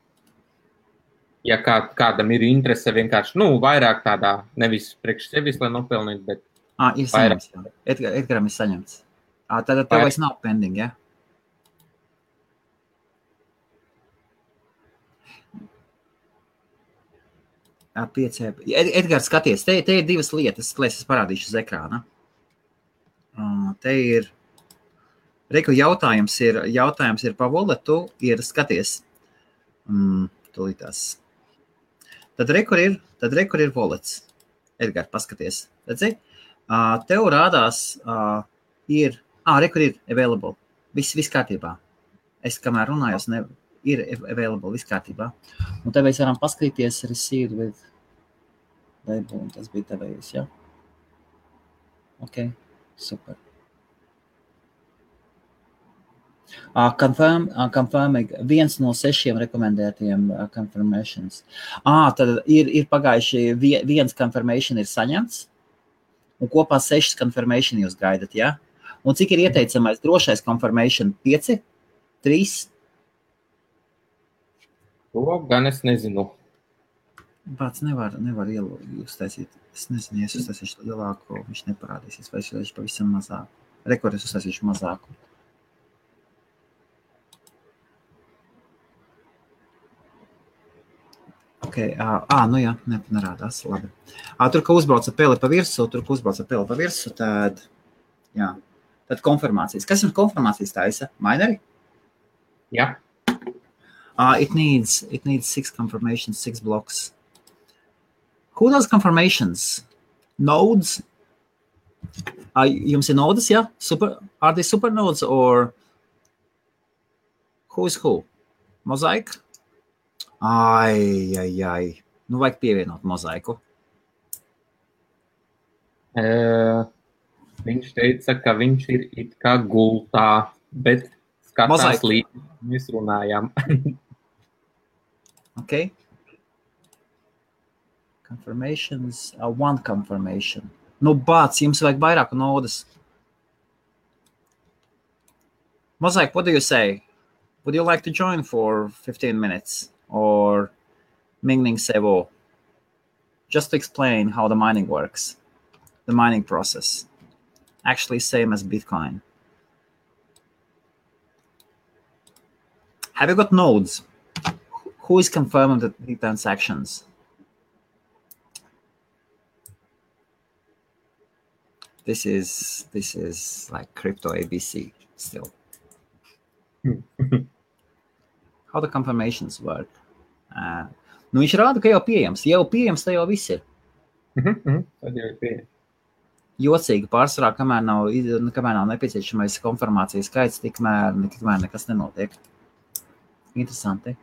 Ja kādam ir interese vienkārši, vairāk tādā, nevis priekš sevis, lai nopelnīt, bet ir saņemts, jā. Edgaram ir saņemts. Tad tev vairs nav pending, ja? Edgars, skaties, te ir divas lietas, lai es parādīšu uz ekrāna. Te ir, jautājums ir pa walletu, ir, skaties, tūlītās. Tad rekur ir wallets. Edgar, paskaties, redzi? Tev rādās rekur ir available. Viss kārtībā. Es kamēr runājos, ir available, viss kārtībā. Un te mēs varam paskatīties received with label, un tas bija tevējus, ja? Ok, super. Confirming 1 no 6 rekomendētiem confirmations. Tad ir pagājuši 1 confirmation ir saņemts, un kopā 6 confirmation jūs gaidat, ja? Un cik ir ieteicamais drošais confirmation? 5? 3? To gan es nezinu. Pats nevar uztaisīt. Es nezinu, ja es uztaisīšu lielāko, viņš neparādīsies, vai es uztaisīšu pavisam mazāku. Rekord es uztaisīšu mazāku. Okay, nu jā, nerādās, labi. Tur, ka uzbrauca peli pa virsu, tad, jā, tad konfirmācijas. Kas jums konfirmācijas taisa? Mineri? Jā. It needs 6 confirmations, 6 blocks. Who does confirmations? Nodes? Jums ir nodes, jā? Are they super nodes or who is who? Mosaic? Ai. Nu, vajag pievienot mozaiku. Viņš teica, ka viņš ir it kā gultā, bet skatās līdzi. Mēs runājām. Okay. Confirmations, 1 confirmation. Nu, bāc, jums vajag vairāku nodas. Mosaic, what do you say? Would you like to join for 15 minutes? Or Mingning Sevo, just to explain how the mining works, the mining process, actually same as Bitcoin. Have you got nodes? Who is confirming the transactions? This is like crypto ABC still. How the confirmations work. Nu, viņš rāda, ka jau pieejams. Tā jau viss ir. Tad jau ir pieejams. Jocīgi pārsvarā, kamēr nav nepieciešamais konfirmācijas skaits, tikmēr nekas nenotiek. Interesanti.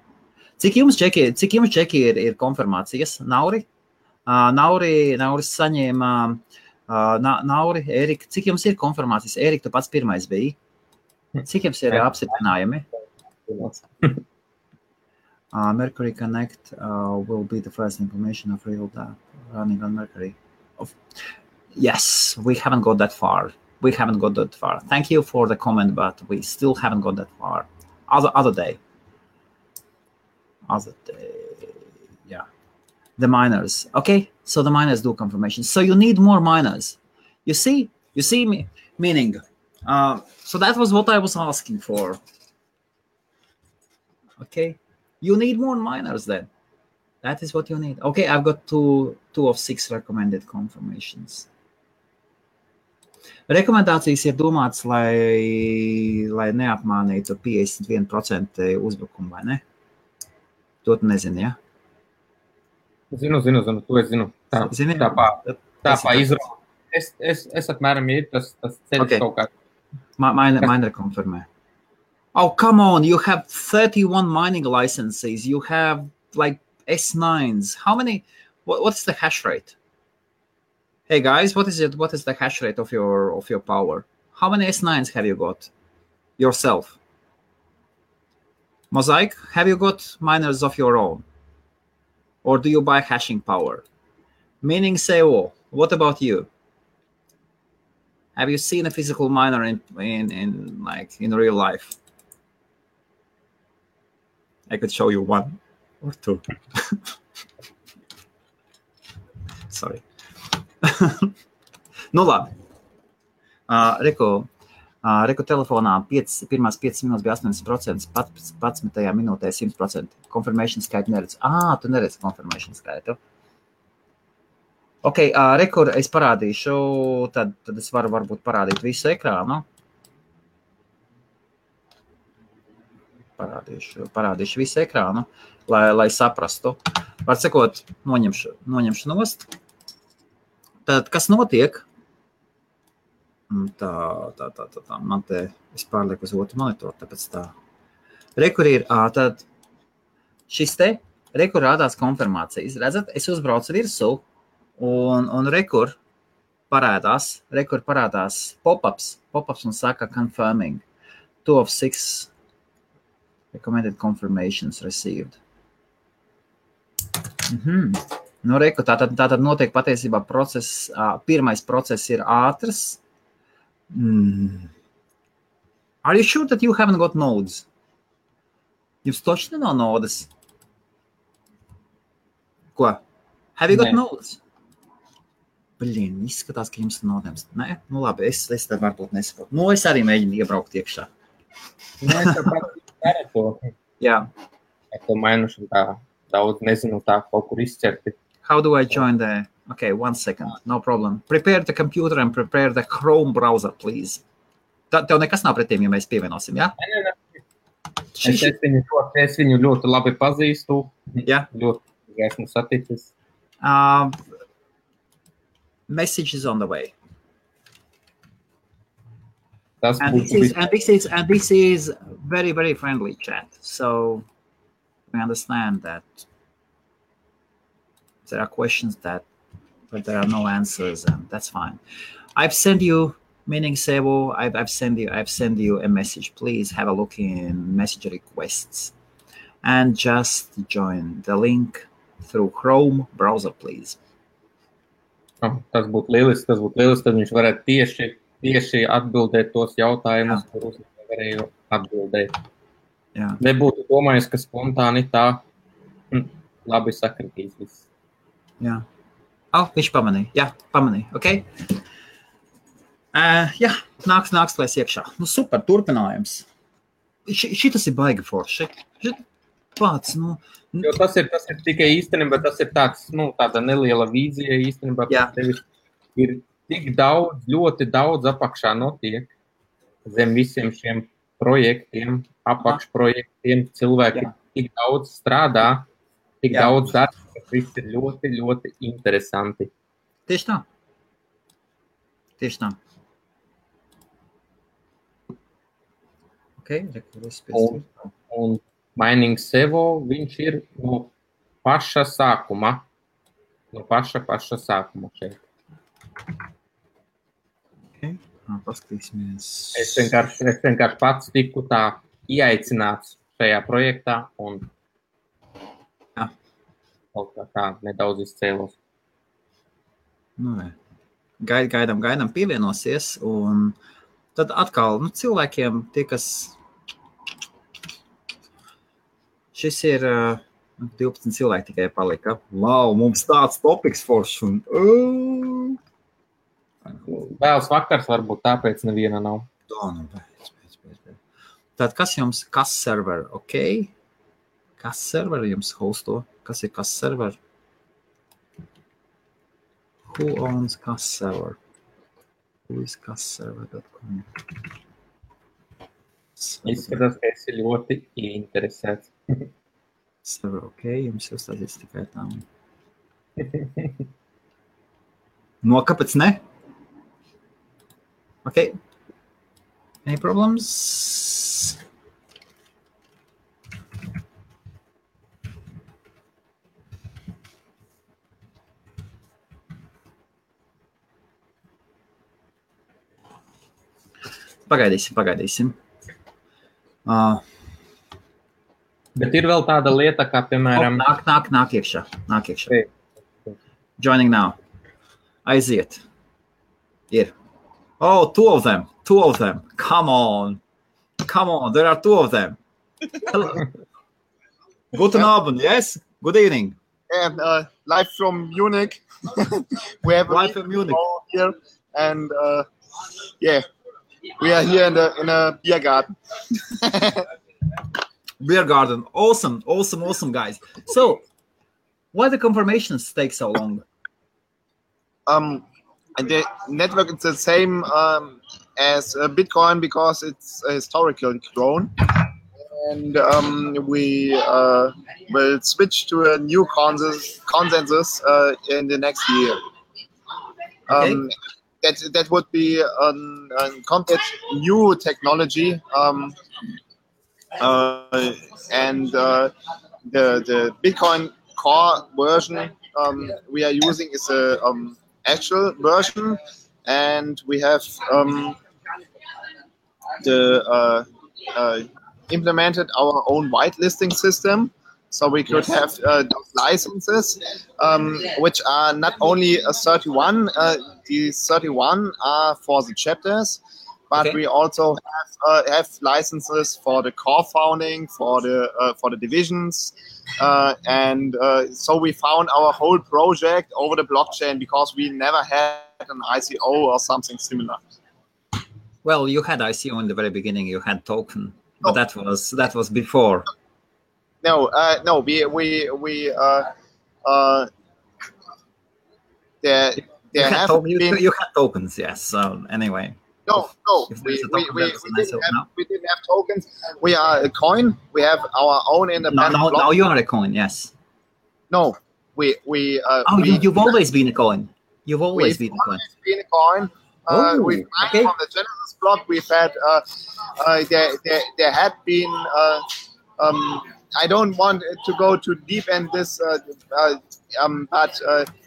Cik jums čeki ir konfirmācijas? Nauri? Nauris saņēma... Nauri, Erika, cik jums ir konfirmācijas? Erika, tu pats pirmais biji. Cik jums ir apstiprinājumi? Mercury Connect will be the first implementation of real data running on Mercury. Yes, we haven't got that far. Thank you for the comment, but we still haven't got that far. Other day, yeah. The miners. Okay, so the miners do confirmation. So you need more miners. You see me, meaning. So that was what I was asking for. Okay. You need more miners then. That is what you need. Okay, I've got two of 6 recommended confirmations. Rekomendācijas ir domāts, lai neapmānītu 51% uzbrukumu, vai ne? To tu nezini, ja? Zinu, to es zinu. Tā izrauga. Es apmēram ir tas ceļš okay. Kaut kā. Miner konfirmē. Oh, come on, you have 31 mining licenses. You have like S9s. How many? What's the hash rate? Hey guys, what is the hash rate of your power? How many S9s have you got yourself? Mosaic, have you got miners of your own? Or do you buy hashing power? Meaning Seo, what about you? Have you seen a physical miner in real life? I could show you 1 or 2. Sorry. Nu labi. Reku telefonā pirmās 5 minūtes bija 80%, 11. minūtē 100%. Confirmation skaitu neredz. Tu neredz confirmation skaitu. Ok, rekur es parādīšu, tad es varu varbūt parādīt visu ekrānu. Parādīšu visu ekrānu, lai saprastu. Var sakot, noņemšu nost. Tad, kas notiek? Tā, man te, es pārlieku uz otru monitoru, tāpēc tā. Rekur ir, tad šis te rekur rādās konfirmācijas. Redzat, es uzbraucu virsū un rekur parādās pop-ups un saka confirming. 2 of 6 recommended confirmations received. Nu, reku, tātad notiek patiesībā process, pirmais process ir ātrs. Are you sure that you haven't got nodes? Jums točni nav nodes? Ko? Have you got nodes? Blin, izskatās, ka jums ir nodēms. Nē? Nu labi, es tad varbūt nesaprotu. Nu, es arī mēģinu iebraukt iekšā. Mēs tāpat darām to. Jā. Ar to mainuši tā daudz, nezinu, tā kaut kur izķerti. How do I join the... Okay, 1 second, no problem. Prepare the computer and prepare the Chrome browser, please. Tev nekas nav pret tiem, ja mēs pievienosim, jā? Nē. Es viņu ļoti labi pazīstu. Jā. Ļoti esmu saticis. Message is on the way. Tas And this is very, very friendly chat. So we understand that there are questions but there are no answers, and that's fine. I've sent you, meaning Sebo, I've sent you a message. Please have a look in message requests and just join the link through Chrome browser, please. Tas būtu lieliski, tad viņš varētu tieši atbildēt tos jautājumus, kurus nevarēju atbildēt. Jā. Nebūtu domājis, ka spontāni tā labi sakritīs viss. Jā. Viņš pamanīja. Jā, pamanīja. Ok. Jā, nāks lēs iekšā. Nu, super, turpinājums. Šitas ir baigi forši. Pats, nu... Jo tas ir tikai īstenībā, tas ir tāda neliela vīzija īstenībā. Tevis ir tik daudz, ļoti daudz apakšā notiek zem visiem šiem projektiem, apakšprojektiem, cilvēki tik daudz strādā, tik daudz darba, kas viss ir ļoti, ļoti interesanti. Tieši tā. Ok, un Mining Sevo, viņš ir no paša sākuma. No paša sākuma šeit. Okay. Paskatīsimies. Es vienkārši pats tiku tā ieaicināts šajā projektā un kaut kā tā nedaudz izcēlos. Nu, gaidām pievienosies, un tad atkal, cilvēkiem tie, kas šis ir 12 cilvēki tikai palika. Wow, mums tāds topiks foršs un... Vēls vakars varbūt tāpēc neviena nav. Pēc. Tad kas jums, kas server, ok? Kas server jums hosto? Kas ir kas server? Who owns kas server? Who is kasserver.com? Izskatās, ka esi ļoti interesēts. Server, ok, jums jau stāstīs tikai tā. No, kāpēc ne? Ok. Any problems? Pagaidīsim. Bet ir vēl tāda lieta, kā, piemēram... Nāk iekšā. Joining now. Aiziet. Ir. Oh, two of them. Come on, there are 2 of them. Guten Abend, yes? Good evening. And live from Munich. We have live from Munich here, and we are here in a beer garden. Beer garden, awesome, guys. So, why the confirmations take so long? And the network is the same as Bitcoin because it's historically grown, and we will switch to a new consensus in the next year. Okay. That would be a complete new technology, and the Bitcoin Core version we are using is a actual version, and we have implemented our own whitelisting system. So we could have those licenses, which are not only 31. These 31 are for the chapters, but we also have licenses for the core founding, for the divisions, and so we found our whole project over the blockchain because we never had an ICO or something similar. Well, you had ICO in the very beginning. You had token, but that was before. No, you had tokens, yes. So anyway. No, we didn't have tokens. We are a coin. We have our own independent. Now you are a coin, yes. No, you've always been a coin. You've always been a coin. Been a coin. We from the Genesis block. We've had there had been. I don't want to go too deep in this, but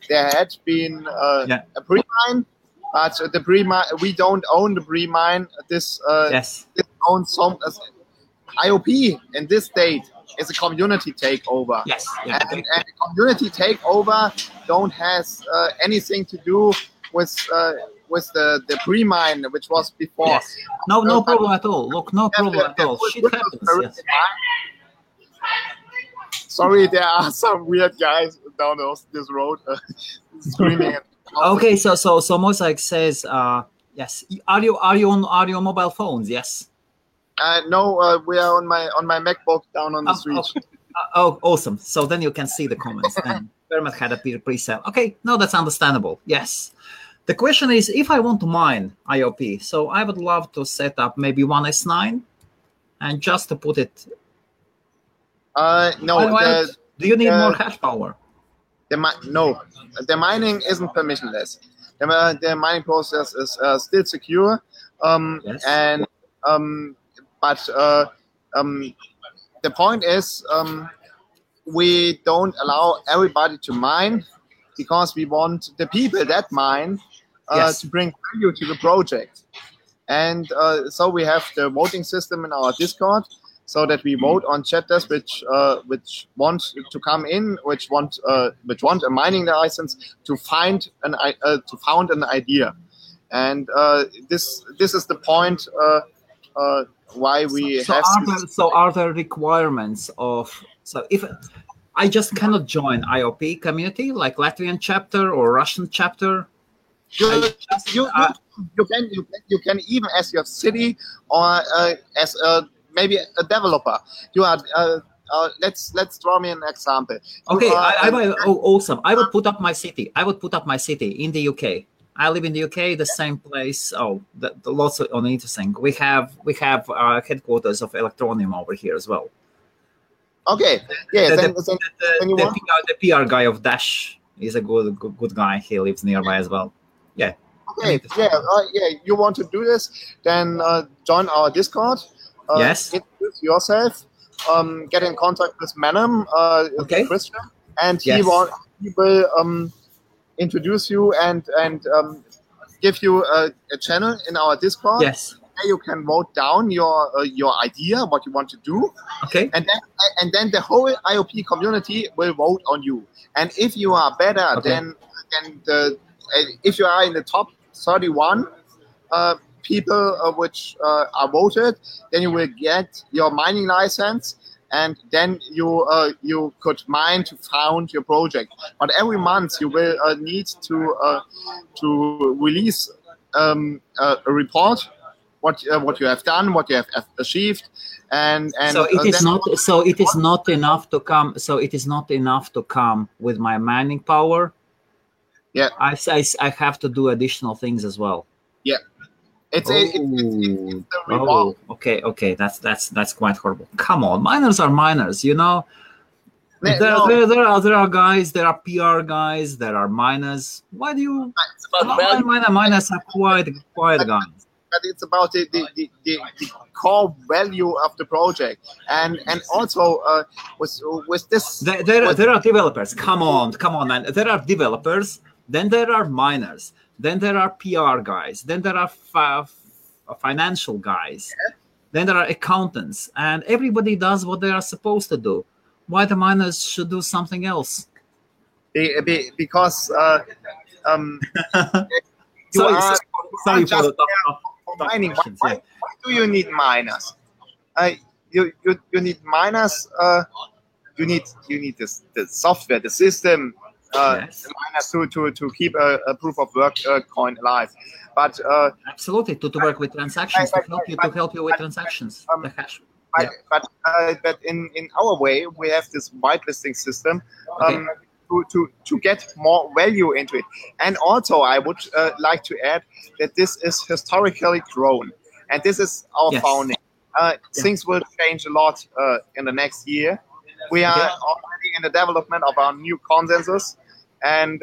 there had been a pre-mine, but the pre-mine, we don't own the pre-mine. This owns some IOP in this state is a community takeover. Yes, and the community takeover don't has anything to do with the pre-mine, which was before. Yes. No problem at all. Look, no problem at all. Shit happens. Yes. Sorry, there are some weird guys down this road screaming. Okay, so Mosaic says, yes. Are you on mobile phones? Yes. No, we are on my MacBook down on the street. Oh, awesome. So then you can see the comments. And Vermet had a pre-sale. Okay, no, that's understandable. Yes. The question is, if I want to mine IOP, so I would love to set up maybe one S9 and just to put it. No. Do you need more hash power? No, the mining isn't permissionless. The mining process is still secure, and but the point is we don't allow everybody to mine because we want the people that mine to bring value to the project, and so we have the voting system in our Discord. So that we vote on chapters which want to come in, which want a mining license to found an idea, and this is the point why we have. So are there requirements of? So if I just cannot join IOP community like Latvian chapter or Russian chapter, you can even as your city or as a maybe a developer. You are. Let's draw me an example. Okay, awesome. I would put up my city. In the UK. I live in the UK, the same place. Lots of interesting. We have headquarters of Electroneum over here as well. Okay. Yeah. The PR guy of Dash is a good guy. He lives nearby as well. Yeah. Okay. You want to do this? Then join our Discord. Yes. Introduce yourself. Get in contact with Manem, Christian, and he will introduce you and give you a channel in our Discord. Yes. There you can vote down your idea, what you want to do. Okay. And then the whole IOP community will vote on you. And if you are better than if you are in the top 31 people which are voted, then you will get your mining license, and then you could mine to found your project. But every month you will need to release a report, what you have done, what you have achieved, and so it is not enough to come. So it is not enough to come with my mining power. Yeah, I have to do additional things as well. Yeah. It's the reward. Okay, that's quite horrible. Come on, miners are miners, you know. There are guys, there are PR guys, there are miners. Why do you? Miners are quiet guys. it's about the core value of the project, and also with this. There are developers. Come on, man. There are developers. Then there are miners. Then there are PR guys. Then there are financial guys. Yeah. Then there are accountants, and everybody does what they are supposed to do. Why the miners should do something else? Because sorry for the mining. Why do you need miners? You need miners. You need the software, the system, yes. the miners to keep a proof of work coin alive. But absolutely to work with transactions, to help you with transactions. The hash. But in our way, we have this whitelisting system. Okay. To get more value into it. And also, I would like to add that this is historically grown. And this is our founding. Things will change a lot in the next year. We are already in the development of our new consensus. And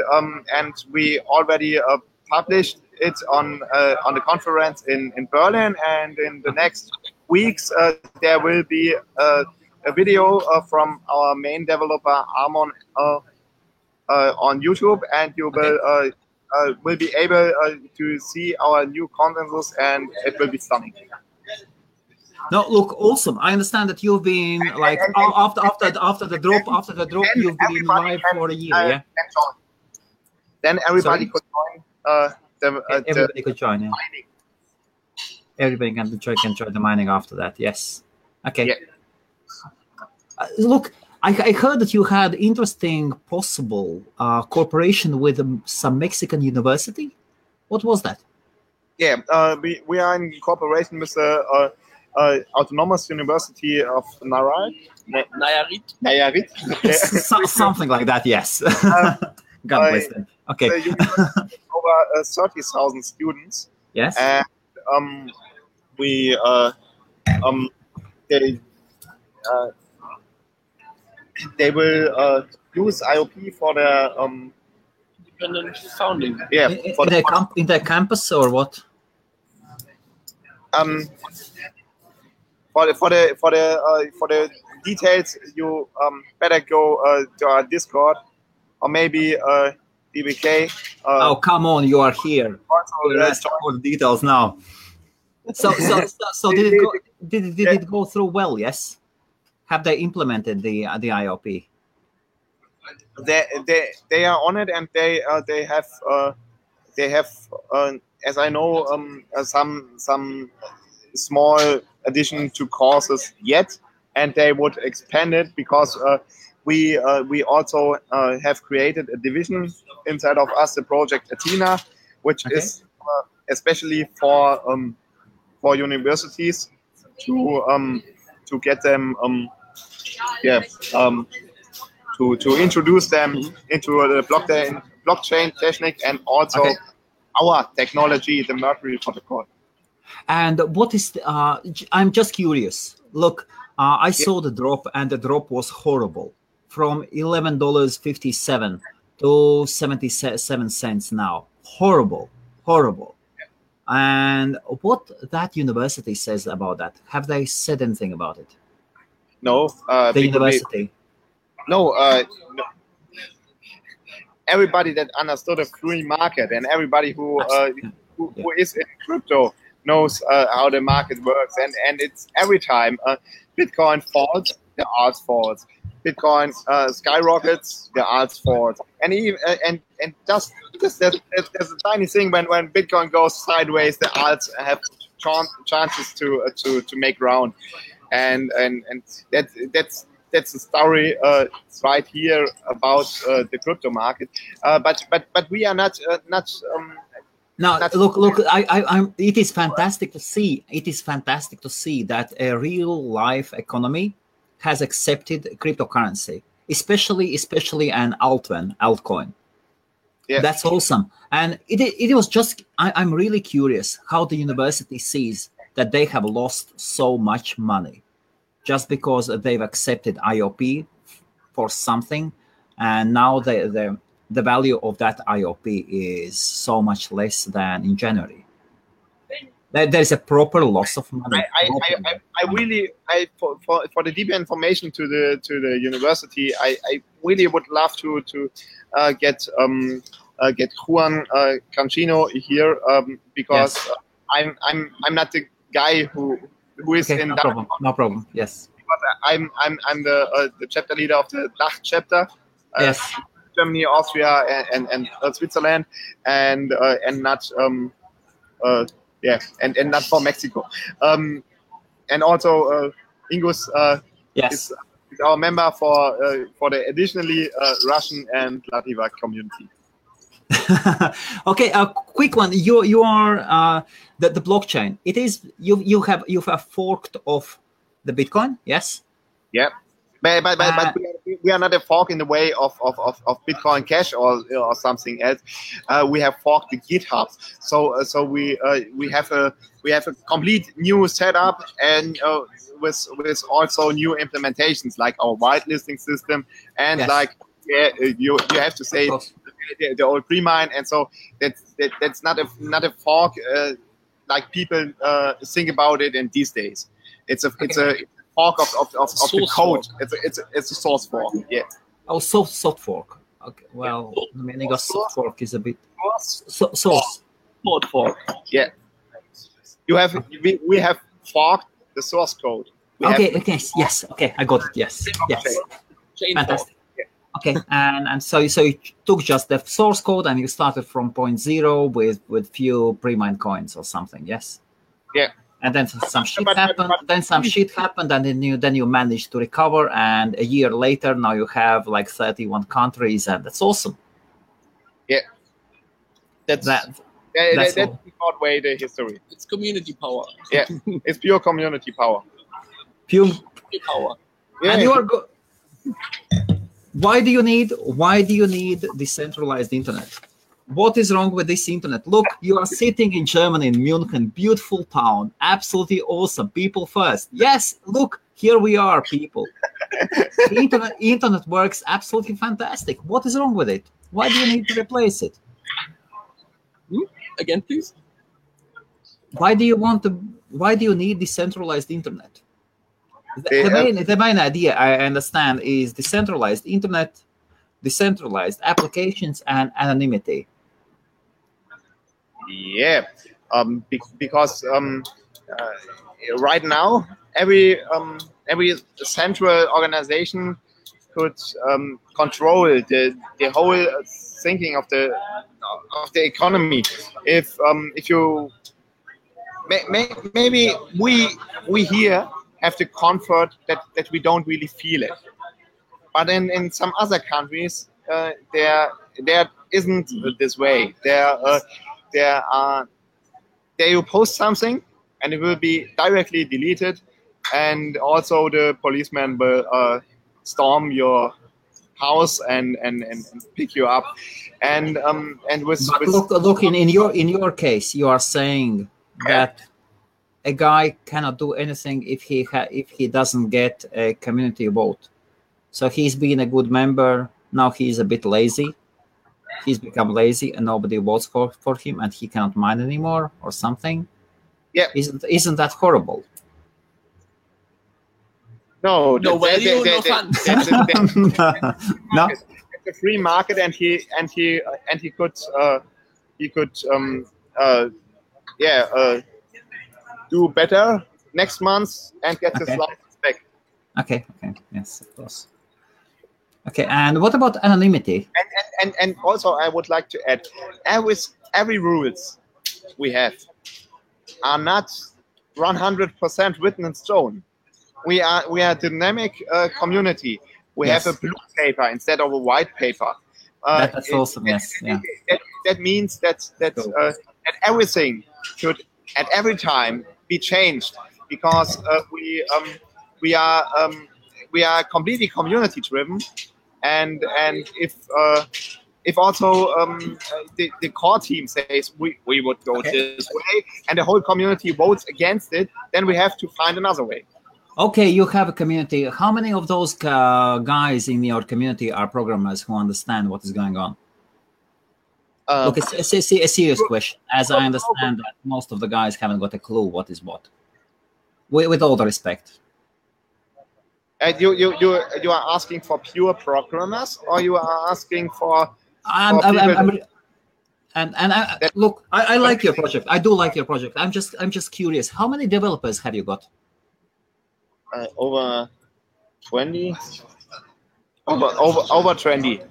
we already published it on the conference in Berlin. And in the next weeks, there will be a video from our main developer, Armon, on YouTube, and you will be able to see our new consensus, and it will be stunning. No, look, awesome. I understand that you've been like after the drop, you've been live for a year, yeah. Then everybody could join. Everybody could join, yeah. Mining. Everybody can join the mining after that. Yes. Okay. Yeah. Look. I heard that you had interesting possible cooperation with some Mexican university. What was that? Yeah, we are in cooperation with the Autonomous University of Nayarit. Something like that, yes. God bless them. Okay. Over 30,000 students. Yes. And they will use IOP for their independent founding. Yeah, in their campus or what? For the details, you better go to our Discord or maybe DBK. Oh, come on, you are here. Let's all the details now. So did it go through well? Yes. Have they implemented the IOP? They are on it, and they have as I know some small addition to courses yet, and they would expand it because we also have created a division inside of us, the project Athena, which is especially for universities to get them to introduce them into the blockchain technique, and also our technology, the Mercury protocol. And what is I'm just curious. Look, I saw the drop, and the drop was horrible, from $11.57 to 77 cents now. Horrible. And what that university says about that? Have they said anything about it? No. The university? No. Everybody that understood a free market and everybody who is in crypto knows how the market works. And it's every time Bitcoin falls, the alt falls. Bitcoin skyrockets, the alts falls. And even and just there's a tiny thing when Bitcoin goes sideways, the alts have chances to make ground. And that's the story right here about the crypto market. But we are not. No, look. It is fantastic to see. It is fantastic to see that a real life economy has accepted cryptocurrency, especially an altcoin. Yeah. That's awesome. And it was just. I'm really curious how the university sees that they have lost so much money just because they've accepted IOP for something, and now the value of that IOP is so much less than in January. There is a proper loss of money. I really for the deeper information to the university, I really would love to get Juan Cancino here because I'm not the guy who is in no problem. Yes. I'm the chapter leader of the DACH chapter. Yes. Germany, Austria, and Switzerland, and not and not for Mexico. And also Ingus is our member for the additionally Russian and Lativa community. Okay, a quick one. You are the blockchain. It is you have forked off the Bitcoin. Yes. Yeah. But we are not a fork in the way of Bitcoin Cash or something else. We have forked the GitHub. So we have a complete new setup and with also new implementations like our whitelisting system and you have to say the old pre-mine, and so that's not a fork like people think about it in these days. It's a fork of the code. It's a source fork. Yeah. Oh, soft fork. Okay. Well, the meaning of soft fork is a bit source fork. Yeah. We have forked the source code. Okay. Yes. Okay. I got it. Yes. Fantastic. Yeah. Okay. And so you took just the source code and you started from 0.0 with few pre-mined coins or something. Yes. Yeah. And then some shit happened. And then you managed to recover. And a year later, now you have like 31 countries, and that's awesome. Yeah, that's the short way the history. It's community power. Yeah, it's pure community power. Pure power. Yeah. And you are good. Why do you need decentralized internet? What is wrong with this internet? Look, you are sitting in Germany, in Munich, beautiful town, absolutely awesome, people first. Yes, look, here we are, people. Internet works absolutely fantastic. What is wrong with it? Why do you need to replace it? Again, please. Why do you need decentralized internet? The main idea, I understand, is decentralized internet, decentralized applications, and anonymity. Yeah, because right now every central organization could control the whole thinking of the economy. If you maybe we here have the comfort that we don't really feel it, but in some other countries there isn't this way. There you post something and it will be directly deleted, and also the policeman will storm your house and pick you up. And look in your case, you are saying that a guy cannot do anything if he doesn't get a community vote. So he's been a good member. Now he's a bit lazy. He's become lazy and nobody votes for him, and he cannot mine anymore or something. Yeah, isn't that horrible? No value, no fun. No, it's a free market, and he could do better next month and get his license back. Okay, yes, of course. Okay, and what about anonymity? And also, I would like to add, every rules we have are not 100% written in stone. We are a dynamic community. We have a blue paper instead of a white paper. That's awesome. Yes, yeah. That means that everything should at every time be changed, because we are completely community driven, and if also the core team says we would go this way and the whole community votes against it, then we have to find another way. Okay, you have a community. How many of those guys in your community are programmers who understand what is going on? Look, it's a serious question. As I understand that most of the guys haven't got a clue what is what. With all the respect. And you are asking for pure programmers, or you are asking for? Look, I like your project. I do like your project. I'm just curious. How many developers have you got? Over 20. Over 20.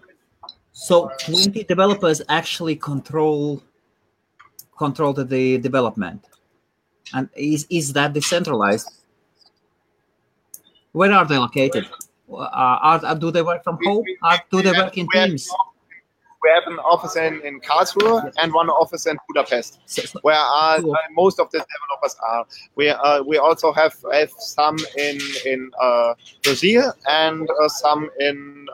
So 20 developers actually control the development, and is that decentralized? Where are they located? Do they work from home? Do they work in teams? We have an office in Karlsruhe and one office in Budapest, where most of the developers are. We also have some in Brazil and some in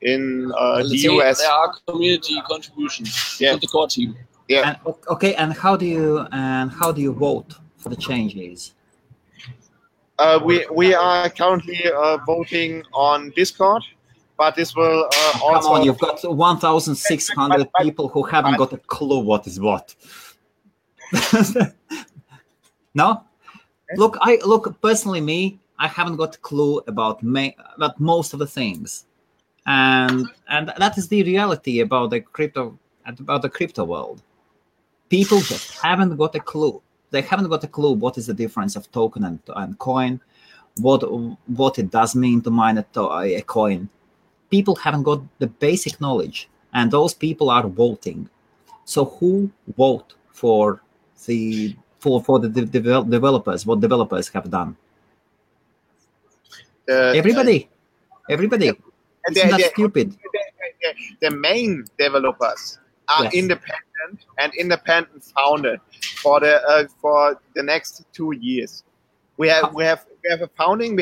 the US. There are community contributions to the core team. Yeah. And how do you vote for the changes? We are currently voting on Discord. But this will also... Come on, you've got 1,600 people who haven't got a clue what is what. No? Look, personally, I haven't got a clue about most of the things. And that is the reality about the crypto world. People just haven't got a clue. They haven't got a clue what is the difference of token and coin, what it does mean to mine a coin. People haven't got the basic knowledge, and those people are voting. So who vote for the developers? What developers have done? Everybody. It's not stupid. The main developers are independent founded for the next 2 years. We have a founding.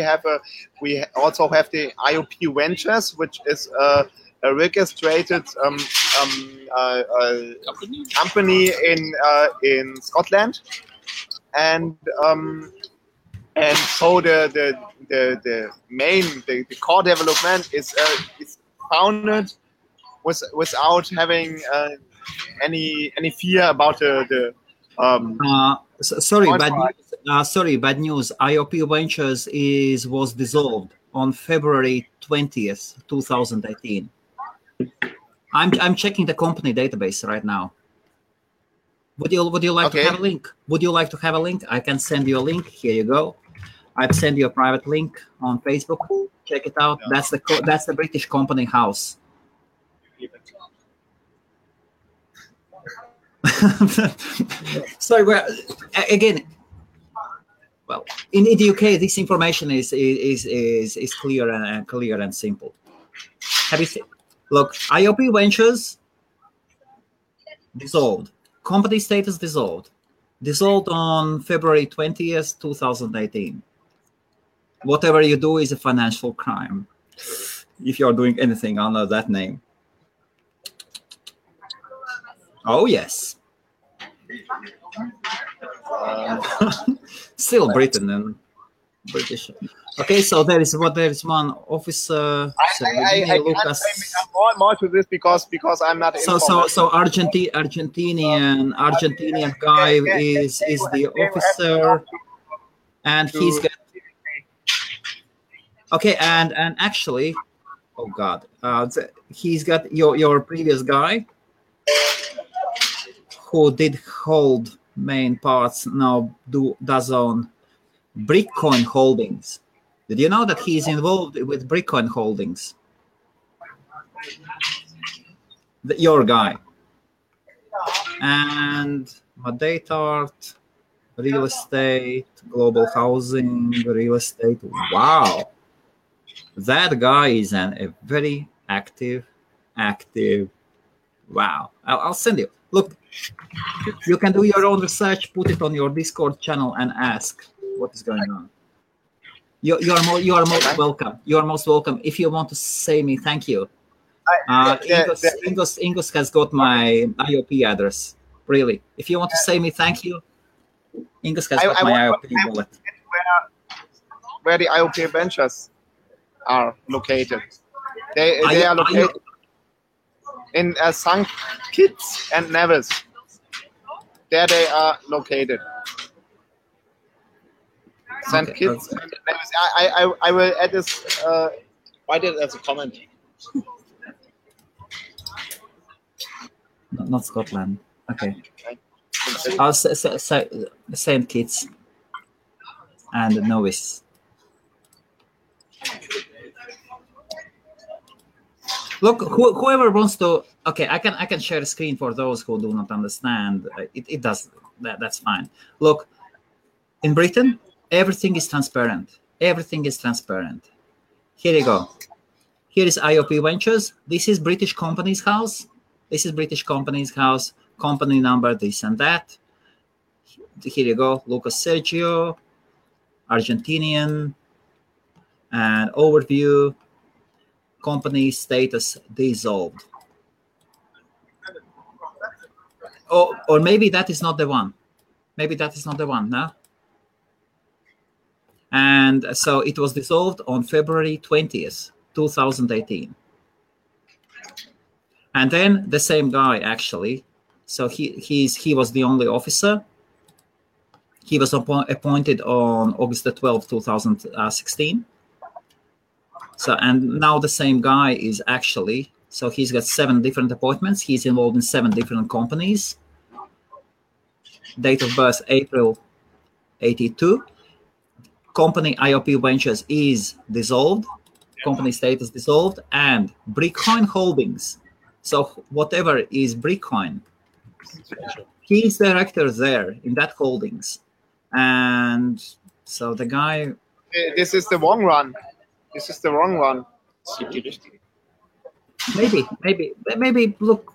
We also have the IOP Ventures, which is a registered company in Scotland, and so the core development is founded without having any fear about the. Sorry, bad news. IOP Ventures was dissolved on February 20th, 2018. I'm checking the company database right now. Would you like to have a link? Would you like to have a link? I can send you a link. Here you go. I've sent you a private link on Facebook. Check it out. That's the British company house. Sorry, again. Well, in the UK, this information is clear and simple. Have you seen? Look, IOP Ventures dissolved. Company status dissolved. Dissolved on February 20th, 2018. Whatever you do is a financial crime if you're doing anything under that name. Oh, yes. Still Britain and British. Okay, so there is one officer. I Lucas. more to this because I'm not. So Argentinian guy is the officer, and he's got. Okay, and actually, oh God, he's got your previous guy who did hold main parts now does own Bitcoin Holdings. Did you know that he is involved with Bitcoin Holdings? Your guy. And Madetart, real estate, global housing, real estate. Wow. That guy is a very active. Wow. I'll send you. Look, you can do your own research, put it on your Discord channel and ask what is going on. You are most welcome. You are most welcome. If you want to say me thank you. Ingos has got my IOP address. Really. If you want to say me thank you, Ingos has got my IOP wallet. Where the IOP Ventures are located. They are located. in St. Kitts and Nevis. There they are located. St. Kitts and Nevis. I will add this. Write it as a comment. Not Scotland. Okay. St. Kitts and Nevis. Look, whoever wants to. Okay, I can share a screen for those who do not understand. It does that's fine. Look, in Britain, everything is transparent. Everything is transparent. Here you go. Here is IOP Ventures. This is British Companies House. This is British Companies House. Company number, this and that. Here you go. Lucas Sergio, Argentinian, and overview. Company status dissolved. Oh, or maybe that is not the one. Maybe that is not the one, no? And so it was dissolved on February 20th, 2018. And then the same guy, actually, so he was the only officer. He was appointed on August the 12th, 2016. So, and now the same guy is actually, so he's got 7 different appointments. He's involved in 7 different companies. Date of birth, April 82. Company IOP Ventures is dissolved. Company status dissolved. And Brickcoin Holdings. So whatever is Brickcoin, he's director there in that holdings. And so the guy... This is the wrong one. This is the wrong one. Maybe look.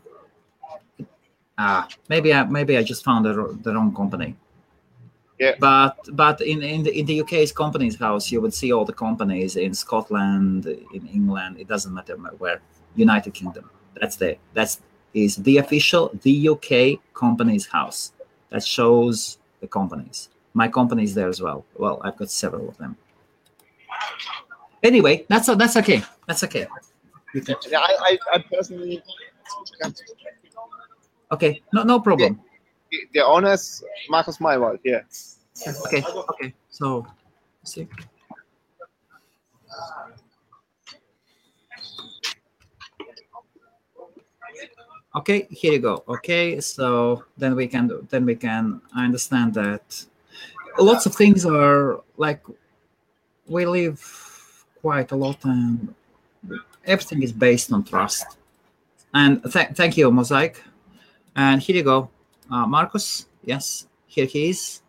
Maybe I just found the wrong company. Yeah. But in the UK's Companies House, you would see all the companies in Scotland, in England. It doesn't matter where. United Kingdom. That is the official UK Companies House. That shows the companies. My company is there as well. Well, I've got several of them. Anyway, that's okay. That's okay. Yeah, I personally. Okay, no problem. The owner is Markus Maywald. Yeah. Okay. So, see. Okay, here you go. Okay, so then we can. I understand that lots of things are like we live quite a lot, and everything is based on trust. And thank you, Mosaic. And here you go, Marcus. Yes, here he is.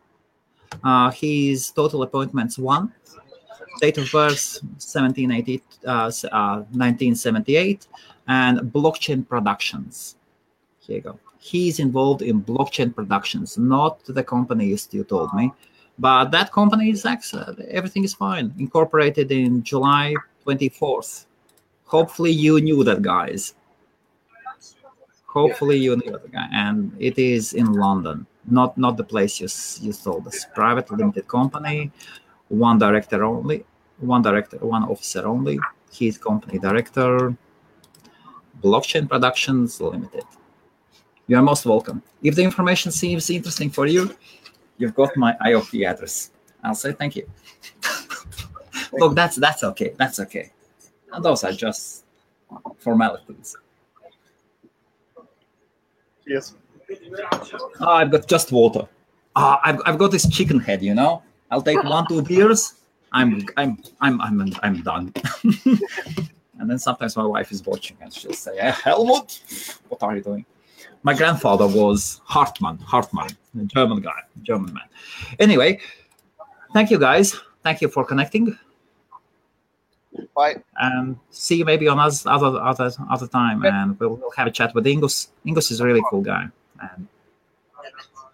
His total appointments 1. Date of birth 1978, and blockchain productions. Here you go. He's involved in blockchain productions, not the company you told me. But that company is excellent. Everything is fine. Incorporated in July 24th. Hopefully you knew that, guys. Hopefully you knew that guy. And it is in London, not the place you told us. Private limited company, 1 director only, 1 officer only. He's company director. Blockchain Productions Limited. You are most welcome. If the information seems interesting for you, you've got my IOP address. I'll say thank you. Look, that's okay. That's okay. And those are just formalities. Yes. I've got just water. I've got this chicken head. I'll take 1-2 beers. I'm done. And then sometimes my wife is watching and she'll say, Helmut, what are you doing? My grandfather was Hartmann, a German man. Anyway, thank you guys. Thank you for connecting. Bye. And see you maybe on other time, and we'll have a chat with Ingus. Ingus is a really cool guy. And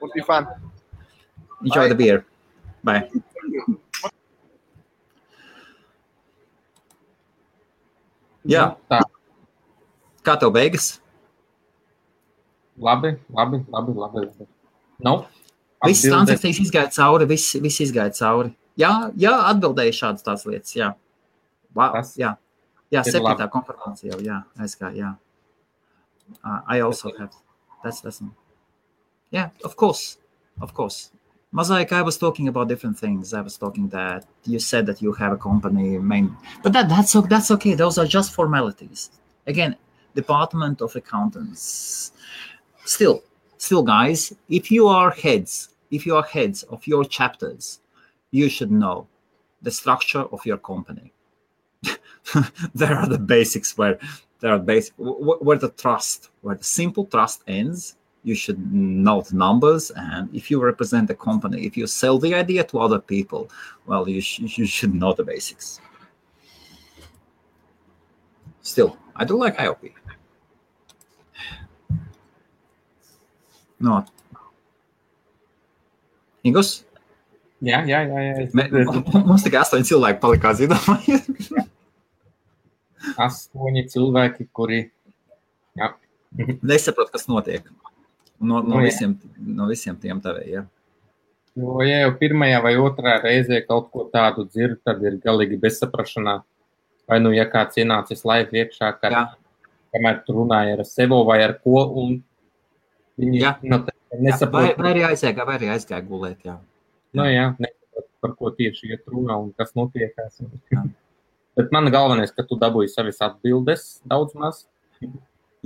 would be fun. Enjoy Bye. The beer. Bye. Jā. Kā tev beigas? Labi. No? Viss transakcijas izgāja cauri, viss izgāja cauri. Jā, atbildēju šādas tās lietas, jā. Wow, jā, 7. konfirmācija jau, jā, aizgāja, jā. I also have. That's yeah, of course. Mosaic, I was talking about different things. I was talking that you said that you have a company, but that's okay. Those are just formalities. Again, Department of Accountants. Still, guys, if you are heads of your chapters, you should know the structure of your company. There are the basics where the simple trust ends. You should know the numbers, and if you represent the company, if you sell the idea to other people, well, you should know the basics. Still, I do like IOP. No. Ingos? Jā. Mums tikai 8 cilvēki palika zināmā. 8 cilvēki, kuri nesaprot, kas notiek. No visiem tiem tavējiem. Jo, ja jau pirmajā vai otrā reizē kaut ko tādu dzird, tad ir galīgi bezsaprašanā. Vai ja kāds ienācis live iekšā, kamēr tu runāji ar sevo vai ar ko, un viņi nesaprot. Vai arī aizgāja gulēt, jā. Nesaprot, par ko tieši iet runā un kas notiekās. Bet man galvenais, ka tu dabūji savas atbildes daudz maz.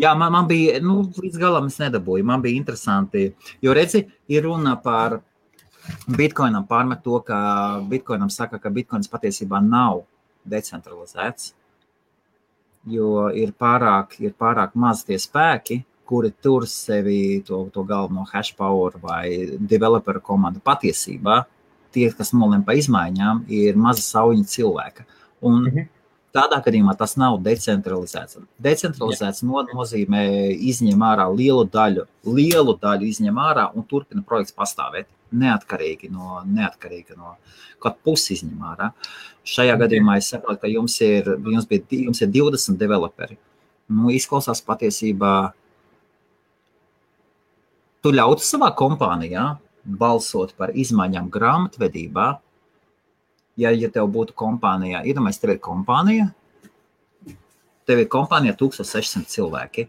Jā, man bija, līdz galam es nedabūju, man bija interesanti, jo redzi, ir runa par Bitcoinam pārmet to, ka Bitcoinam saka, ka Bitcoins patiesībā nav decentralizēts, jo ir pārāk maz tie spēki, kuri tur sevi to galveno hash power vai developer komandu patiesībā, tie, kas nolem pa izmaiņām, ir maza sauņa cilvēka. Un tādā gadījumā tas nav decentralizēts. Decentralizēts nozīmē izņem ārā lielu daļu izņem ārā un turpina projekts pastāvēt neatkarīgi no kaut pusi izņem ārā. Šajā gadījumā es saprotu, ka jums ir 20 developeri. Izklausās patiesībā, tu ļautu savā kompānijā balsot par izmaiņām grāmatvedībā. Ja tev būtu kompānijā, iedomājies, tev ir kompānija 1600 cilvēki.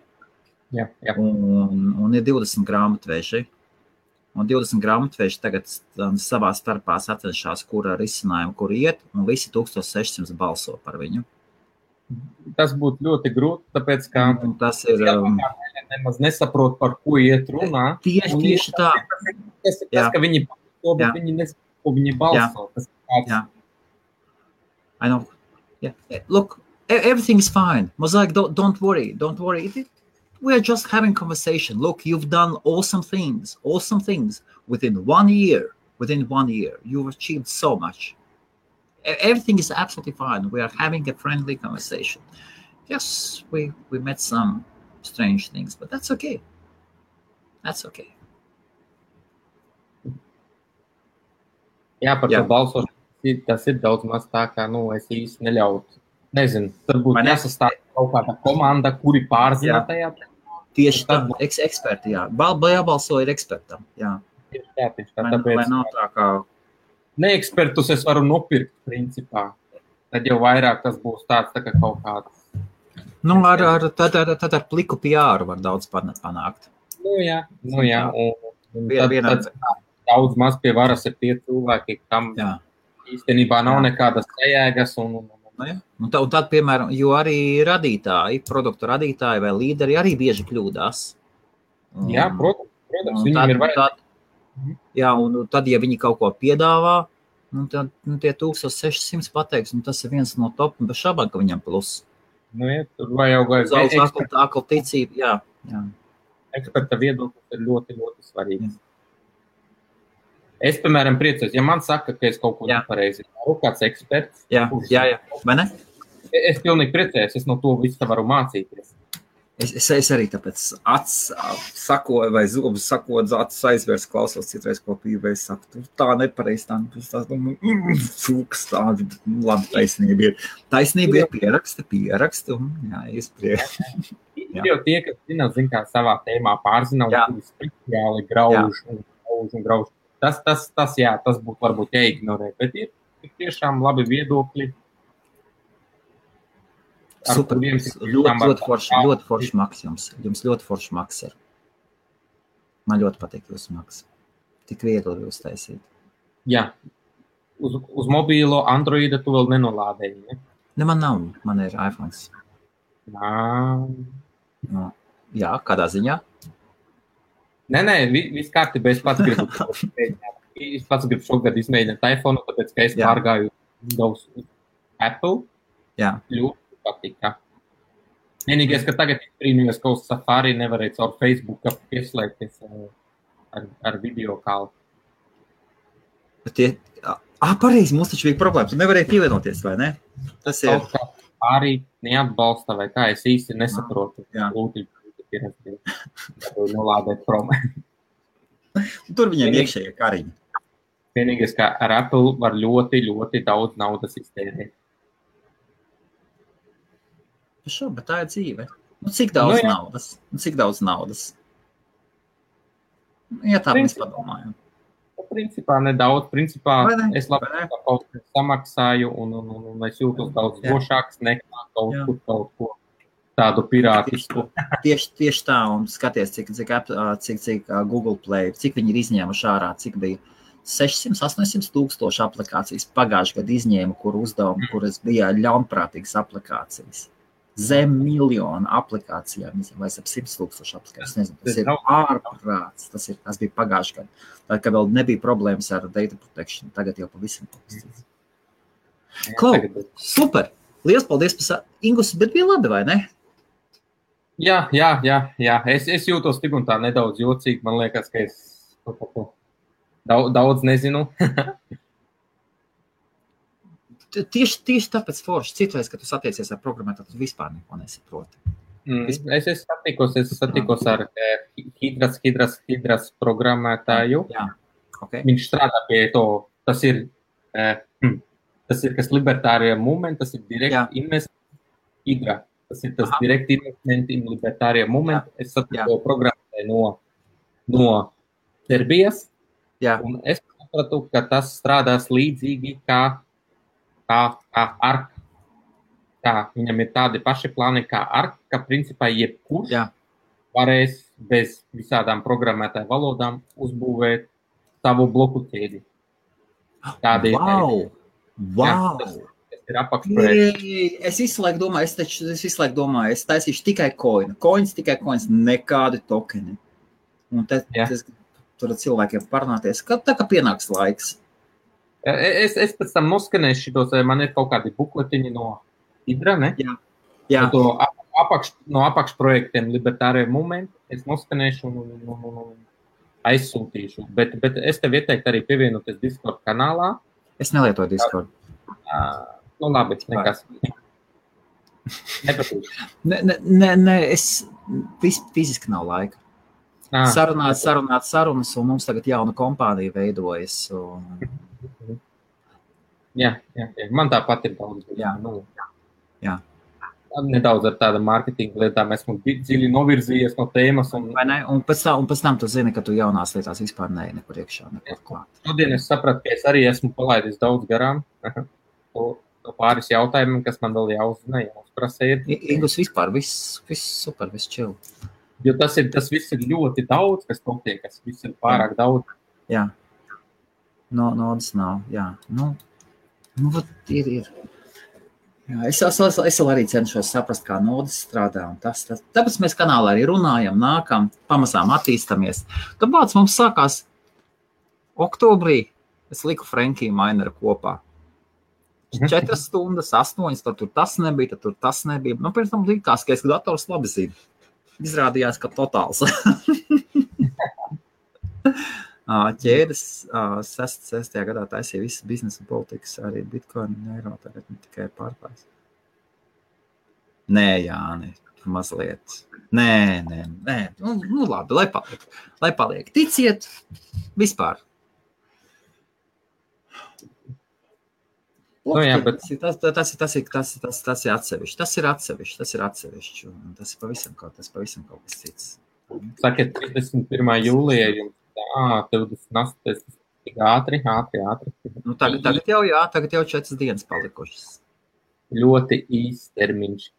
Jā. Un ir 20 grāmatveži. Un 20 grāmatveži tagad savā starpā sacenšās, kura risinājumu, kur iet, un visi 1600 balso par viņu. Tas būtu ļoti grūti, tāpēc, ka tas ir nemaz nesaprot, par ko iet runā. Tieši tā. Tas, ka viņi balso, bet viņi nesaprot, ko viņi balso. Yeah. I know. Yeah. Look, everything is fine. Mosaic, don't worry. We are just having conversation. Look, you've done awesome things. Within 1 year, you've achieved so much. Everything is absolutely fine. We are having a friendly conversation. Yes, we met some strange things, but that's okay. Jā, par to balsošanu, tas ir daudz maz tā, kā, es īsti neļautu. Nezinu, tad būtu jāsastāv kaut kāda komanda, kuri pārzina tajā. Tieši tā, eksperti, jā. Jābalso ir ekspertam, jā. Tieši tā, tāpēc. Lai nav tā kā... Neekspertus es varu nopirkt, principā. Tad jau vairāk tas būs tāds tā kā kaut kāds. Tad ar pliku PR var daudz panākt. Jā. Un tad daudz maz pie varas ir tie cilvēki, kam īstenībā nav nekādas sajēgas. Un tad, piemēram, jo arī produktu radītāji vai līderi arī bieži kļūdās. Jā, protams, viņiem ir vajag. Jā, un tad, ja viņi kaut ko piedāvā, tad tie 1600 pateiks, un tas ir viens no top, un bez šābām, ka viņam plus. Tur vajag akla ticība, jā. Eksperta viedoklis ir ļoti, ļoti svarīgs. Es, piemēram, priecājos, ja man saka, ka es kaut ko nepareizi daru, kāds eksperts. Jā, vai ne? Es pilnīgi priecājos, es no to visu varu mācīties. Es arī tāpēc sakoju vai zobus sakot, acis aizvērs, klausos citreiz ko pīvē, es saku, tā nepareiz, tā cūks, tāda, labi, taisnība ir. Taisnība ir pieraksti, un iespriek. Ir jau tie, kas zina kā savā tēmā pārzina, un kuri speciāli grauž un grauž. Tas būtu varbūt jāignorē, bet ir tiešām labi viedokļi. Super, ļoti forši maks jums. Jums ļoti forši maks ir. Man ļoti patīk jūsu maks. Tik viegli jūs taisīt. Jā. Uz mobīlo Androida tu vēl nenolādēji, ne? Ne, man nav. Man ir iPhones. No. Jā, kādā ziņā? Nē, viss kārtībā. Es pats gribu šogad izmēģināt iPhone, tāpēc, ka es pārgāju Windows Apple. Jā. Ļoti patika. Vienīgais, ka tagad brīnījos, ka uz Safari nevarēja caur Facebooku pieslēgties ar video kālu. Pareizi, mums taču bija problēma. Tu nevarēji pievienoties, vai ne? Tas ir. Arī neatbalsta, vai kā es īsti nesaprotu. Lūdzu, nolādēt prom. Tur viņiem iekšējie kariņi. Vienīgais, ka ar Apple var ļoti, ļoti daudz naudas iztērēt. Bet tā ir dzīve. Cik daudz naudas? Cik daudz naudas? Ja tā mēs padomājam. Principā nedaudz. Principā es labi kaut ko samaksāju un es jūtos daudz drošāks nekā kaut ko tādu pirātisku. Tieši tā, un skaties, cik Google Play, cik viņi ir izņēmuši ārā, cik bija 600-800 tūkstoši aplikācijas pagājušajā gadā izņēma, kur uzdevumi, kuras bija ļaunprātīgas aplikācijas. Zem miljonu aplikācijām, vai ap 100 tūkstoši aplikācijas, nezinu, tas ir ārprāts, tas bija pagājušajā gadā. Tā kā vēl nebija problēmas ar data protection, tagad jau pavisam pavisam. Super! Liels paldies par Ingus, bet bija labi, vai ne? Jā. Es jūtos tik un tā nedaudz jocīgi, man liekas, ka es daudz nezinu. Tieši tāpēc forši, citreiz, ka tu satiecies ar programmētāju, tu vispār neko nesaproti. Es satikos ar Hidras programmētāju. Jā. Okay. Viņš strādā pie to, tas ir kas libertārie movement, tas ir direct investment Hidra. Tas ir tas direct investment in libertārie movement. Es satiku programmētāju no Serbijas. Un es sapratu, ka tas strādās līdzīgi kā ARK. Viņam ir tādi paši plāni kā ARK, ka principā jebkurš varēs bez visādām programmētāju valodām uzbūvēt savu bloku ķēdi. Wow! Tas ir apakšprojekts. Es visu laiku domāju, es taisīšu tikai coins, nekādi tokeni. Un tur cilvēkiem parunāties, tā kā pienāks laiks. Es pēc tam noskanēšu šitos, man ir kaut kādi bukletiņi no Hidra, ne? Jā. No apakšprojektiem Libertārie Movement es noskanēšu un aizsūtīšu. Bet es tev ieteiktu arī pievienoties Discord kanālā. Es nelietoju Discord. Labi, nekas. Nepatīk. Nē, es fiziski nav laika. Sarunāt sarunas, un mums tagad jauna kompānija veidojas. Jā. Man tāpat ir daudz. Jā. Nedaudz ar tāda mārketinga lietām esmu dziļi novirzījies no tēmas. Un pēc tam tu zini, ka tu jaunās lietās vispār nekur iekšā, nekur klāt. Šodien es sapratu, ka es arī esmu palaidis daudz garām. No pāris jautājumiem, kas man vēl jāuzprasa ir. Ingus vispār, viss super, viss chill. Jo tas viss ir ļoti daudz, kas notiek, kas viss ir pārāk daudz. Jā. Naudas nav, jā. Ir. Jā, es arī cenšos saprast, kā naudas strādā. Tāpēc mēs kanālā arī runājam, nākam, pamazām attīstamies. Tāpēc mums sākās oktobrī, es liku Frankiju Maineru kopā. 4 stundas, 8, tad tur tas nebija, tad tur tas nebija. Pēc tam likās, ka es dators labi zinu. Izrādījās, ka totāls. Ķēdes 6. gadā taisīja visas biznesa politikas, arī Bitcoin un eiro, tagad ne tikai pārklājas. Nē, Jāni, mazliet. Nē. Nu labi, lai paliek. Ticiet, vispār. Tas ir atsevišķi. Tas ir atsevišķi. Tas ir pavisam kaut kas cits. Sakiet, 31. jūlijā jums 28. Tik ātri. Nu, tagad jau 4 dienas palikušas. Ļoti īsts termiņš.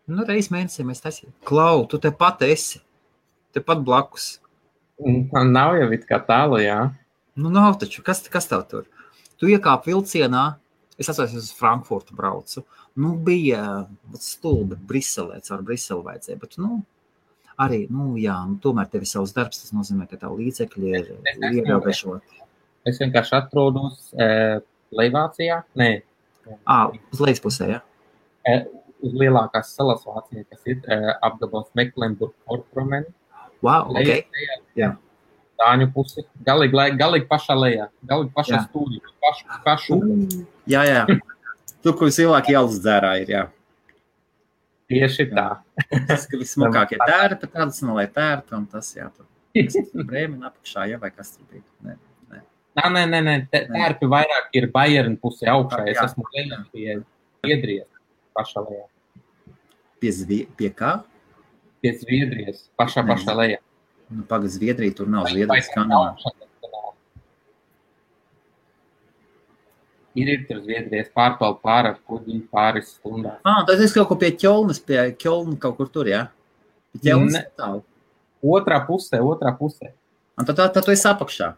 Nu, reiz mēnesī mēs taisījām. Klau, tu te pat esi. Te pat blakus. Nav jau it kā tālu, jā. Nu, nav taču. Kas tev tur? Tu iekāp vilcienā. Es atceros, uz Frankfurtu braucu. Nu, bija stulbi Briselē, caur Briseli vajadzēja. Bet, nu, arī, nu, jā, nu, tomēr tev ir savs darbs. Tas nozīmē, ka tavu līdzekļi ir ierobežoti. Es vienkārši atrodos Leivācijā. Nē. Uz lejas pusē, jā? Uz lielākās salas Vācijā, kas ir apgabals Mecklenburg-Vorpommern. Wow, ok. Jā. Dāņu pusi. Galīgi pašā lejā. Galīgi pašā stūrī. Pašu. Jā. Tur, kur cilvēki ielas dzērā ir, jā. Tieši tā. Tas, ka vismokākie tērpi, tradicionālai tērpi, un tas, jā, tur Brēmina apakšā, jā, vai kas tur bija? Nē. Tērpi vairāk ir Bayern pusē augšā. Es esmu lejā pie Zviedrijas pašā lejā. Pie kā? Pie Zviedrijas pašā lejā. Nu, pagad Zviedrija, tur nav Zviedrijas kanāla. Ir tur Zviedrijas pārpaldu pār kuģi pāris stundās. Tad es kaut ko pie Ķolnas, pie Ķolna kaut kur tur, jā? Pie Ķolnas tālu. Otrā pusē. Un tad tu esi apakšā.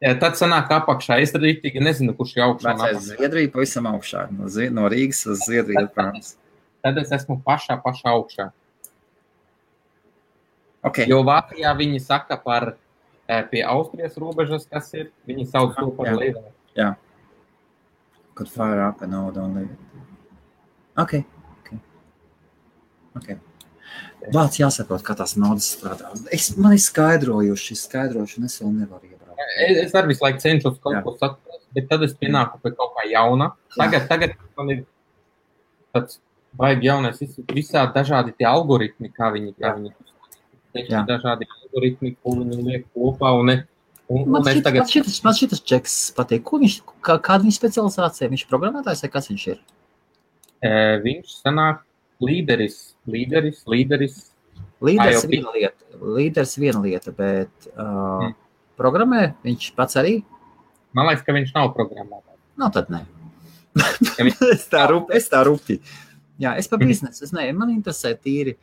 Jā, tad sanāk apakšā. Es rītīgi nezinu, kurš ir augšā. Vecais Zviedrija pavisam augšā. No Rīgas uz Zviedriju. Tad es esmu pašā augšā. Okay. Jo Vācijā viņi saka par pie Austrijas robežas, kas ir, viņi sauc to par Leivā. Jā. Could fire up and all, don't leave it. Okay. Vāc jāsaprot, kā tās naudas strādā. Man ir skaidrojuši, un es vēl nevaru iebraukt. Es arī visu laiku cenšos kaut ko saprast, bet tad es pienāku pie kaut kā jauna. Tagad man ir tāds baigi jaunais, visā dažādi tie algoritmi, kā viņi dažādi algoritmi, ko viņi liek kopā, man šitas čeks patīk. Kāda viņa specializācija? Viņš specializācija, vai kas viņš ir? Viņš sanāk līderis. Līderis viena lieta, bet programmē viņš pats arī? Man liekas, ka viņš nav programmētājs. No, tad ne. Es tā rupi. Jā, es pa biznesu, man interesē tīri.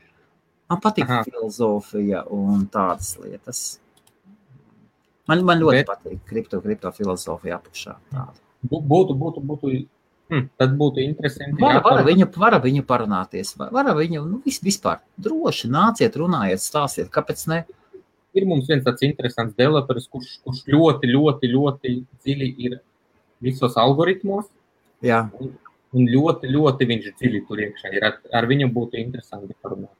Man patīk filozofija un tādas lietas. Man ļoti patīk kripto filozofija apakšā. Tad būtu interesanti. Var viņu parunāties. Var viņu, vispār droši nāciet, runājiet, stāstiet, kāpēc ne? Ir mums viens tāds interesants developeris, kurš ļoti dziļi ir visos algoritmos. Jā. Un ļoti viņš dziļi tur iekšā ir. Ar viņu būtu interesanti parunāt.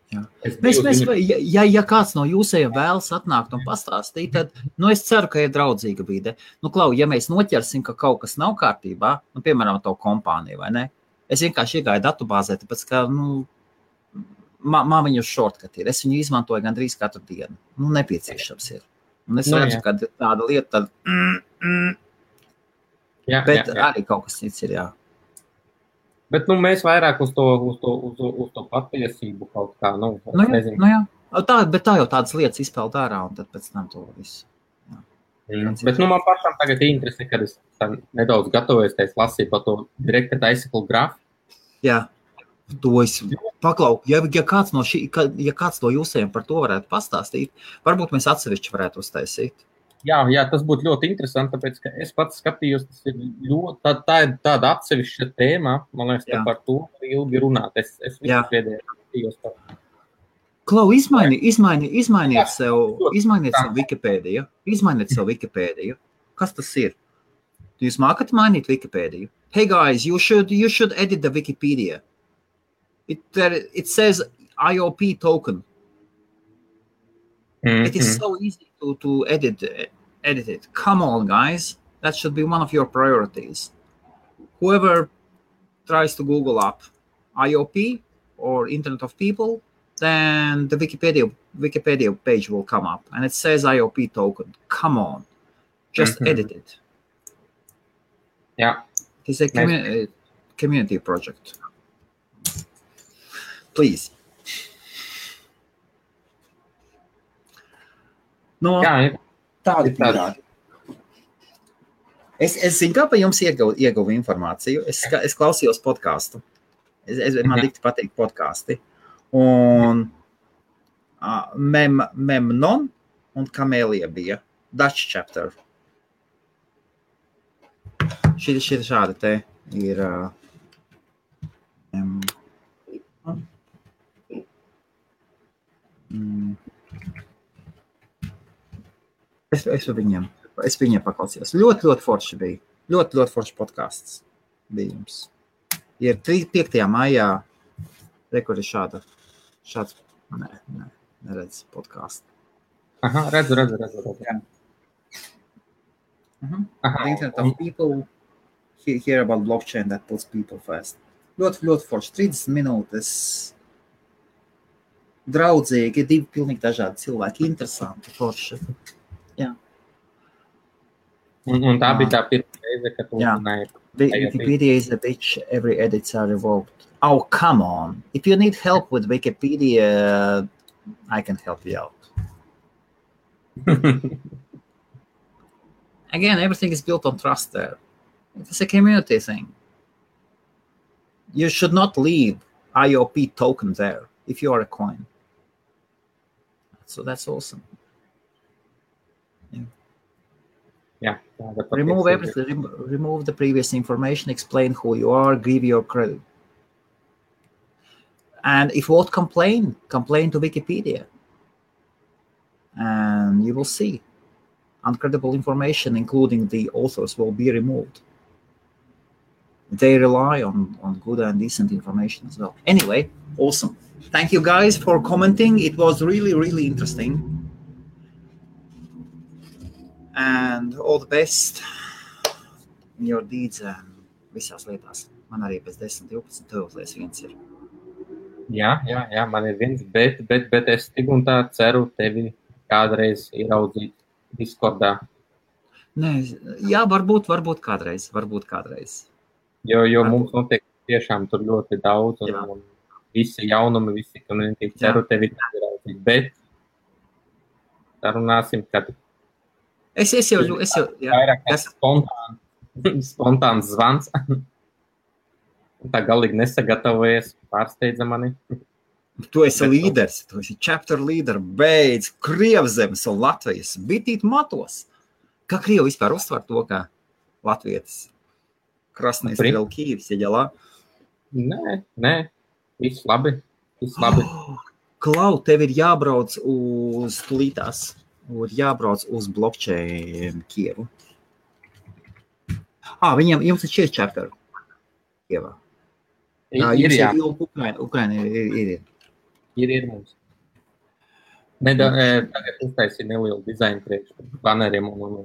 Ja kāds no jūsējiem vēlas atnākt un pastāstīt, tad, es ceru, ka ir draudzīga vide. Klau, ja mēs noķersim, ka kaut kas nav kārtībā, piemēram, to kompāniju, vai ne? Es vienkārši iegāju datubāzē, tāpēc, ka, man viņu shortcut ir. Es viņu izmantoju gandrīz katru dienu. Nepieciešams ir. Un es redzu, ka tāda lieta, bet arī kaut kas cits ir, jā. Bet, mēs vairāk uz to patiesību kaut kā, nezinu. Jā. Bet tā jau tādas lietas izpeld ārā, un tad pēc tam to visu. Bet, man pašam tagad interesē, kad es nedaudz gatavojos, ka es lasīju par to Directed Icicle Graph. Jā, to es paklau. Ja kāds no jūsējiem par to varētu pastāstīt, varbūt mēs atsevišķi varētu uztaisīt. Jā, tas būtu ļoti interesanti, tāpēc, ka es pats skatījos, tas ir tā ir tāda atsevišķa tēma, man liekas, ka par to ilgi runāt. Es visu pēdējā skatījos par. Klau, izmainiet sev Wikipēdiju. Izmainiet sev Wikipēdiju. Kas tas ir? Jūs mākat mainīt Wikipēdiju? Hey guys, you should edit the Wikipedia. It says IOP token. It is so easy to edit it. Come on, guys. That should be one of your priorities. Whoever tries to Google up IOP or Internet of People, then the Wikipedia page will come up, and it says IOP token. Come on. Just edit it. Yeah. It's a community project. Please. Tādi pīrādi. Es zinu, kā pa jums ieguvu informāciju. Es klausījos podcastu. Man dikti patīk podkasti. Un Memnon un Kamēlija bija Dutch chapter. Šī šāda te ir es viņiem paklausījos. Ļoti forši bija. Ļoti forši podcasts bija jums. Ir 5. maijā rekord ir šāds, neredz podcastu. Aha, redzu. Yeah. The internet of people hear about blockchain that puts people first. Ļoti forši. 30 minūtes. Draudzīgi, 2 pilnīgi dažādi cilvēki. Interesanti, forši. Jā. Un tā bija tā pirmā reize, kad tu runāji. Wikipedia is a bitch. Every edits are revoked. Oh, come on. If you need help with Wikipedia, I can help you out. Again, everything is built on trust there. It's a community thing. You should not leave IOP token there if you are a coin. So that's awesome. Yeah. Remove everything. Remove the previous information. Explain who you are. Give your credit. And if you won't complain to Wikipedia. And you will see. Uncredible information, including the authors, will be removed. They rely on good and decent information as well. Anyway, awesome. Thank you guys for commenting. It was really interesting. And all the best in your deeds and visās lietās. Man arī pēc 10, 12 tuvlies viens ir. Jā, man ir viens, bet es tik un tā ceru tevi kādreiz ieraudzīt Discordā. Nē, jā, varbūt kādreiz. Jo mums notiek tiešām tur ļoti daudz un visi jaunumi, visi community ceru tevi ieraudzīt, bet sarunāsim, kad es jau vairāk spontāns zvans. Tā galīgi nesagatavojies, pārsteidza mani. Tu esi līderis, tu esi chapter leader, beidz Krievzemes un Latvijas bitīt matos. Kā Krievi vispār uztver to, kā latvietis? Krasnīs vēl Kīvs, ieģelā? Nē, viss labi. Klau, tev ir jābrauc uz tulītās, jābrauc uz blockchain Kievu. Jums ir 4 chapter Kievā. Ukraina ir. Ir mums. Tagad uztaisīja nelielu dizainu priekš baneriem un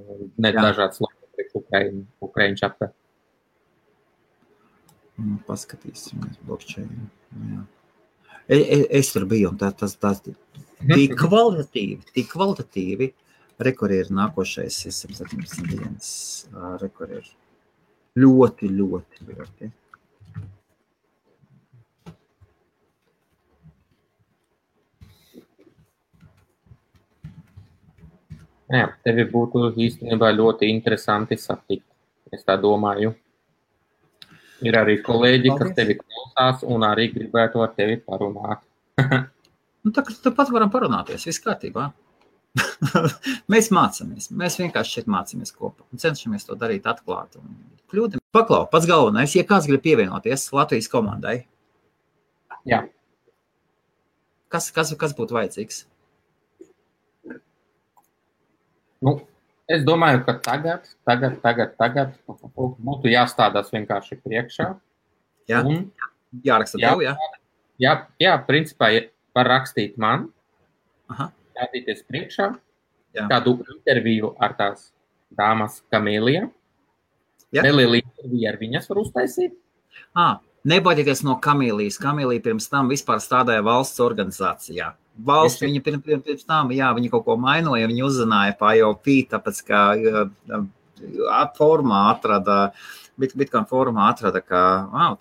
dažādas logo priekš Ukraina chapter. Paskatīsimies blockchain. Jā. Es tur biju un tas tik kvalitatīvi. Rekord ir nākošais 117 dienas. Rekord ir ļoti. Jā, tevi būtu īstenībā ļoti interesanti satikt. Es tā domāju. Ir arī kolēģi, kas tevi klausās un arī gribētu ar tevi parunāt. Tāpat varam parunāties, viss kārtībā. Mēs mācāmies. Mēs vienkārši šeit mācāmies kopā un cenšamies to darīt atklāt. Paklau, pats galvenais, ja kāds grib pievienoties Latvijas komandai. Jā. Kas būtu vajadzīgs? Es domāju, ka tagad būtu jāstādās vienkārši priekšā. Jā, jāraksta tev, jā? Jā, principā var rakstīt man, stādīties priekšā, kādu interviju ar tās dāmas Kamēlija. Nelielu interviju ar viņas var uztaisīt. Nebaidieties no Kamēlijas. Kamēlija pirms tam vispār stādāja valsts organizācijā. Valsts viņa pirms tam, viņa kaut ko mainoja, viņa uzzināja pa IOP, tāpēc, ka Bitcoin formā atrada, ka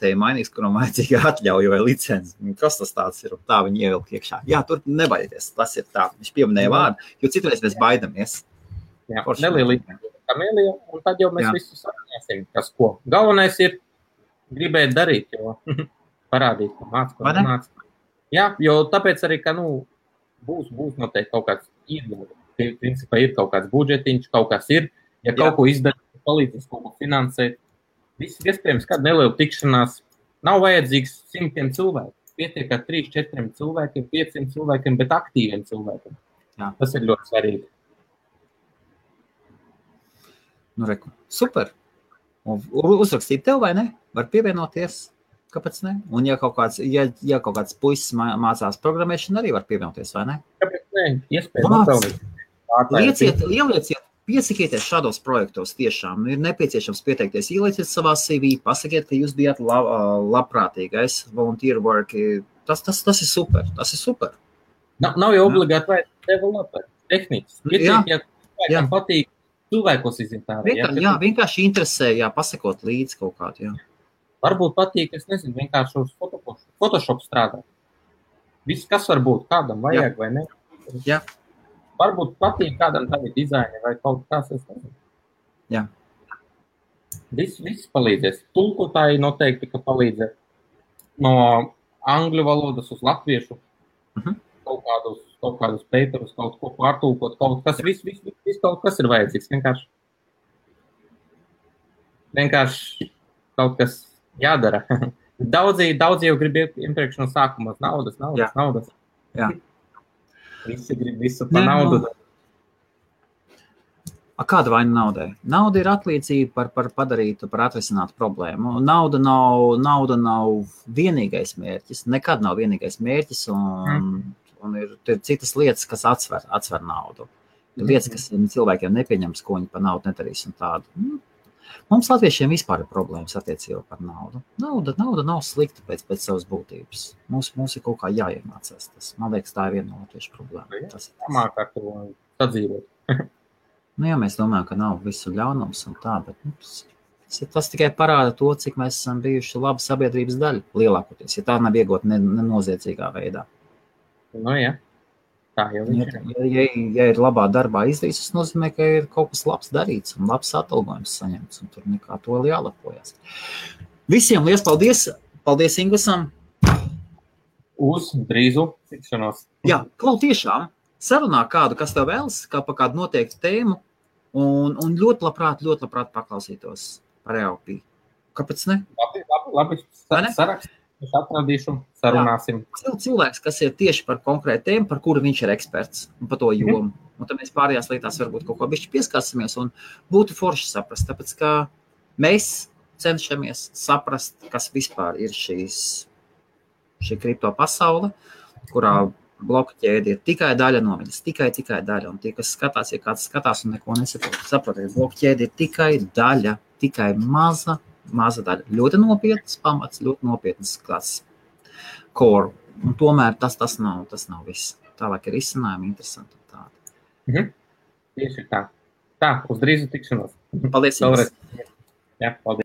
te ir mainīgs, kuram vajadzīga atļauja vai licenci. Kas tas tāds ir? Tā viņa ievilk iekšā. Jā, tur nebaidieties, tas ir tā. Viņš pieminēja vārdu, jo citreiz mēs baidamies. Jā, nelielīgi Kamēlija, un tad jau mēs visu sarunāsim, kas ko. Galvenais ir gribēt darīt, jo parādīt, ko māc. Jā, jo tāpēc arī, ka, būs noteikti kaut kāds principā ir kaut kāds budžetiņš, kaut kas ir, ja kaut ko izdarīt, palīdzēs kaut ko finansēt. Viss iespējams, kāda neliela tikšanās nav vajadzīgs 100 cilvēku. Pietiek ar 3-4 cilvēkiem, 500 cilvēkiem, bet aktīviem cilvēkiem. Jā. Tas ir ļoti svarīgi. Reku, super. Uzrakstīt tev, vai ne? Var pievienoties. Kāpēc ne? Un ja kaut kāds puisis mācās programmēšanu, arī var pievienoties, vai ne? Kāpēc ne? Iespējams. Ielieciet, piesakieties šādos projektos tiešām. Ir nepieciešams pieteikties. Ielieciet savā CV, pasakiet, ka jūs bijāt labprātīgais volunteer work. Tas ir super. Tas ir super. Nav jau obligāti vajag developer, tehnicis. Ja patīk cilvēkos iziet ārā. Jā, vienkārši interesē, pasakot līdzi kaut kādu, jā. Varbūt patīk, es nezinu, vienkārši uz Photoshop strādāt. Viss, kas var būt, kādam vajag vai ne. Jā. Varbūt patīk kādam tavi dizaini vai kaut kas, es nezinu. Jā. Viss palīdzēs. Tulkotāji noteikti, ka palīdzē no angļu valodas uz latviešu. Kaut kādus paperus, kaut ko pārtulkot, kaut kas, viss kaut kas ir vajadzīgs. Vienkārši kaut kas jādara. Daudzi jau grib iepriekš no sākuma naudas. Jā. Visi grib visu par naudu. Kāda vaina naudai? Nauda ir atlīdzība par padarītu, par atrisinātu problēmu. Nauda nav vienīgais mērķis. Nekad nav vienīgais mērķis, un ir citas lietas, kas atsver naudu. Ir lietas, kas cilvēkiem nepieņems, ko viņi par naudu nedarīs un tādu. Mums latviešiem vispār ir problēmas attiecībā par naudu. Nauda nav slikta pēc savas būtības. Mums ir kaut kā jāiemācās tas. Man liekas, tā ir viena no latviešu problēma. Māk ar to sadzīvot. Jā, mēs domājam, ka nav visu ļaunums un tā, bet tas tikai parāda to, cik mēs esam bijuši laba sabiedrības daļa lielākoties, ja tā nav iegūta nenoziedzīgā veidā. Jā. Tā jau ja ir labā darbā izdarīts, tas nozīmē, ka ir kaut kas labs darīts un labs atalgojums saņemts, un tur nekā to jālepojas. Visiem liels paldies! Paldies Ingusam! Uz drīzu tikšanos! Jā, tiešām! Sarunā kādu, kas tev vēlas, kā par kādu noteiktu tēmu, un ļoti labprāt paklausītos par EOP. Kāpēc ne? Labi. Sarakst. Es atradīšu, sarunāsim. Jā, cilvēks, kas ir tieši par konkrētu tēmu, par kuru viņš ir eksperts un par to jomu. Un tad mēs pārējās lietās varbūt kaut ko bišķi pieskārsimies un būtu forši saprast, tāpēc, ka mēs cenšamies saprast, kas vispār ir šī kripto pasaule, kurā bloku ķēde ir tikai daļa no viņas, tikai daļa. Un tie, kas skatās, ja kāds skatās un neko saprotiet, bloku ķēde ir tikai daļa, tikai maza daļa. Ļoti nopietnas pamats, ļoti nopietnas kāds core. Un tomēr tas nav viss. Tālāk ir izcinājumi interesanti un tādi. Tieši tā. Tā, uz drīzu tikšanos. Paldies. Jā, paldies.